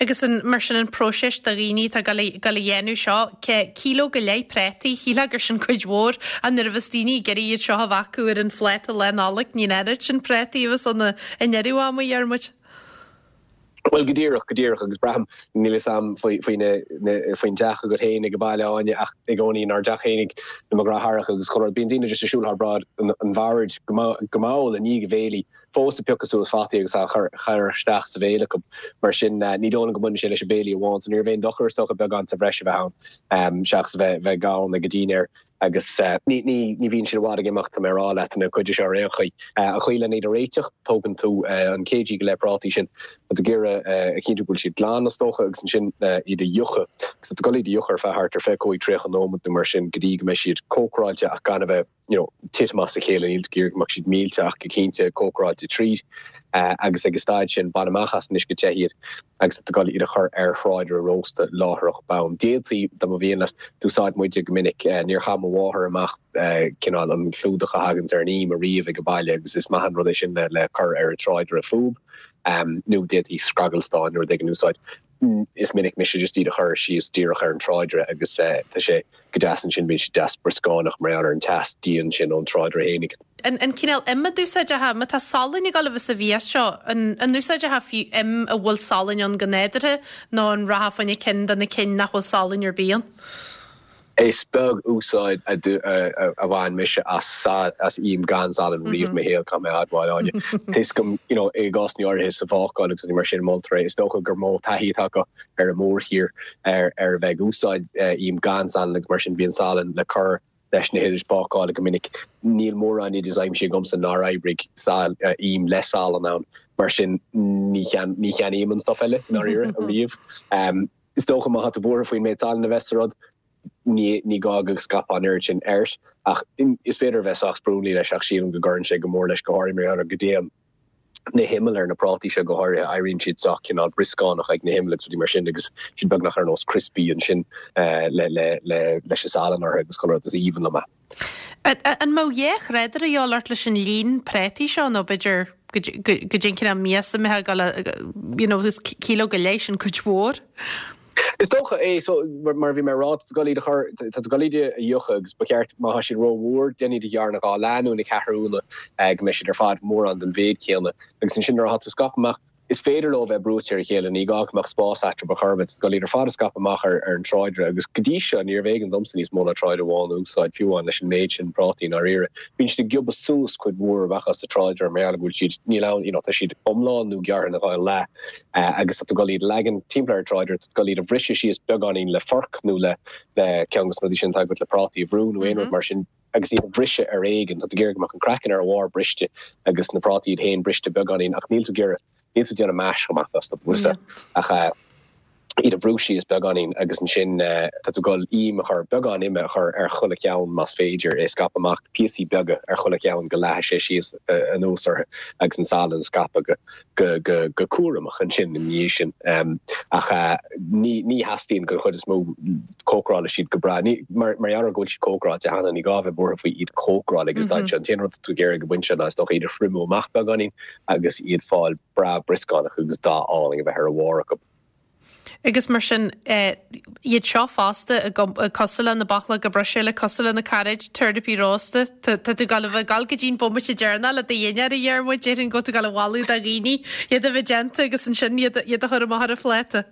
Agus an, mar sin an próiseas do dhaoine atá ag dul a dhéanamh seo, cíló go leith prátaí, shílfeá gur sin cuid mhór, ach nuair a bheas daoine ag iarraidh iad seo a bheith acu ar an phláta Lá Nollag, ní an oiread sin prátaí a bheas ann i ndeireadh ama, a Dhiarmuid. Bhuel, go díreach, go díreach, agus braithim, níl fhios a'm faoi, faoi na, na, faoin dteach agat féin ag an baile, Áine, ach i gcónaí inár dteach féinig, na mo dheartháireacha agus chuile rud, bíonn daoine just ag siúl thar bráid an, an bhoird go go mall i ndiaidh an bhéilí, fós ag piocadh suas fataí agus á chur, chur isteach sa bhéal acu. Mar sin, ní dóigh liom go mbaineann sé leis an béilí amháin, so ní raibh aon dochar, is dócha, beagán sa bhreis a bheith ann, seachas a bheith, bheith gann ag an dinnéar. Agus ní, ní, ní bhíonn siad i bhfad ag imeacht, tá mé ag rá leat, na cuid seo ar aon chaoi. An chaoi lena iad a réiteach, tógann tú an kg go leith prátaí sin, tá tú ag iarraidh a chinntiú go bhfuil siad glan, is dócha, agus ansin iad a fhiuchadh. Agus tá tú ag dul iad a fhiuchadh ar feadh thart ar 25, 30 nóiméad nó mar sin go dtí go mbeidh siad cócaráilte ach gan a bheith, you know, titim as a chéile, níl tú ag iarraidh go mbeadh siad millte ach go cinnte cócaráilte tríd. Agus ag an staid sin, bain amach as an uisce te iad agus tá tú ag dul iad a chur ar thráidire rósta láithreach bonn. D'fhéadfaí, dá mba mhian leat, d'úsáid muide go minic, níor chaith mo mháthair amach cineál an clúdach a thaganns ar an im ariamh ag an baile agus is maith an rud é sin le cur ar an tráidire fúb, nó d'fhéadfaí scragall stáin nó rud éigin a úsáid. Is minic mise just iad a chur síos díreach ar an tráidire agus tá sé go deas ansin, bíonn siad deas brioscánach mar gheall ar an teas dian sin ón tráidire fhéinig. An an cineál im a d'úsáidfeá, má tá salann ag dul a bheith sa mhias seo, an an úsáidfeá fiú im a bhfuil salann ann go nádúrtha nó an rachfá fá choinne cinn de na cinn nach bhfuil salann ar bith ann? Is beag úsáid a bhain mise as im gan salann riamh i mo shaol, caithfidh mé a admháil, Áine. Tá fhios agam, you know, i gcásanna áirithe sa bhácáil agus rudaí mar sin, moltar é. Is dócha gur mó taithí atá acu ar an mórthír ar a bheith ag úsáid im gan salann agus mar sin bíonn salann le cur leis na hoidis bácála go minic. Níl mórán oideas aimsithe agamsa nár oibrigh im le salann ann, mar sin ní cheannaím an stuif eile, i ndáiríre, ariamh. Is dócha má tá tú buartha faoin méid salainn a bheas sa rud, ní ní gá go scaipfeá an oiread sin air. Ach is féidir a bheith sách sprionlaí leis ach sílim go gcuireann sé go mór leis, go háirithe mar gheall ar go dtéann na himill ar na prátaí seo go háirithe, éiríonn siad sách cineál brioscánach ag na himill agus rudaí mar sin agus siad beagnach ar nós crispy ansin le le le leis an salann orthu agus chuile rud is aoibhinn liom é. An mbeadh dhá thráidire a dhíobháil ort leis an líon prátaí seo nó b'fhéidir goidé an cineál mias a mbeifeá ag dul a, you know, is cíló go leith sin cuid mhór. Is dócha é, so, mar a bhí mé ag rá, tá tú ag dul iad a chur, tá tú ag dul iad a fhiuchadh agus ba cheart, má tá siad rómhór, déan iad a ghearradh ina dhá leath nó ina ceathrúna go mbeidh siad ar fad mórán den mhéid céanna. Agus ansin nuair atá tú scaipthe amach. Is féidir leo bheith brúite ar a chéile, ní gá go mbeadh spás eatarthu ar chor ar bith, tá tú ag dul iad ar fad a scaipeadh amach ar an tráidire agus go dtí seo níorbh éigean domsa níos mó ná tráidire amháin a úsáid, fiú amháin leis an méid sin prátaí i ndáiríre. Bíonn siad ag giobadh suas cuid mhór amach as an tráidire mar gheall go bhfuil siad, níl ann, you know, tá siad iomlán nó gearrtha ina dhá leath agus tá tú ag dul iad a leagan timpeall ar an tráidire, tá tú ag dul iad a bhriseadh síos beagáinín le forc nó le ceann de na rudaí sin atá agat le prátaí a bhrú nó aon rud mar sin. agus iad a bhriseadh ar éigean. Tá tú ag iarraidh go mbeadh an craiceann ar a bharr briste agus na prátaí iad féin briste beagáinín ach níl tú ag iarraidh, níl tú ag déanamh mash amach astu, bhfuil 'fhios a'd, ach iad a bhrú síos beagáinín agus ansin tá tú ag dul im a chur, beagán ime a chur ar chuile cheann más féidir, é a scaipeadh amach, píosaí beaga ar chuile cheann go leathfaidh sé síos anuas orthu agus an salann a scaipeadh go go go go cúramach ansin ina dhiaidh sin. Ach ní ní theastaíonn den chuid is mó cócarálfaidh siad go breá. Ní, mar mar gheall ar go bhfuil siad cócaráilte cheana, ní gá a bheith buartha faoi iad cócaráil ag an staid seo. An t-aon rud atá tú ag iarraidh ag an bpointe seo ná is dócha iad a thriomú amach beagáinín agus iad fáil breá brioscánach agus dath álainn a bheith ar a bharr acu. Agus mar sin, iad seo fosta, cosúil le na bachlóga Bruiséile, cosúil le na cairéid, turnapaí rósta, tá tú ag dul a bheith ag dul go dtí an bomaite deireanach le do dhinnéar a Dhiarmuid, déarfainn go bhfuil tú ag dul a mholadh do dhaoine iad a bheith déanta agus ansin iad a chur amach ar an phláta.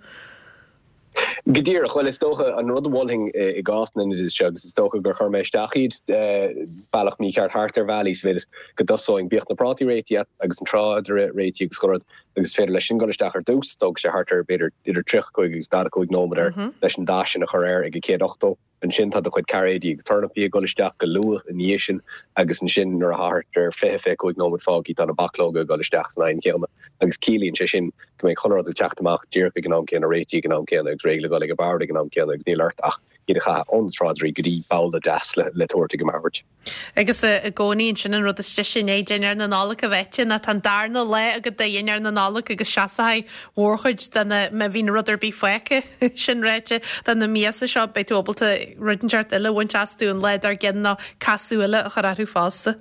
Go díreach. Bhuel, is dócha, an rud a mholfainn i gcás na n-oideas seo, agus is dócha gur chuir mé isteach iad bealach mícheart thart ar bhealaí, sa mhéid is go dtosóinn, bíodh na prátaí réitithe agus an tráidire réitithe agus chuile rud, agus is féidir leis sin dul isteach ar dtús, tógfaidh sé thart ar, b'fhéidir, idir 35 agus 45 nóiméad air leis an dath sin a chur air ag a 180. Ansin tá do chuid cairéidí agus tornapaí ag dul isteach go luath ina dhiaidh sin agus ansin nuair atá thart ar 20, 25 nóiméad fágtha tá na bachlóga ag dul isteach san oigheann chéanna agus ciallaíonn sé sin go mbeidh chuile rud ag teacht amach díreach ag an am céanna, réitithe ag an am céanna agus réidh le dhul ag an bord ag an am céanna agus níl ort ach iad a chaitheamh ó na tráidirí go dtí babhla deas le tabhairt ag an mbord. Agus i gcónaí ansin an rud is deise i ndiaidh dinnéar na Nollag a bheith ite ná tá an darna lá agat de dhinnéar na Nollag agus seasóidh mórchuid de na, má bhíonn rud ar bith fágtha, sin ráite, de na miasa seo, beidh tú ábalta rud inteacht eile a bhaint astu an lá dár gcionn nó casadh eile a chur orthu fosta.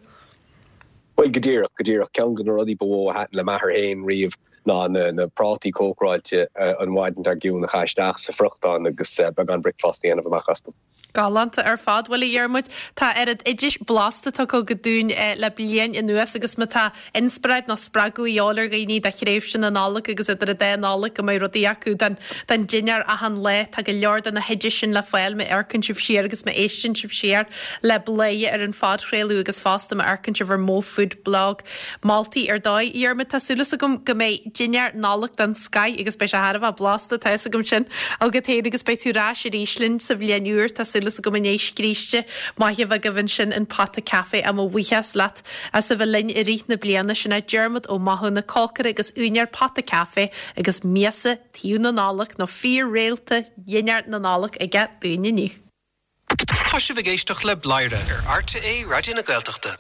Bhuel, go díreach, go díreach. Ceann de na rudaí ba mhó a thaitin le m'athair féin riamh ná na prátaí cócaráilte an mhaidin dár gcionn a chaitheamh isteach sa friochtán agus beagán bricfeasta a dhéanamh amach astu. Galánta ar fad. Bhuel, a Dhiarmuid, tá oiread oidis blasta tugtha agat dúinn le bliain anuas agus má tá inspioráid nó spreagadh a dhíobháil ar dhaoine do thréimhse na Nollag agus idir an dá Nollaig go mbeidh rudaí acu don don dinnéar achan lá, tá go leor de na hoidis sin le fáil má amharcann sibh siar agus má éisteann sibh siar le Bladhaire ar an phodchraoladh agus fosta má amharcann sibh ar Mo Food Blog. Moltaí ar dóigh. A Dhiarmuid, tá súil agam go mbeidh dinnéar Nollag den scoith agus beidh sé thar a bheith blasta, tá fhios agam sin agat féin agus beidh tú ar ais arís linn sa bhliain úr, tá súil agam i ndiaidh scríste maith a bheith agaibh ansin in Pota Café. Mo bhuíochas leat as a bheith linn i rith na bliana. Sin é Diarmuid Ó Mathúna, cócaire agus úinéir Pota Café agus miasa taobh na Nollag nó fíor-réalta dhinnéar na Nollag aige dúinn inniu. Tá sibh ag éisteacht le Bladhaire ar RTÉ Raidió na Gaeltachta.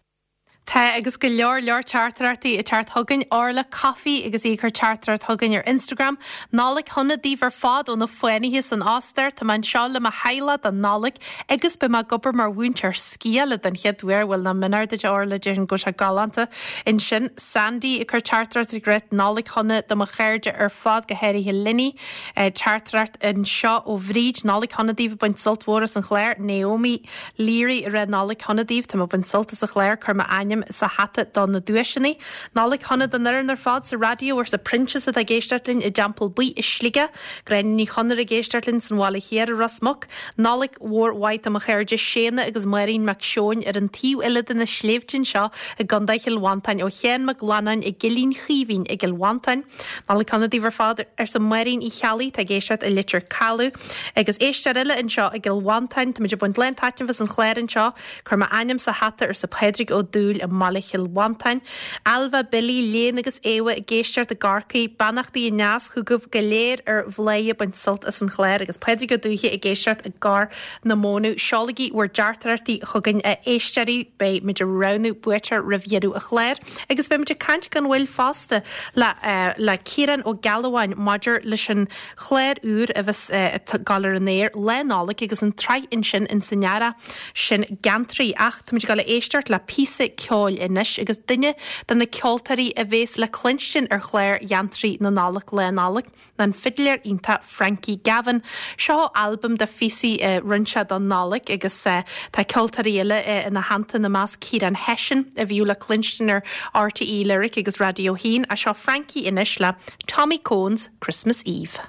Tá, agus go leor leor teachtaireachtaí ag teacht chugainn. Orla Coffey agus í ag cur teachtaireacht chugainn ar Instagram. Nollaig shona daoibh ar fad ó na fánaithe san Ostair. Tá mé anseo le mo theaghlach don Nollaig agus beidh mé ag obair mar mhúinteoir sciála den chéad uair. Bhuel, nach mionár duit a Orla, déarfainn go bhfuil sé galánta ansin. Sandy ag cur teachtaireacht ag rá Nollaig shona do mo chairde ar fad, go háirithe Linny. Teachtaireacht anseo ó Bhríd, Nollaig shona daoibh ag baint sult mhór as an chlár. Naomi. Leary ag rá Nollaig shona daoibh, tá mé ag baint sult as an chlár, cuir m'ainm sa hata do na duaiseanna. Nollaig shona don fhoireann ar fad sa raidió arsa Proinsias atá ag éisteacht linn i dTeampall Buí i Sligeach, Gráinne Ní Chonaire ag éisteacht linn san Bhaile Thiar i Ros Muc. Nollaig mhór mhaith do mo chairde Séanna agus Máirín Mac Seoin ar an taobh eile de na sléibhte anseo i gContae Chill Mhantáin ó Sheán Mac Fhlannáin i gCillín Chaoimhín i gCill Mhantáin. Nollaig shona daoibh ar fad arsa Máirín Uí Cheallaigh atá ag éisteacht i Leitir Caladh. Agus éisteoir eile anseo i gCill Mhantáin, táimid ag baint lán taitneamh as an chlár anseo. Cuir m'ainm sa hata, arsa Pádraig Ó Dúill i mbaile Chill Mhantáin. Ailbhe, Billy, Léan agus Éabha ag éisteacht i gCorcaigh. Beannachtaí aneas chugaibh go léir ar Bhladhaire ag baint sult as an chlár agus Pádraig Ó Dúiche ag éisteacht i gCorr na Mónadh. Seolaigí bhur dteachtaireachtaí chugainn a éisteoirí, beidh muid ag roghnú buaiteoir roimh dheireadh an chláir. Agus beidh muid ag caint gan mhoill fosta le le Ciarán Ó Gealbháin maidir leis an chlár úr a bheas ag gabháil ar an aer Lá Nollag agus an tsraith ansin ins an earrach sin Geantraí. Ach táimid ag dul a éisteacht le píosa ceoil. ceoil anois agus duine de na ceoltóirí a bhéas le cluinstin ar chlár Gheantraí na Nollag Lá Nollag ná an fidléir iontach Frankie Gavin. Seo albam de phíosaí a rinne sé don Nollaig agus tá ceoltóirí eile ina theannta, ina measc Ciarán Hession a bhíodh le cluinstin ar RTÉ Lyric agus Raidió 1. Ach seo Frankie anois le Tommy Coen's Christmas Eve.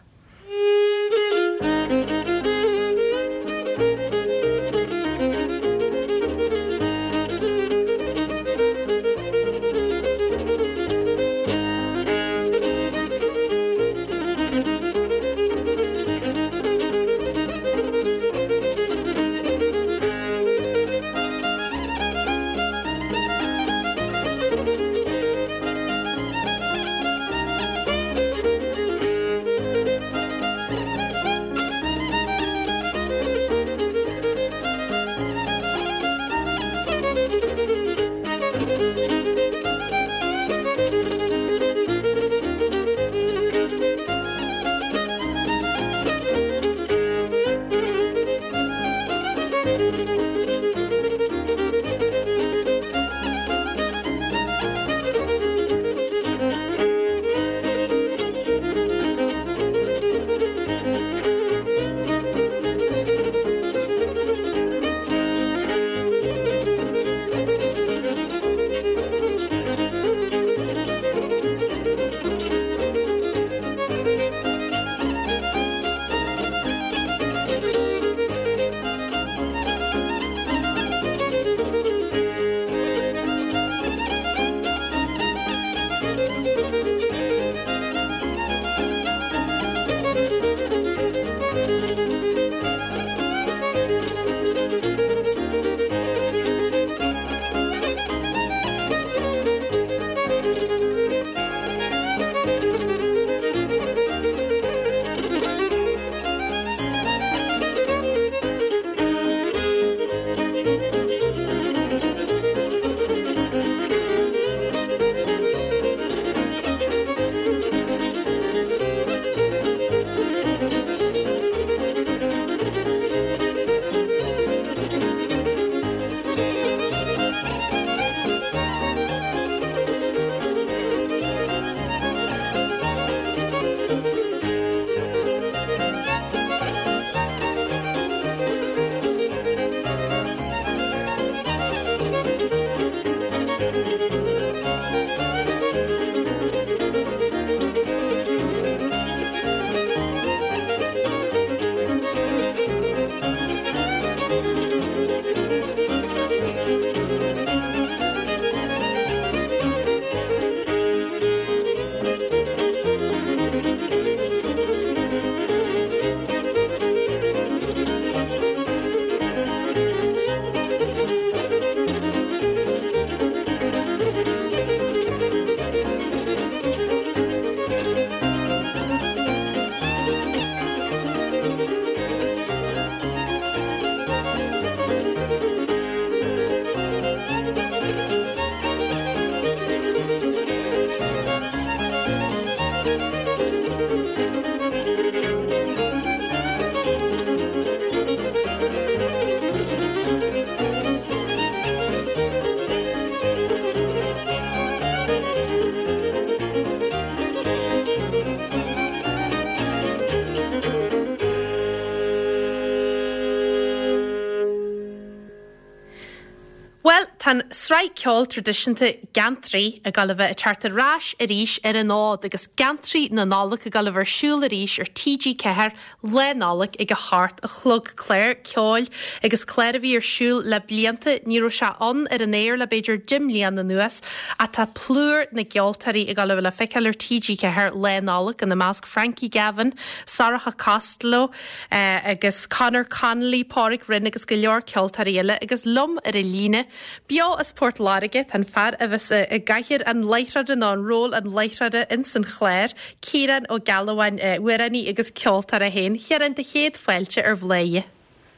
Bhuel, tá an tsraith ceoil traidisiúnta Geantraí ag dul a bheith ag teacht ar ais arís ar an fhód agus Geantraí na Nollag ag dul a bheith ar siúl arís ar TG4 Lá Nollag ag a hocht a chlog. Clár ceoil agus clár a bhí ar siúl le blianta, ní raibh sé ann ar an aer le b'fhéidir 10 mbliana anuas ach tá plúr na gceoltóirí ag dul a bheith le feiceáil ar TG4 Lá Nollag, ina measc Frankie Gavin, Sorcha Costello agus Conor Connolly, Pádraig Rynne agus go leor ceoltóirí eile agus liom ar an líne beo as Port Láirge tá an fear a bheas i gcathaoir an láithreora nó an ról an láithreora ins an chlár, Ciarán Ó Gealbháin, amhránaí agus ceoltóir é féin. A Chiaráin, do chéad fáilte ar Bhladhaire.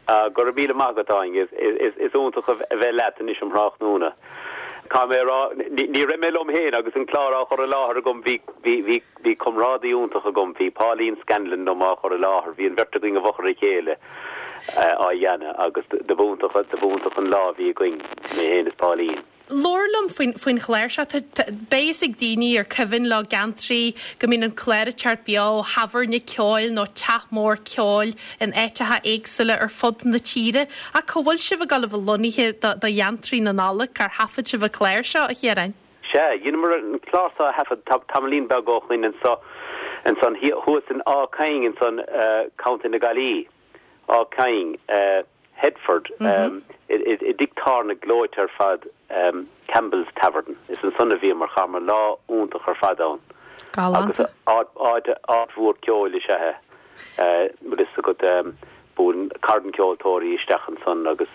Go raibh míle maith agat, Áine. Is iontach a bheith leat anois um thráthnóna. Caithfidh mé a rá, ní raibh mé liom féin agus an clár á chur i láthair agam, bhí, bhí, bhí comrádaí iontach agam, bhí Pauline Scanlon liom á chur i láthair, bhí an bheirt againn i bhfochair a chéile á dhéanamh agus do b'iontach, do b'iontach an lá a bhí againn, mé féin is Pauline. Labhair liom faoin, faoin chlár seo. Tá, tá, beidh fhios ag daoine ar cuimhin leo Geantraí go mbíonn an clár ag teacht beo ó thábhairne ceoil nó teach mór ceoil in áiteacha éagsúla ar fud na tíre. Ach cá bhfuil sibh ag dul a bheith lonnaithe do, do Gheantraí na Nollag? Cár thaifead sibh an clár seo, a Chiaráin? Sea, dheineamar an clár seo a thaifead tamaillín beag ó shoin anso, ansan thuas in Áth Caing ansan, Contae na Gaillimhe. Áth Caing, Headford, i dtigh tábhairne gleoite ar fad, Campbell's Tavern. Is ansan a bhíomar, chaitheamar lá iontach ar fad ann. Galánta. Agus áit, áit mhór ceoil is ea é. Bhfuil fhios agat, buaileann carn ceoltóirí isteach ansan agus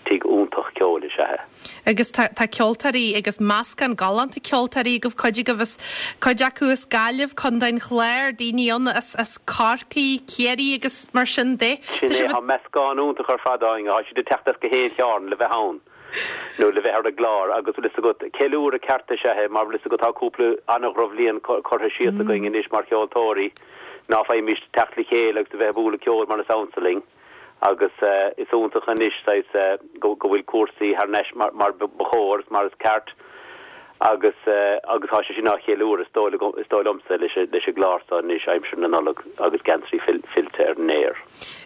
tigh iontach ceoil is ea é. Agus tá tá ceoltóirí agus meascán galánta ceoltóirí agaibh, cuid agaibh as, cuid acu as Gaillimh, Contae an Chláir, daoine ann as, as Corcaigh, Ciarraí agus mar sin de. Sin é, tá meascán iontach ar fad againn, tá siad ag teacht as gach aon chearn le bheith ann nó le bheith ar an gclár agus bhfuil fhios agat, ceiliúradh ceart is ea é mar bhfuil fhios agat tá cúpla an-dhrochbhliain curtha síos againn anois mar cheoltóirí ná faighimís teacht le chéile agus a bheith ag bualadh ceoil mar is ansa linn. Agus is iontach anois saghas go bhfuil cúrsaí thar n-ais mar ba chóir is mar is ceart agus agus tá sé sin á cheiliúradh is dóigh is dóigh liomsa leis an leis an gclár seo anois aimsir na Nollag agus Geantraí fillte ar an aer.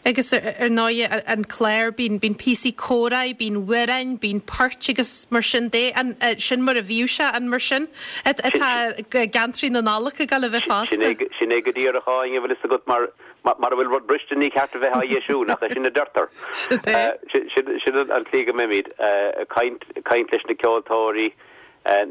Agus ar ndóigh an clár bíonn bíonn píosaí comhráidh, bíonn amhráin, bíonn poirt agus mar sin de. An sin mar a bhíodh sé an mar sin atá Geantraí na Nollag ag dul a bheith fosta? Sin é go díreach a Áine, bhfuil fhios agat mar Mara bhfuil rud briste ní ceart a bheith á dheisiú, nach é sin a deirtear? Sin an tslí go mbeimid, caint, caint leis na ceoltóirí,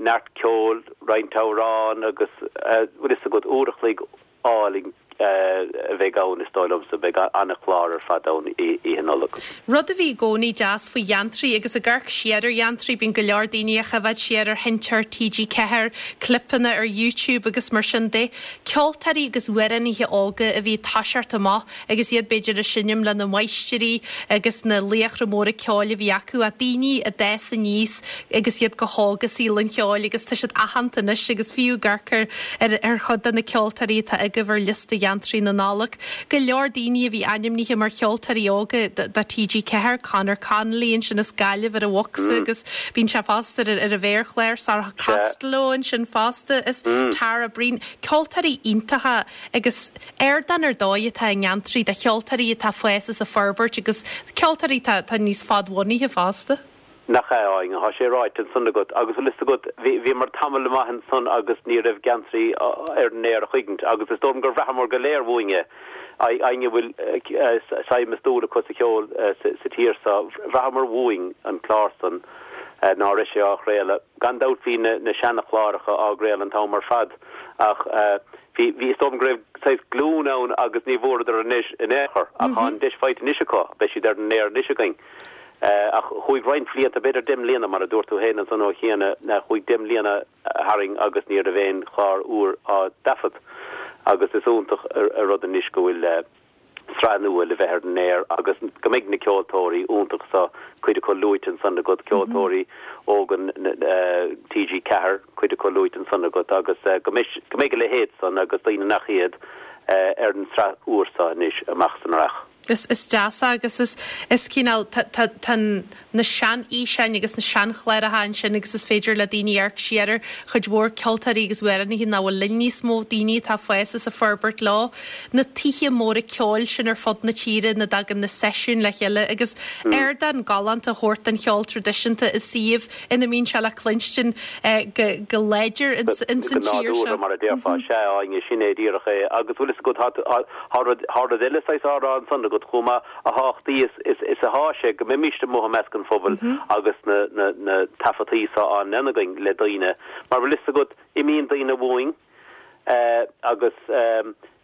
neart ceoil, roinnt amhrán agus, bhfuil fhios agat, uair a chloig álainn a bheidh ann is dóigh liomsa, beidh an-chlár ar fad ann Oíche Nollag. Rud a bhí i gcónaí deas faoi Gheantraí agus ag amharc siar ar Gheantraí, bíonn go leor daoine ag coimhéad siar ar sheinnteoir TG4, clipeanna ar YouTube agus mar sin de. Ceoltóirí agus amhránaithe óga a bhí ag toiseacht amach agus iad b'fhéidir ag seinm lena máistrí agus na laochra móra ceoil a bhí acu ach daoine a d'fhás aníos agus iad go hóg i saol an cheoil agus tá siad aitheanta anois agus fiú ag amharc ar ar chuid de na ceoltóirí atá agaibh ar liosta Gheantraí na Nollag, go leor daoine a bhí ainmnithe mar cheoltóirí óga do TG4, Conor Connolly ansin as Gaillimh ar an bhocsa agus bíonn sé fosta ar ar an mhéarchlár, Sorcha Costello ansin fosta is Tara Breen, ceoltóirí iontacha agus ardán ar dóigh atá i nGeantraí do cheoltóirí atá ag fás is ag forbairt agus ceoltóirí atá atá níos fadbhunaithe fosta. Nach ea, a Áine, tá sé ráite ansan agat. Agus bhfuil fhios agat, bhí, bhíomar tamall maith ansan agus ní raibh Geantraí ar an aer a choíchint agus is dóigh liom gur bhraitheamar go léir uainn é, éinne a bhfuil suim is dúil acu sa cheol sa tír so, bhraitheamar uainn an clár san ná raibh sé á chraoladh. Gan dabht bhí na, na seana-chláracha á gcraoladh an t-am ar fad ach bhí, bhí, is dóigh liom go raibh saghas glúin ann agus ní bhfuaireadar an deis in aon chor ach tá an deis faighte anois acu, beidh siad ar an aer anois againn. Ach chuaigh roinnt bhlianta, b'fhéidir deich mbliana, mar a dúirt tú féin ansan ó chiana, chuaigh deich mbliana tharainn agus ní raibh aon chlár úr á dtaifead. Agus is iontach an rud anois go bhfuil sraith nua le bheith ar an aer agus go mbeidh na ceoltóirí iontacha so, cuid acu luaite ansan agat, ceoltóirí óga TG4, cuid acu luaite ansan agat agus go mbeidh, go mbeidh a leithéid san agus daoine nach iad ar an tsraith úr so anois amach is amach. Is is deas é agus is is cineál tá tá tá na seanfhíseáin agus na seanchláracha ansin agus is féidir le daoine amharc siar ar chuid mhór ceoltóirí agus amhránaithe nach bhfuil linn níos mó, daoine atá ag fás is ag forbairt leo. Na tithe móra ceoil sin ar fud na tíre ina dtagann na seisiúin le chéile agus ardán galánta a thabhairt don cheol traidisiúnta i suíomh ina mbíonn sé le cluinstin go láidir ins an Go tír seo. nádúrtha, mar a déarfá. Sea, a Áine, sin é díreach é. Agus bhfuil fhios agat, tá, tá rud, tá rud eile saghas á rá ansan agat chomh maith, a thábhachtaí is, is, is athá sé go mbeimíst amuigh i measc an phobail agus na, na, na taifeadtaí so á ndéanamh againn le daoine. Mar bhfuil fhios agat, imíonn daoine uainn, agus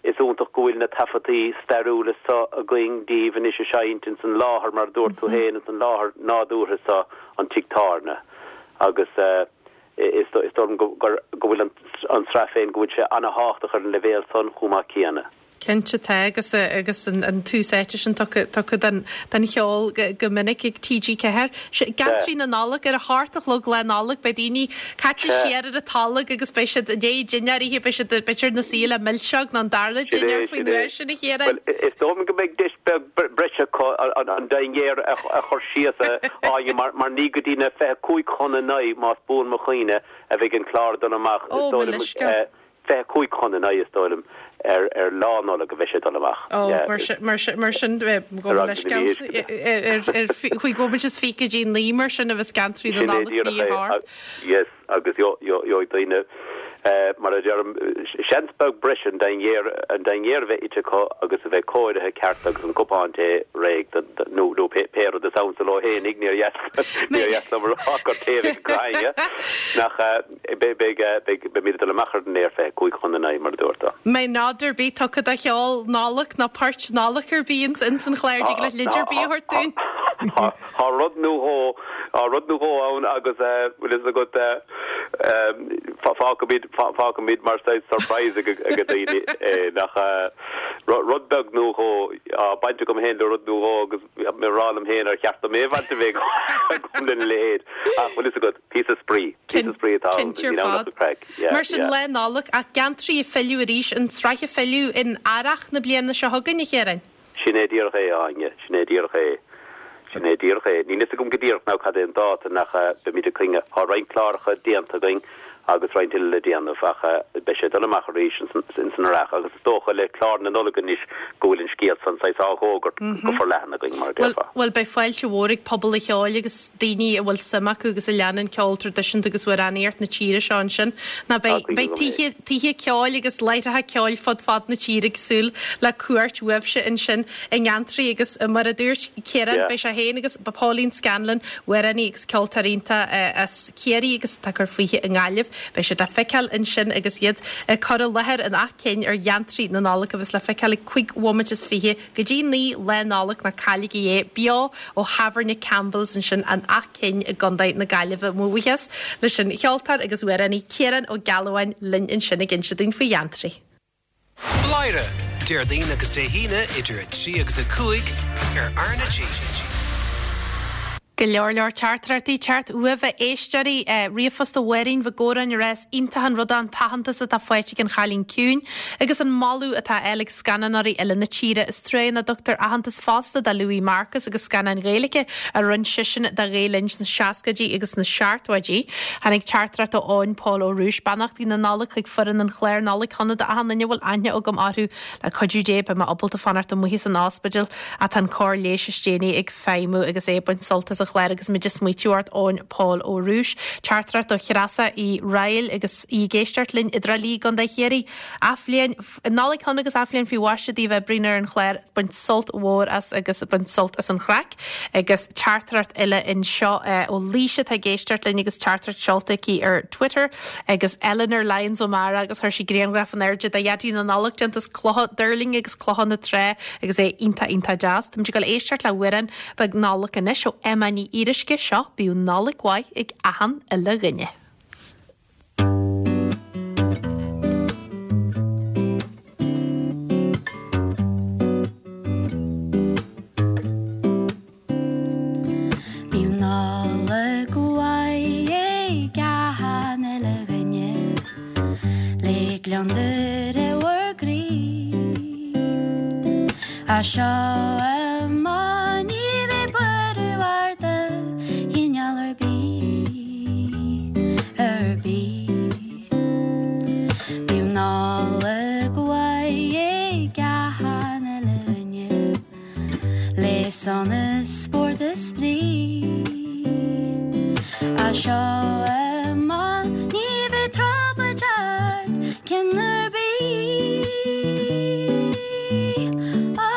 is iontach go bhfuil na taifeadtaí stairiúla so againn díobh anois ag seinnt ins an láthair, mar a dúirt tú féin, ins an láthair nádúrtha so, an tigh tábhairne. Agus is dóigh liom go bhfuil an tsraith féin, go bhfuil sé ana-thábhachtach ar an leibhéal san chomh maith céanna. Cinnte tá agus agus an tús áite sin tugtha tugtha don don cheol go minic ag TG4. Geantraí na Nollag ar a hocht a chlog Lá Nollag beidh daoine caite siar ar an tolg agus beidh siad i ndiaidh dinnéar a ithe beidh siad b'fhéidir ina suí le milseog nó an dara dinnéar faoin uair sin a Chiaráin. Bhuel is dóigh liom go mbeidh deis beag breise acu an dinnéar a chur síos a Áine mar mar ní go dtí na 25 chun a 9 más buan mo chuimhne a bheidh an clár ag dul amach is dóigh liom. 25 chun a 9 is dóigh liom ar ar Lá Nollag a bheidh sé ag dul amach. Ó, mar sin, mar sin, mar sin, gabh mo leithscéal, ar chúig bhomaite is fiche go dtí 9 mar sin a bheas Geantraí na Nollag ní a thart. Yes, agus gheobhaidh daoine, mar a deirim, seans beag breise an dinnéar, an dinnéar a bheith ite acu agus a bheith cóirithe ceart agus an cupán tae réidh nó nó pé rud is ansa leo fhéinig, níor dheas, níor dheas liom a rá gur tae a bheidh acu éinne, nach. Beidh, beidh, beimid ag dul amach ar an aer 25 chun a 9, mar a dúirt tú. Mbeidh nod ar bith tugtha do cheol Nollag nó poirt Nollag ar bith ins an chlár, dtig leat leid ar bith a thabhairt dúinn? Tá rud nó dhó, tá rud nó dhó ann agus bhfuil fhios agat, fágfaimid, fágfaimid mar saghas surprise ag daoine é, nach, rud beag nó dhó, tá baint agam féin le rud nó dhó agus mé ag rá liom féin ar cheart dom aon bhaint a bheith agam lena leithéid ach bhfuil fhios agat, Píosa spraoi. Píosa spraoi atá ann. Cinnte ar fad. Mar sin, Lá Nollag, ach Geantraí ag filleadh arís, an tsraith ag filleadh in earrach na bliana seo chugainn, a Chiaráin? Sin é díreach é, a Áine. Sin é díreach é. Sin é díreach é. Níl fhios agam go díreach now cad é an dáta nach beimid ag coinne. Tá roinnt cláracha déanta againn agus roinnt eile le déanamh ach beidh sé ag dul amach arís ins an earrach agus is dócha le clár na Nollag anois go bhfuil an scéal san saghas á fhógairt go forleathan againn, mar a déarfá. Bhuel, beidh fáilte mhór ag pobal an cheoil agus daoine a bhfuil suim acu agus a leanann ceol traidisiúnta agus amhránaíocht na tíre seo ansin. Ná beidh, beidh tithe, tithe ceoil agus láithreacha ceoil fud fad na tíre ag súil le cuairt uaibhse ansin i nGeantraí agus mar a dúirt Ciarán, beidh sé féin agus Pauline Scanlon, amhránaí agus ceoltóir iontach as Ciarraí agus atá ag cur fúithi i nGaillimh. Beidh siad le feiceáil ansin agus iad ag cur i láthair in Áth Cinn ar Gheantraí na Nollag a bheas le feiceáil ag 5 bhomaite is 20 go dtí 9 Lá Nollag, ná cailligí é, beo ó Thábhairne Campbell's ansin in Áth Cinn i gContae na Gaillimhe. Mo bhuíochas leis an cheoltóir agus amhránaí Ciarán Ó Gealbháin linn ansin ag inse dúinn faoi Gheantraí. Bladhaire, Déardaoin agus Dé hAoine idir 3 agus 5 ar RnaG. Go leor leor teachtaireachtaí ag teacht uaibh a éisteoirí. Ríomhphost ó Mháirín Mhic Góráin ag rá is iontach an rud é an t-aitheantas atá faighte ag An Chailín Ciúin agus an moladh atá á fháil ag scannánóirí eile na tíre. Is trua nach dtugtar aitheantas fosta do Louis Marcus agus scannáin Ghaeilge a rinne seisean do Ghael Linn sna seascaidí agus sna seachtóidí. Tháinig teachtaireacht ó Eoin Pól Ó Rúis, Beannachtaí na Nollag chuig foireann an chláir Nollaig Shona d'achan duine a bhfuil aithne agam orthu. Le cuidiú Dé beidh mé ábalta fanacht amuigh as an ospidéal ach tá an cóir leighis is déanaí ag feidhmiú agus é ag baint sult as an chlár agus muid ag smaoitiú ort Eoin Pól Ó Rúis. Teachtaireacht ó Threasa Uí Raghallaigh agus í ag éisteacht linn i dTrá Lí i gContae Chiarraí. Athbhliain Nollaig shona agus athbhliain faoi mhaise daoibh a oibríonn ar an chlár, baint sult mhór as agus baint sult as an chraic. Agus teachtaireacht eile anseo ó Laoise atá ag éisteacht linn agus teachtaireacht seolta aici ar Twitter agus Eleanor Lyons O'Mara agus chuir sí grianghraf in airde de Dhaidí na Nollag déanta as clocha duirlinge agus clocha na trá agus é iontach iontach deas. Táimid ag dul éisteacht le hamhrán beag Nollag anois ó Emma Ní Fhíoruisce, seo Bíodh Nollaig Mhaith ag achan uile dhuine. Bíodh Nollaig mhaith ag achan uile dhuine Le gliondar i bhur gcroí As seo amach ní bheidh buaireamh ort de chineál ar bith. Ar bith. Bíodh Nollaig mhaith ag achan uile dhuine Le sonas, spórt is spraoi. As seo amach ní bheidh trioblóid ort ceann ar bith. Ó,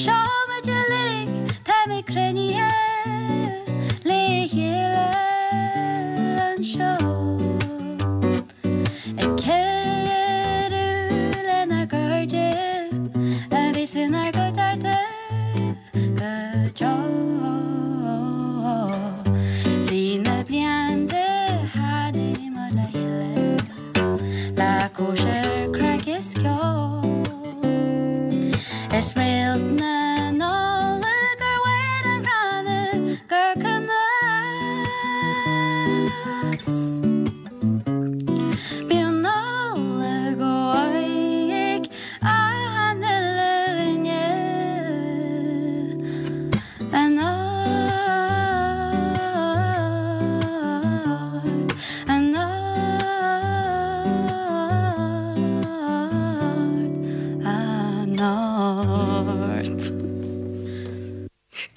seo muid uilig, táimid cruinnithe. Le chéile anseo ag ceiliúradh lenár gcairde a bheas inár gcuideachta go deo.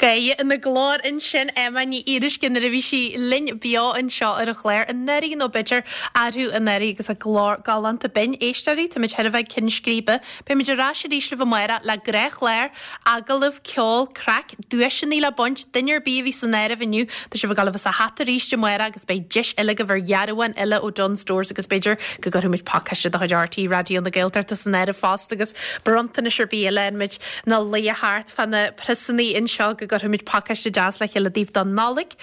Gaoth ina glór ansin, Emma Ní Fhíoruisce nuair a bhí sí linn beo anseo ar an chlár anuraidh nó b'fhéidir arú anuraidh agus a glór galánta binn. Éisteoirí, táimid chóir a bheith ag ceann scríbe. Beimid ar ais arís libh amárach le gnáthchlár, agallamh, ceol, craic, duaiseanna le baint, duine ar bith a bhí san áireamh inniu, tá sibh ag dul a bheith sa hata arís amárach agus beidh deis eile agaibh ar dhearbhán eile ó Dunnes Stores agus b'fhéidir go gcuirfimid pacáiste de chuid RTÉ Raidió na Gaeltachta san áireamh fosta agus bronntanais ar bith eile muid ina luí thart fá na priosannaí anseo go gcuirfimid pacáiste deas le chéile daoibh don Nollaig.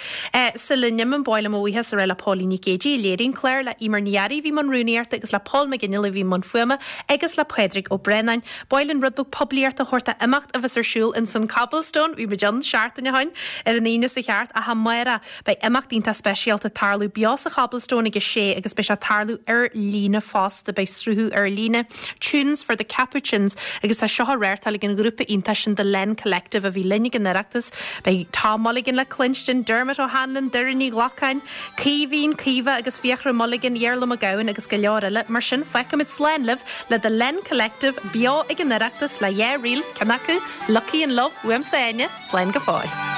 Sula n-imím, ba mhaith liom mo bhuíochas a rá le Póilín Nic Géidigh a léirigh an clár, le Emer Ní Fhearraigh a bhí i mbun rúnaíochta agus le Paul McGinley a bhí i mbun fuaime agus le Pádraig Ó Braonáin. Ba mhaith linn rud beag poiblíochta a thabhairt do imeacht a bheas ar siúl ins an Cobblestone, bhí muid ann seachtain ó shoin, ar an Aoine seo chugainn ach amárach. Beidh imeacht iontach speisialta ag tarlú beo sa Chobblestone ag a sé agus beidh sé ag tarlú ar líne fosta. Beidh sruthú ar líne, Tunes for the Capuchins, agus tá seo á reáchtáil ag an ghrúpa iontach sin The Len Collective a bhí linn ag an Oireachtas. Beidh Tom Mulligan le cluinstin, Dermot O'Hanlon, Doireann Ní Ghlacáin, Caoimhín, Caoimhe agus Fiachra Mulligan, Iarla Mac Gabhann agus go leor eile. Mar sin, fágfaimid slán libh le The Len Collective beo ag an Oireachtas le dhá ríl, ceann acu, Lucky in Love, uaimse Áine, slán go fóill.